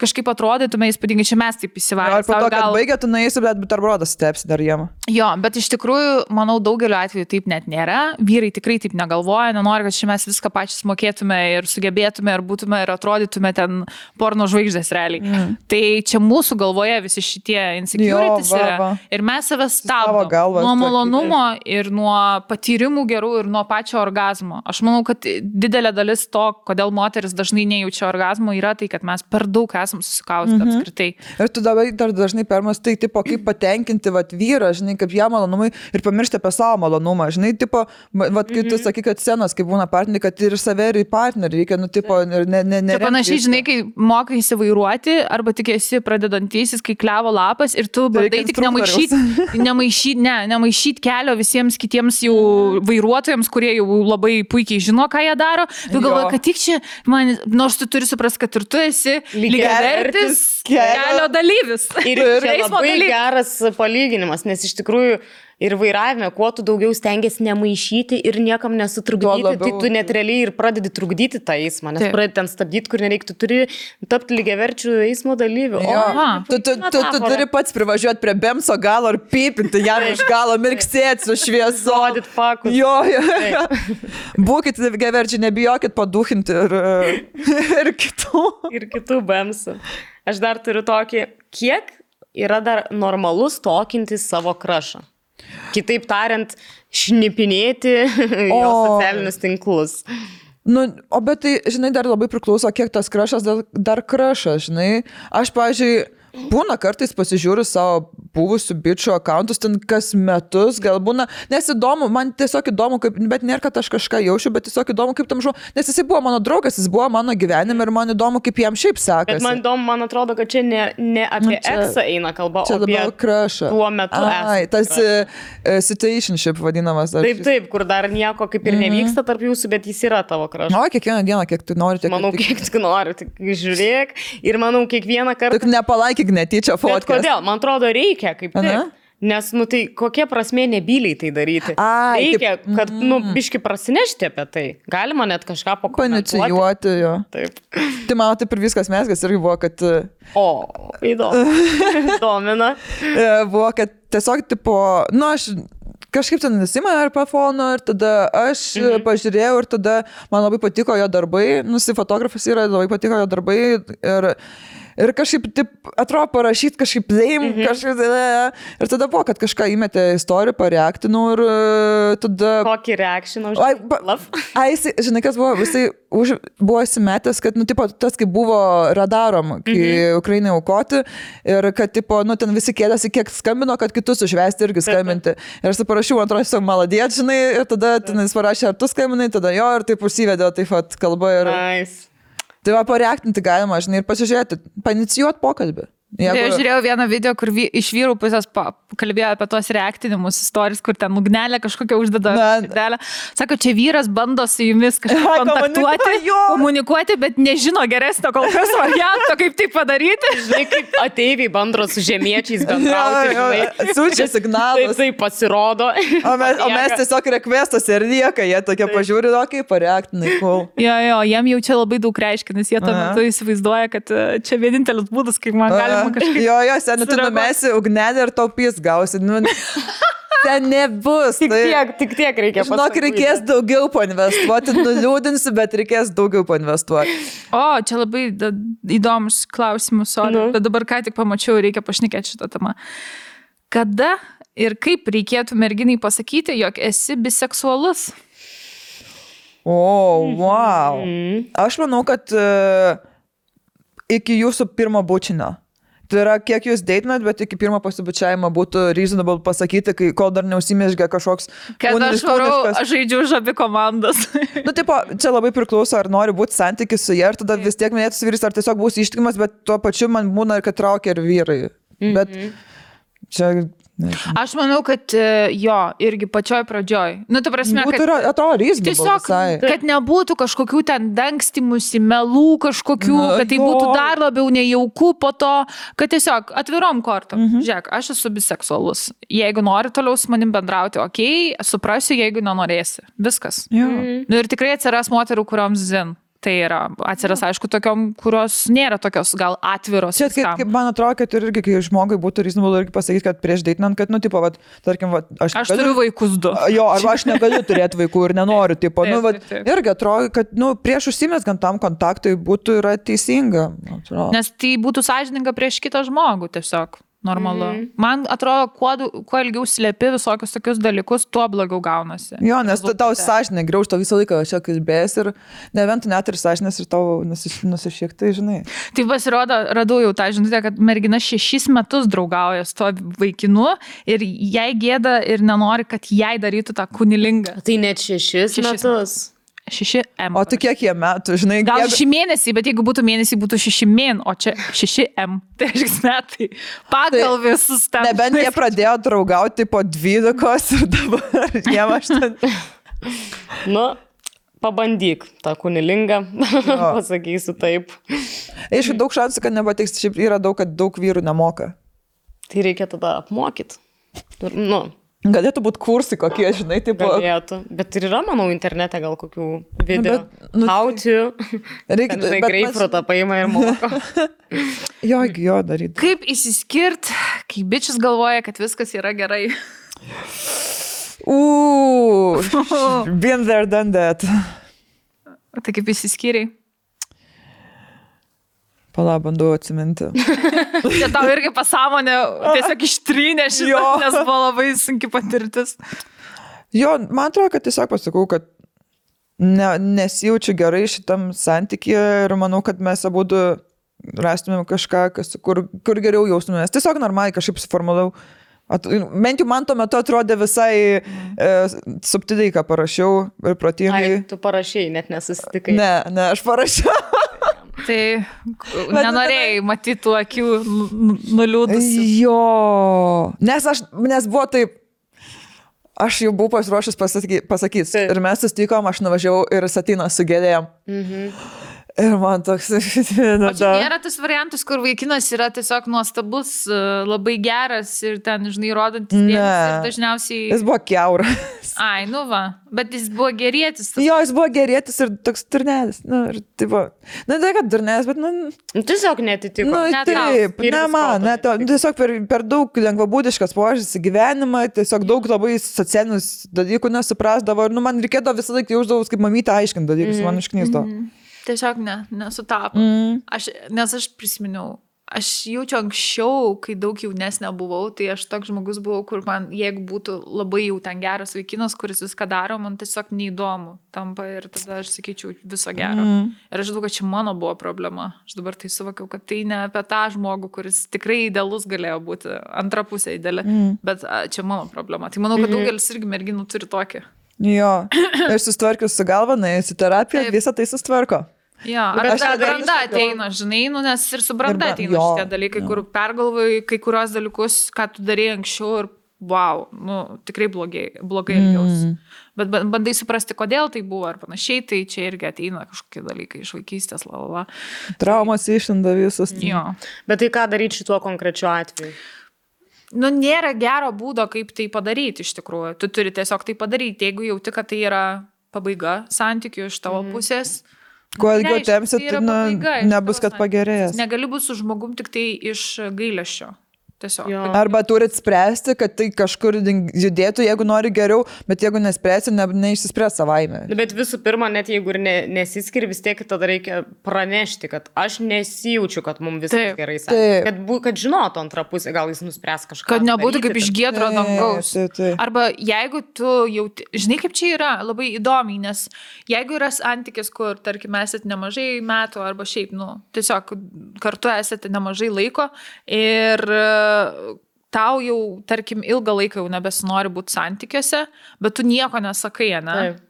kažkaip atrodytume įspūdingai, čia mes taip įsivaizduojame. Ar po to, kad baigė, tu nueisi, bet buterbrodas stepsi dar jiem. Jo, bet iš tikrųjų, manau, daugeliu atveju taip net nėra. Vyrai tikrai taip negalvoja, nenori, kad čia mes viską pačius mokėtume ir sugebėtume ir būtume ir atrodytume ten porno žvaigždės realiai. Tai čia mūsų galvoje visi šitie insecurities yra. Ir mes save stabdom nuo malonumo ir nuo patyrimų gerų ir nuo pačio orgazmo. Aš manau, kad didelė dalis to, kodėl moteris dažnai nejaučia orgazmo, yra tai, kad mes per daug esam susikaustę apskritai. Ir tu dabar dar dažnai permastai, tipo, kaip patenkinti vyrą, žinai, kaip jam malonumai ir pamiršti apie savo malonumą, žinai, tipo, kai tu sakai, kad scenos, kai būna partneriai, kad ir save, ir į partnerį reikia, nu, tipo, ne. Čia panašiai, žinai, kai mokai įsivairuoti, arba tik esi pradedantysis, kai klevo lapas ir tu bandai tik nemaišyti kelio visiems kitiems jau vairuotojams, kurie jau labai puikiai žino, ką jie daro. Tu galvoji, kad tik čia, nors tu turi suprasti, kad ir tu esi lygiavertis kelio dalyvis. Ir čia labai geras palyginimas, nes iš tikrųjų ir vairavime, kuo tu daugiau stengiasi nemaišyti ir niekam nesutrukdyti, tai tu net realiai ir pradedi trukdyti tą eismą, nes pradedi ten stabdyti, kur nereikia, tu turi tapti lygiaverčių eismo dalyvių. Tu turi pats privažiuoti prie Bemso galo ir pypinti jam iš galo, mirksėti su šviesu. Rodyti fakus. Jo. Būkit lygiaverčiai, nebijokit paduchinti ir kitų. Ir kitų Bemsų. Aš dar turiu tokį, kiek yra dar normalus tokinti savo krašą. Kitaip tariant, šnipinėti jo socialinius tinklus. Nu, bet tai, žinai, dar labai priklauso, kiek tas krašas dar krašas, žinai. Aš, pavyzdžiui, būna kartais pasižiūriu savo buvusių bičių akauntus, ten kas metus, gal būna, nes įdomu, man tiesiog įdomu, bet nėra, kad aš kažką jaučiu, bet tiesiog įdomu, kaip tam nes jisai buvo mano draugas, jis buvo mano gyvenime ir man įdomu, kaip jam šiaip sekasi. Bet man įdomu, man atrodo, kad čia ne apie eksą eina kalba, o apie krašą. Tuo metu tas situationship vadinamas. Taip, kur dar nieko kaip ir nevyksta tarp jūsų, bet jis yra tavo krašas. O, kiekvieną dieną, kiek tu nori. Manau, kiek tu nori, tik žiūrėk ir manau, kiekvieną kartą. Tik nepalaikyk netyčia fotkės. Kodėl? Man atrodo, reikia kaip tik. Nes, tai kokia prasmė nebyliai tai daryti? Reikia, kad, biški prasinešti apie tai. Galima net kažką pakomentuoti. Panicijuoti, jo. Taip. Tai mano taip ir viskas mesgas irgi buvo, kad... Įdomu. Domina. Buvo, kad tiesiog, tipo, aš kažkaip ten nusimą ar pafono ir tada aš pažiūrėjau ir tada man labai patiko jo darbai. Fotografas yra, labai patiko jo darbai ir kažkaip, taip, atrodo, parašyti kažkaip kažkaip, ir tada buvo, kad kažką įmetė istoriją, pareaktinau ir tada... Kokį reakciją žinai, kas buvo, visai buvo įsimetęs, kad, tipo, tas, kaip buvo radarom, kai Ukrainai aukoti ir kad, tipo, ten visi kėdėsi, kiek skambino, kad kitus užvesti irgi skambinti. Ir aš parašiau, man atrodo, maladėt, žinai, ir tada jis parašė, ar tu skambinai, tada jo, ir taip užsivedė, taip pat kalba ir... Tai va, pareaktinti galima, žinai, ir pasižiūrėti, panicijuoti pokalbį. Aš žiūrėjau vieną video, kur iš vyrų pusės kalbėjo apie tos reaktinimus istorijas, kur ten ugnelė kažkokia uždeda. Sako, čia vyras bando su jumis kažkaip kontaktuoti, komunikuoti, bet nežino geresnio kol kas varianto, kaip tai padaryti. Žinai, kaip ateiviai bando su žemiečiais bendrauti. Siunčia signalus. Tai pasirodo. O mes tiesiog requestos ir lieka, jie tokie pažiūri, kaip pareaktinai, cool. Jo, jiem jau čia labai daug reiškia, nes jie tuo metu įsivaizduoja, kad čia vienintelis būdas, kaip man gali. Jo, seniai, tu numesi ugnelį ir taupys gausi. Ten nebus. Tik tiek reikia pasakyti. Žinok, reikės daugiau painvestuoti, nuliūdinsi, bet reikės daugiau painvestuoti. O, čia labai įdomus klausimus, bet dabar ką tik pamačiau, reikia pašnekėti šitą temą. Kada ir kaip reikėtų merginai pasakyti, jog esi biseksualus? Wow. Aš manau, kad iki jūsų pirmo bučinio. Tai yra, kiek jūs deitinat, bet iki pirmo pasibučiavimo būtų reasonable pasakyti, kol dar neusimėžgia kažkoks... Kad aš žaidžiu už abi komandas. Tipo, čia labai priklauso, ar nori būti santykis su jie, ir tada vis tiek minėtus vyris, ar tiesiog būsi ištikimas, bet tuo pačiu man būna, kad traukia ir vyrai. Bet Čia... Aš manau, kad jo, irgi pačioj pradžioj. Nu, ta prasme, Būtų, kad atrodo, reasonable tiesiog, visai. kad nebūtų kažkokių ten dangstymusi, melų kažkokių, kad tai būtų dar labiau nejauku po to, kad tiesiog atvirom kortom. Žiūrėk, aš esu biseksualus. Jeigu nori toliau su manim bendrauti, okei, suprasiu, jeigu nenorėsi. Viskas. Nu, ir tikrai atsiras moterų, kurioms zin. Tai yra, atsiras, aišku, tokiom, kurios nėra tokios gal atviros. Čia kaip man atrodo, kad irgi, kai žmogui būtų reasonable irgi pasakyti, kad prieš deitinant, kad, nu, tipo, vat, tarkim, vat, aš turiu vaikus 2. Jo, arba aš negaliu turėti vaikų ir nenoriu, tipo, taip, nu, vat, irgi atrodo, kad, nu, prieš užsimesgant tam kontaktui būtų yra teisinga. Atrodo. Nes tai būtų sąžininga prieš kitą žmogų tiesiog. Normalu. Man atrodo, kuo ilgiau slėpi visokius tokius dalykus, tuo blogiau gaunasi. Jo, nes tau sąžinė graužto visą laiką čia kalbės ir neventų net ir sąžinės ir tau nusišiek, tai žinai. Tai pasirodo, radau jau tą žinutę, kad mergina 6 metus draugauja su to vaikinu ir jai gėda ir nenori, kad jai darytų tą kunilingą. Tai net 6 metus. 6M. O tu kiek jie metų, žinai? Gal 6 mėnesiai, bet jeigu būtų mėnesiai, būtų 6 mėn, o čia 6M. Tai reiškia metai. Pagal visus ten. Nebent jie pradėjo draugauti po 12 ir dabar jiem 8. Nu, pabandyk tą kunilingą, pasakysiu taip. Aišku, daug šansų, kad nepatiks, šiaip yra daug, kad daug vyrų nemoka. Tai reikia tada apmokyti. Nu. Galėtų būti kursai kokie, žinai, taip. Galėtų. Bet ir yra, manau, internete gal kokių video. How to. Reikia greipfrutą paima ir moko. Jo, daryti. Kaip įsiskirt, kai bičias galvoja, kad viskas yra gerai. Been there, done that. Tai kaip įsiskiriai? Pala, bandau atsiminti. Čia tau irgi pasąmonė tiesiog ištrynė šitą, nes buvo labai sunki patirtis. Jo, man atrodo, kad tiesiog pasakau, kad nesijaučiu gerai šitam santykyje ir manau, kad mes abudu rastumėm kažką, kur geriau jaustumės. Tiesiog normaliai kažkaip suformulau. Bent jau man tuo metu atrodė visai subtiliai, ką parašiau ir protingai. Ai, tu parašai, net nesusitikai. Ne, aš parašiau. Tai nenorėjai matyti tų akių nuliūdusių. Jo, nes buvo taip, aš jau buvau pasiruošęs pasakyti. Ir mes susitikom, aš nuvažiavau ir Satyną su gėlėm. Ir man toks... O čia nėra tas variantas, kur vaikinas yra tiesiog nuostabus, labai geras ir ten, žinai, rodantis dėmesį ir dažniausiai... Jis buvo kiauras. Ai, nu va, bet jis buvo gerėtis. Jo, jis buvo gerėtis ir toks durnelis. Nu, ir tai buvo... Nu, tai kad durnelis, bet, nu... Tiesiog netitiko. Nu, taip, ne man, tiesiog per daug lengvabūdiškas požiūris į gyvenimą, tiesiog daug labai socialinius dalykų nesuprasdavo ir, nu, man reikėdavo visą laiką jausdavus, kaip mamytė aiškint dalykus, man išknysdavo. Tiesiog nesutapo. Nes aš prisiminiau, aš jaučiu anksčiau, kai daug jaunesnė buvau, tai aš toks žmogus buvau, kur man, jeigu būtų labai jau ten geras vaikinas, kuris viską daro, man tiesiog neįdomu tampa ir tada aš sakyčiau viso gero. Ir aš žinau, kad čia mano buvo problema. Aš dabar tai suvokiau, kad tai ne apie tą žmogų, kuris tikrai idealus galėjo būti, antra pusė ideali, bet čia mano problema. Tai manau, kad daugelis irgi merginų turi tokį. Jo, ir susitvarkius su galva, nuėjus į terapiją, visą tai susitvarko. Jo, ar branda ateina, žinai, nu, nes ir su branda ateina šitie dalykai, kur pergalvoji kai kurios dalykus, ką tu darėjai anksčiau ir wow, nu, tikrai blogai elgiausi. Bet bandai suprasti, kodėl tai buvo ar panašiai, tai čia irgi ateina kažkokie dalykai iš vaikystės, lalala. Traumas išlenda visus. Jo. Bet tai ką daryti šituo konkrečiu atveju? Nu, nėra gero būdo, kaip tai padaryti iš tikrųjų. Tu turi tiesiog tai padaryti, jeigu jauti, kad tai yra pabaiga santykių iš tavo pusės. Kuo ilgiau tempsit, nebus, kad pagerėjęs. Negali būti su žmogum tik tai iš gailesčio. Tiesiog. Arba turit spręsti, kad tai kažkur judėtų, jeigu nori geriau, bet jeigu nespręsi, neišsispręs savaime. Bet visų pirma, net jeigu ir nesiskiri, vis tiek tada reikia pranešti, kad aš nesijaučiu, kad mums viskas gerai sakė. Kad žinotų antrą pusę, gal jis nuspręs kažką. Kad nebūtų kaip iš giedro dangaus. Arba jeigu tu jauti, žinai, kaip čia yra labai įdomiai, nes jeigu yra santykis, kur, tarkim, esate nemažai metų, arba šiaip, nu, tiesiog kartu esate nemažai laiko ir tau jau, tarkim, ilgą laiką jau nebesinori būti santykiuose, bet tu nieko nesakai, ne? Taip.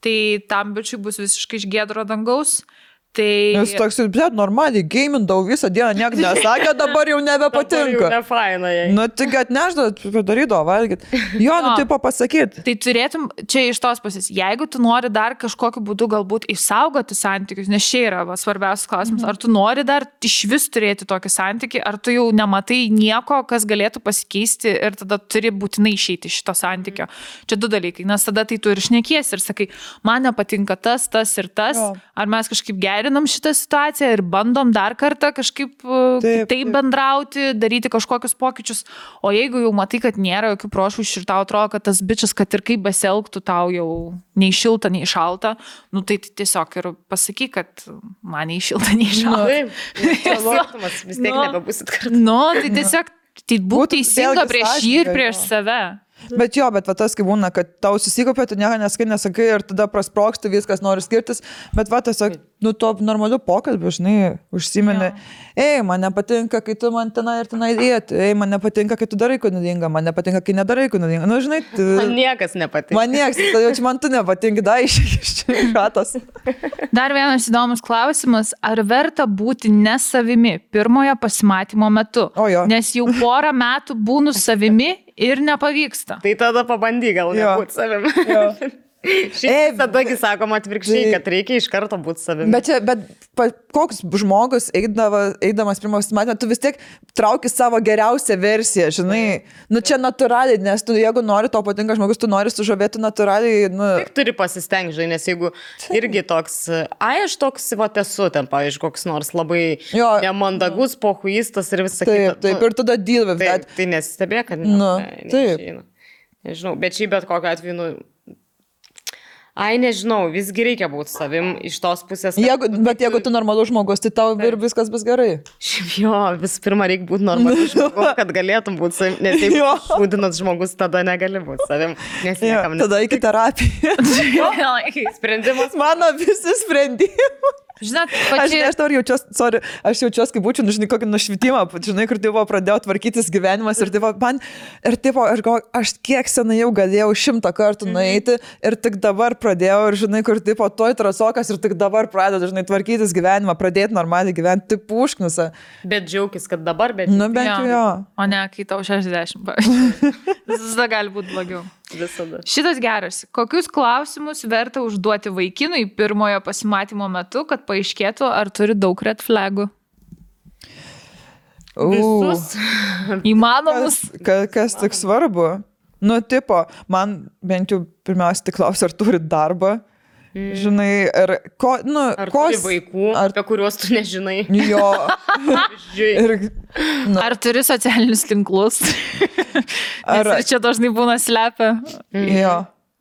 Tai tam bičiui bus visiškai iš giedro dangaus, Tai Nes toks, bet normaliai, gamindau visą dieną, niek nesakė, dabar jau nebepatinka. Ne faina jai. Nu, tik atneždavo, padarydavo, valgyt. Jo, nu, taip pasakyt. Tai turėtum, čia iš tos pusės, jeigu tu nori dar kažkokiu būdu galbūt išsaugoti santykius, nes čia yra svarbiausias klausimas, ar tu nori dar iš vis turėti tokį santykį, ar tu jau nematai nieko, kas galėtų pasikeisti ir tada turi būtinai išeiti iš šito santykio. Čia du dalykai, nes tada tai tu ir šnekiesi ir sakai, man nepatinka tas ir tas, Jo. ar mes kažkaip gerinam šitą situaciją ir bandom dar kartą kažkaip taip bendrauti, daryti kažkokius pokyčius, o jeigu jau matai, kad nėra jokių prošvaišių ir tau atrodo, kad tas bičias, kad ir kaip besielgtų, tau jau nei šilta, nei šalta, nu tai tiesiog ir pasakyk, kad man nei šilta, nei šalta. Taip, skirtumas, vis tiek nebebusit kartu. Nu, tai tiesiog tai būtų teisinga vėlgi prieš jį ir sąžininga, prieš jo. save. Bet jo, bet va tas kaip būna, kad tau susikopė, tu nieko nesakai ir tada prasproksti, viskas nori skirtis, bet va tiesiog, nu, to normalių pokalbių, žinai, užsimeni, ei, man nepatinka, kai tu man tenai ir tenai dėti, ei, man nepatinka, kai tu darai kūnudinga, man nepatinka, kai nedarai kūnudinga, nu, žinai, Man niekas nepatinka. man nieks, tai jau čia man tu nepatinka, da, iš šatos. Dar vienas įdomus klausimas, ar verta būti ne savimi pirmojo pasimatymo metu? O jo. Nes jau porą metų būnu savimi ir nepavyksta. Tai tada pabandyk gal Jo. nebūti savim. Jo. Šiaip tadagi sakoma atvirkščiai, kad reikia iš karto būti savim. Bet koks žmogus eidamas pirmą pasimatymą, tu vis tiek trauki savo geriausią versiją, žinai, nu čia natūraliai, nes tu, jeigu nori, to patinka žmogus, tu nori sužavėti natūraliai, nu. Tik turi pasistengti, žinai, nes jeigu irgi toks, aš toks, va, esu ten, pavyzdžiui, koks nors labai Jo. nemandagus, pohuistas ir visą Taip, kitą. taip, ir tada deal with that. Tai nesistebėk, kad Nu, taip. neišeina. Nežinau, bet šiaip bet kokiu atveju, nu, nežinau, visgi reikia būti savim iš tos pusės. Bet jeigu tu normalus žmogus, tai tau ir viskas bus gerai. Šiaip jo, visų pirma, reikia būti normalus žmogus, kad galėtum būti savim, nes jeigu Jo. šūdinas žmogus, tada negali būti savim, nes Jo, niekam tada iki terapijos. sprendimas. Mano visi sprendimai. Žinot, Aš nežinau, aš jaučiuosi, kaip būčiau, žinai, kokį nušvitimą, žinai, kur tipo pradėjau tvarkytis gyvenimas ir tipo, aš kiek senai jau galėjau 100 kartų nueiti ir tik dabar pradėjau ir žinai, kur tipo toj trasokas ir tik dabar pradedu, žinai, tvarkytis gyvenimą, pradėti normaliai gyventi, taip pušknusa. Bet džiaugis, kad dabar, bet Nu, bent jau jo. O ne, kai tau 60, pavyzdžiui. Visada gali būti blogiau. visada. Šitas geras. Kokius klausimus verta užduoti vaikinui pirmojo pasimatymo metu, kad paaiškėtų, ar turi daug red flagų? Visus. Įmanomus. Kas tik svarbu? Nu, tipo, man bent jau pirmiausia tik klausia, ar turi darbą. Žinai, ir ko, nu, Ar turi vaikų, apie kuriuos tu nežinai? Jo. Ir, Ar turi socialinius tinklus? Ar- Ar čia dažnai būna slepia? jo.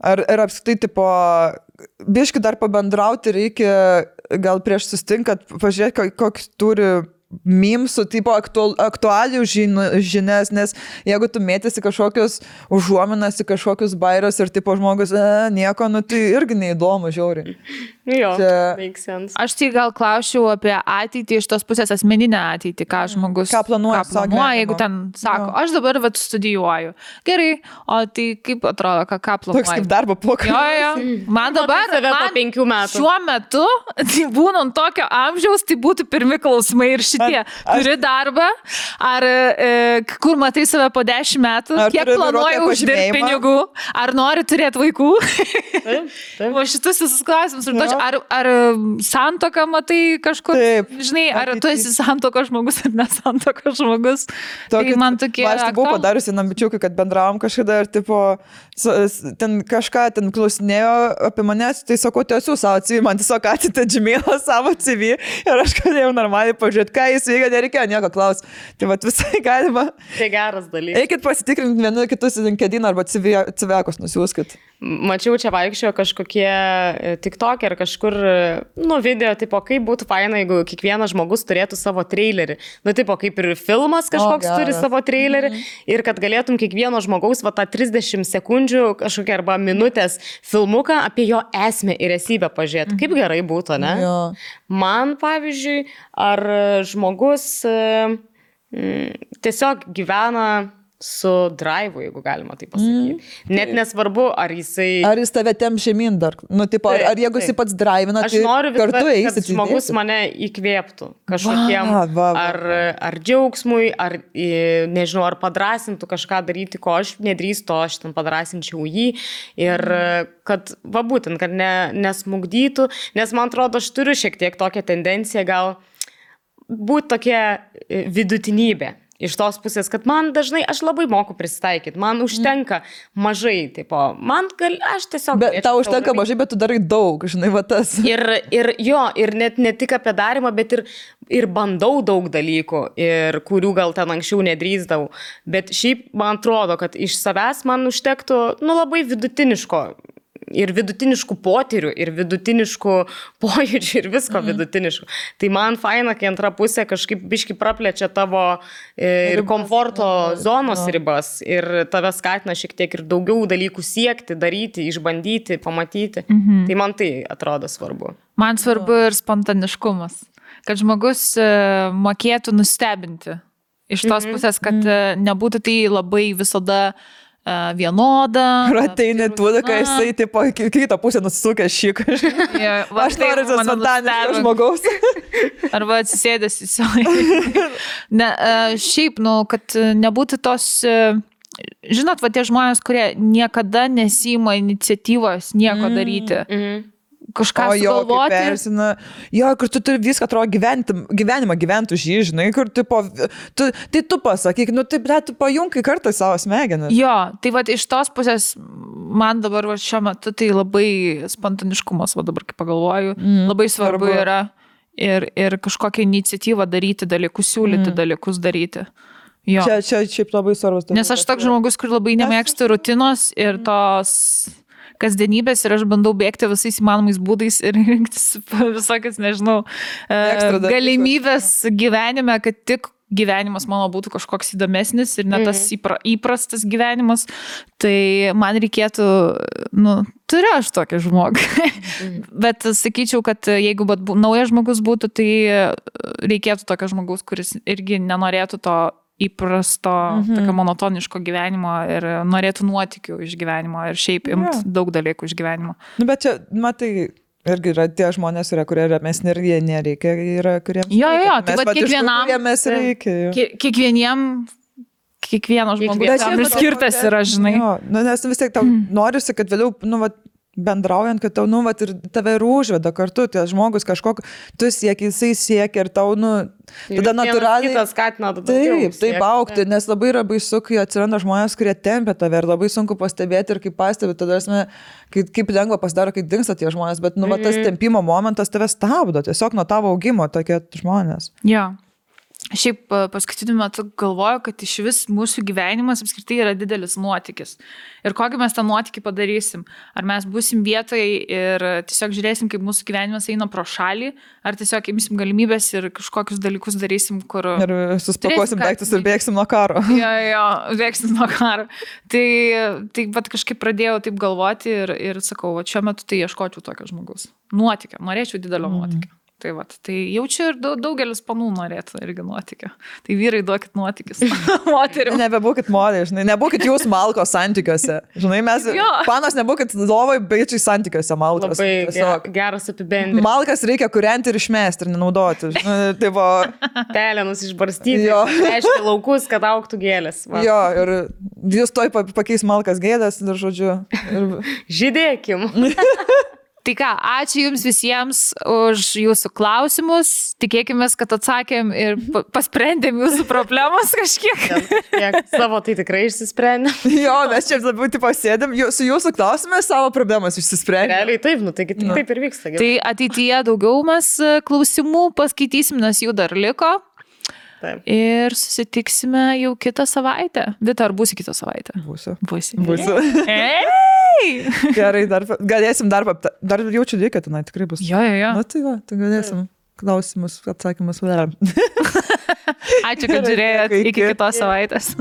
Ir apskritai, tipo, biški dar pabendrauti reikia, gal prieš sustinkat, pažiūrėti, koks turi mimsų, tipo aktualių žinias, nes jeigu tu mėtėsi kažkokius užuominas į kažkokius bairius ir tipo žmogus, nieko, nu tai irgi neįdomu, žiauriai. Jo, Čia- make sense. Aš tai gal klausčiau apie ateitį iš tos pusės, asmeninę ateitį, ką žmogus Ką planuoja savo gyvenimo. jeigu ten sako, Jo. aš dabar vat studijuoju. Gerai, o tai kaip atrodo, ką Toks planuoji? kaip darbo pokalbis. Jo. Man dabar, save po man 5 metų. šiuo metu, tai būnant tokio amžiaus, tai būtų pirmi klausimai ir šitie. Turi darbą, ar kur matai save po 10 metų, Ar kiek turi planuoji vairuotojo uždirbti pažymėjimą? pinigų, ar nori turėti vaikų. Taip, taip. O šitus visus klausimus. Jo. Ar santoką matai kažkur? Taip. Žinai, ar tu Ateity. esi santokos žmogus ar nesantokos žmogus? Tai man tokie... Aš tai buvau aktualūs. padariusi nambičiukai, kad bendravom kažkada ir tipo, ten kažką ten klausinėjo apie manęs, tai sakau, tiesiu savo CV, man tiesiog atitė Gmailą savo CV ir aš galėjau normaliai pažiūrėti, ką jis veikia, nereikėjo nieko klausti. Tai vat visai galima. Tai geras dalykas. Eikit pasitikrinti vienu kitus LinkedIn arba CV-kus nusiųskit. Mačiau, čia vaikščiojo kažkokie TikTok ir kažkur, nu, video, tipo, kaip būtų faina, jeigu kiekvienas žmogus turėtų savo trailerį. Nu, tipo, kaip ir filmas kažkoks geras. turi savo trailerį ir kad galėtum kiekvieno žmogaus, va, tą 30 sekundžių kažkokią arba minutės filmuką apie jo esmę ir esybę pažiūrėti. Kaip gerai būtų, ne? Jo. Man, pavyzdžiui, ar žmogus tiesiog gyvena su drive, jeigu galima tai pasakyti. Net nesvarbu, ar jisai... Ar jis tave tem žemyn dar? Nu, tipo, ar jeigu jis pats drivina, aš tai noriu kartu kad eisit. žmogus mane įkvėptų kažkokiem, ar džiaugsmui, ar, nežinau, ar padrasintų kažką daryti, ko aš nedrįstu, aš ten padrasinčiau jį. Ir kad, būtent, kad nesmugdytų, nes man atrodo, aš turiu šiek tiek tokią tendenciją gal būti tokia vidutinybė. Iš tos pusės, kad man dažnai, aš labai moku prisitaikyti, man užtenka mažai, tipo, aš tiesiog... Bet tau užtenka mažai, bet tu darai daug, žinai, va tas. Ir net ne tik apie darimą, bet ir bandau daug dalykų, ir kurių gal ten anksčiau nedrįsdavau. Bet šiaip man atrodo, kad iš savęs man užtektų, labai vidutiniško. Ir vidutiniškų potyrių, ir vidutiniškų pojūčių, ir visko vidutiniškų. Tai man faina, kai antra pusė kažkaip biški praplečia tavo ir komforto zonos ribas, ir tave skatina šiek tiek ir daugiau dalykų siekti, daryti, išbandyti, pamatyti. Tai man tai atrodo svarbu. Man svarbu ir spontaniškumas, kad žmogus mokėtų nustebinti. Iš tos pusės, kad nebūtų tai labai visada vienoda. Ir ateini tuoda, kai jisai, tipo, kitą pusę nusisukė šį kažką. Aš noriu spontaniško žmogaus. Arba atsisėdęs į savo. Šiaip, kad nebūtų tos, žinot, tie žmonės, kurie niekada nesima iniciatyvos nieko daryti. Kažką sugalvoti. Jo, kur tu turi viską, atrodo, gyvenimą gyventų žį, žinai, kur, tipo, tai tu pasakyk, tu pajunkai kartą savo smegenis. Jo, tai iš tos pusės, man dabar šiuo metu tai labai spontaniškumas, dabar kaip pagalvoju, labai svarbu yra ir kažkokią iniciatyvą daryti dalykus, siūlyti dalykus daryti. Jo. Čia šiaip labai svarbus. Nes aš toks žmogus, kur labai nemėgstu rutinos ir tos kasdienybės, ir aš bandau bėgti visais įmanomais būdais ir rinktis visokias, nežinau, galimybės gyvenime, kad tik gyvenimas mano būtų kažkoks įdomesnis ir ne tas įprastas gyvenimas. Tai man reikėtų, turiu aš tokį žmogų. Bet sakyčiau, kad jeigu naujas žmogus būtų, tai reikėtų tokio žmogaus, kuris irgi nenorėtų to įprasto, tokio monotoniško gyvenimo ir norėtų nuotykių iš gyvenimo ir šiaip imt daug dalykų iš gyvenimo. Bet čia, matai, irgi yra tie žmonės, kurie ramesni ir jie nereikia, yra kuriems. Jo, tai kiekvienam, kiekvieno žmogus tam ir skirtas yra, žinai. Jo, nes vis tiek tau norisi, kad vėliau, bendraujant, kad tau, ir tave ir užveda kartu, tie žmogus kažkokį, tu sieki, jisai siekia ir tau, tada natūraliai... Kitas skatina daugiau. Taip aukti, nes labai yra baisu, kai atsiranda žmonės, kurie tempia tave ir labai sunku pastebėti ir kaip pastebi, tada kaip lengva pasidaro, kai dingsta tie žmonės, bet tas tempimo momentas tave stabdo, tiesiog nuo tavo augimo tokie žmonės. Jo. Šiaip paskutiniu metu galvoju, kad iš vis mūsų gyvenimas apskritai yra didelis nuotykis. Ir kokį mes tą nuotykį padarysim? Ar mes būsim vietoje ir tiesiog žiūrėsim, kaip mūsų gyvenimas eina pro šalį, ar tiesiog imsim galimybės ir kažkokius dalykus darysim, kur... Ir suspakuosim daiktus ir bėgsim nuo karo. Jo, bėgsim nuo karo. Tai bet kažkaip pradėjau taip galvoti ir sakau, šiuo metu tai ieškočiau tokio žmogaus. Nuotykio, norėčiau didelio nuotykio. Tai jaučiu ir daugelis panų norėtų irgi nuotykio. Tai vyrai, duokit nuotykis. Moterim. Nebebūkit modeliai, žinai, nebūkit jūs malkos santykiuose. Žinai, mes, panos, nebūkit lovai, baičiai santykiuose malkos. Labai geras apibendrinimas. Malkas reikia kurianti ir išmesti ir nenaudoti. Pelenus išbarstyti, reiškia laukus, kad augtų gėlės. Va. Jo, ir jūs toj pakeis malkas gėdas, ir žodžiu. Žydėkim. Tai ką, ačiū Jums visiems už Jūsų klausimus. Tikėkime, kad atsakėm ir pasprendėm Jūsų problemas kažkiek. Savo tai tikrai išsisprendėm. Jo, mes čia labiau pasėdėm, su Jūsų klausimais savo problemas išsisprendėm. Realiai taip, taigi taip ir vyksta. Tai ateityje daugiau mes klausimų paskaitysim, nes jų dar liko. Taip. Ir susitiksime jau kitą savaitę. Vita, ar būsi kitą savaitę? Būsiu. Gerai, galėsim dar jaučiu reikia, tenai tikrai bus. Jo. Tai galėsim klausimus, atsakymus. Ačiū, kad žiūrėjot, iki kitos savaitės.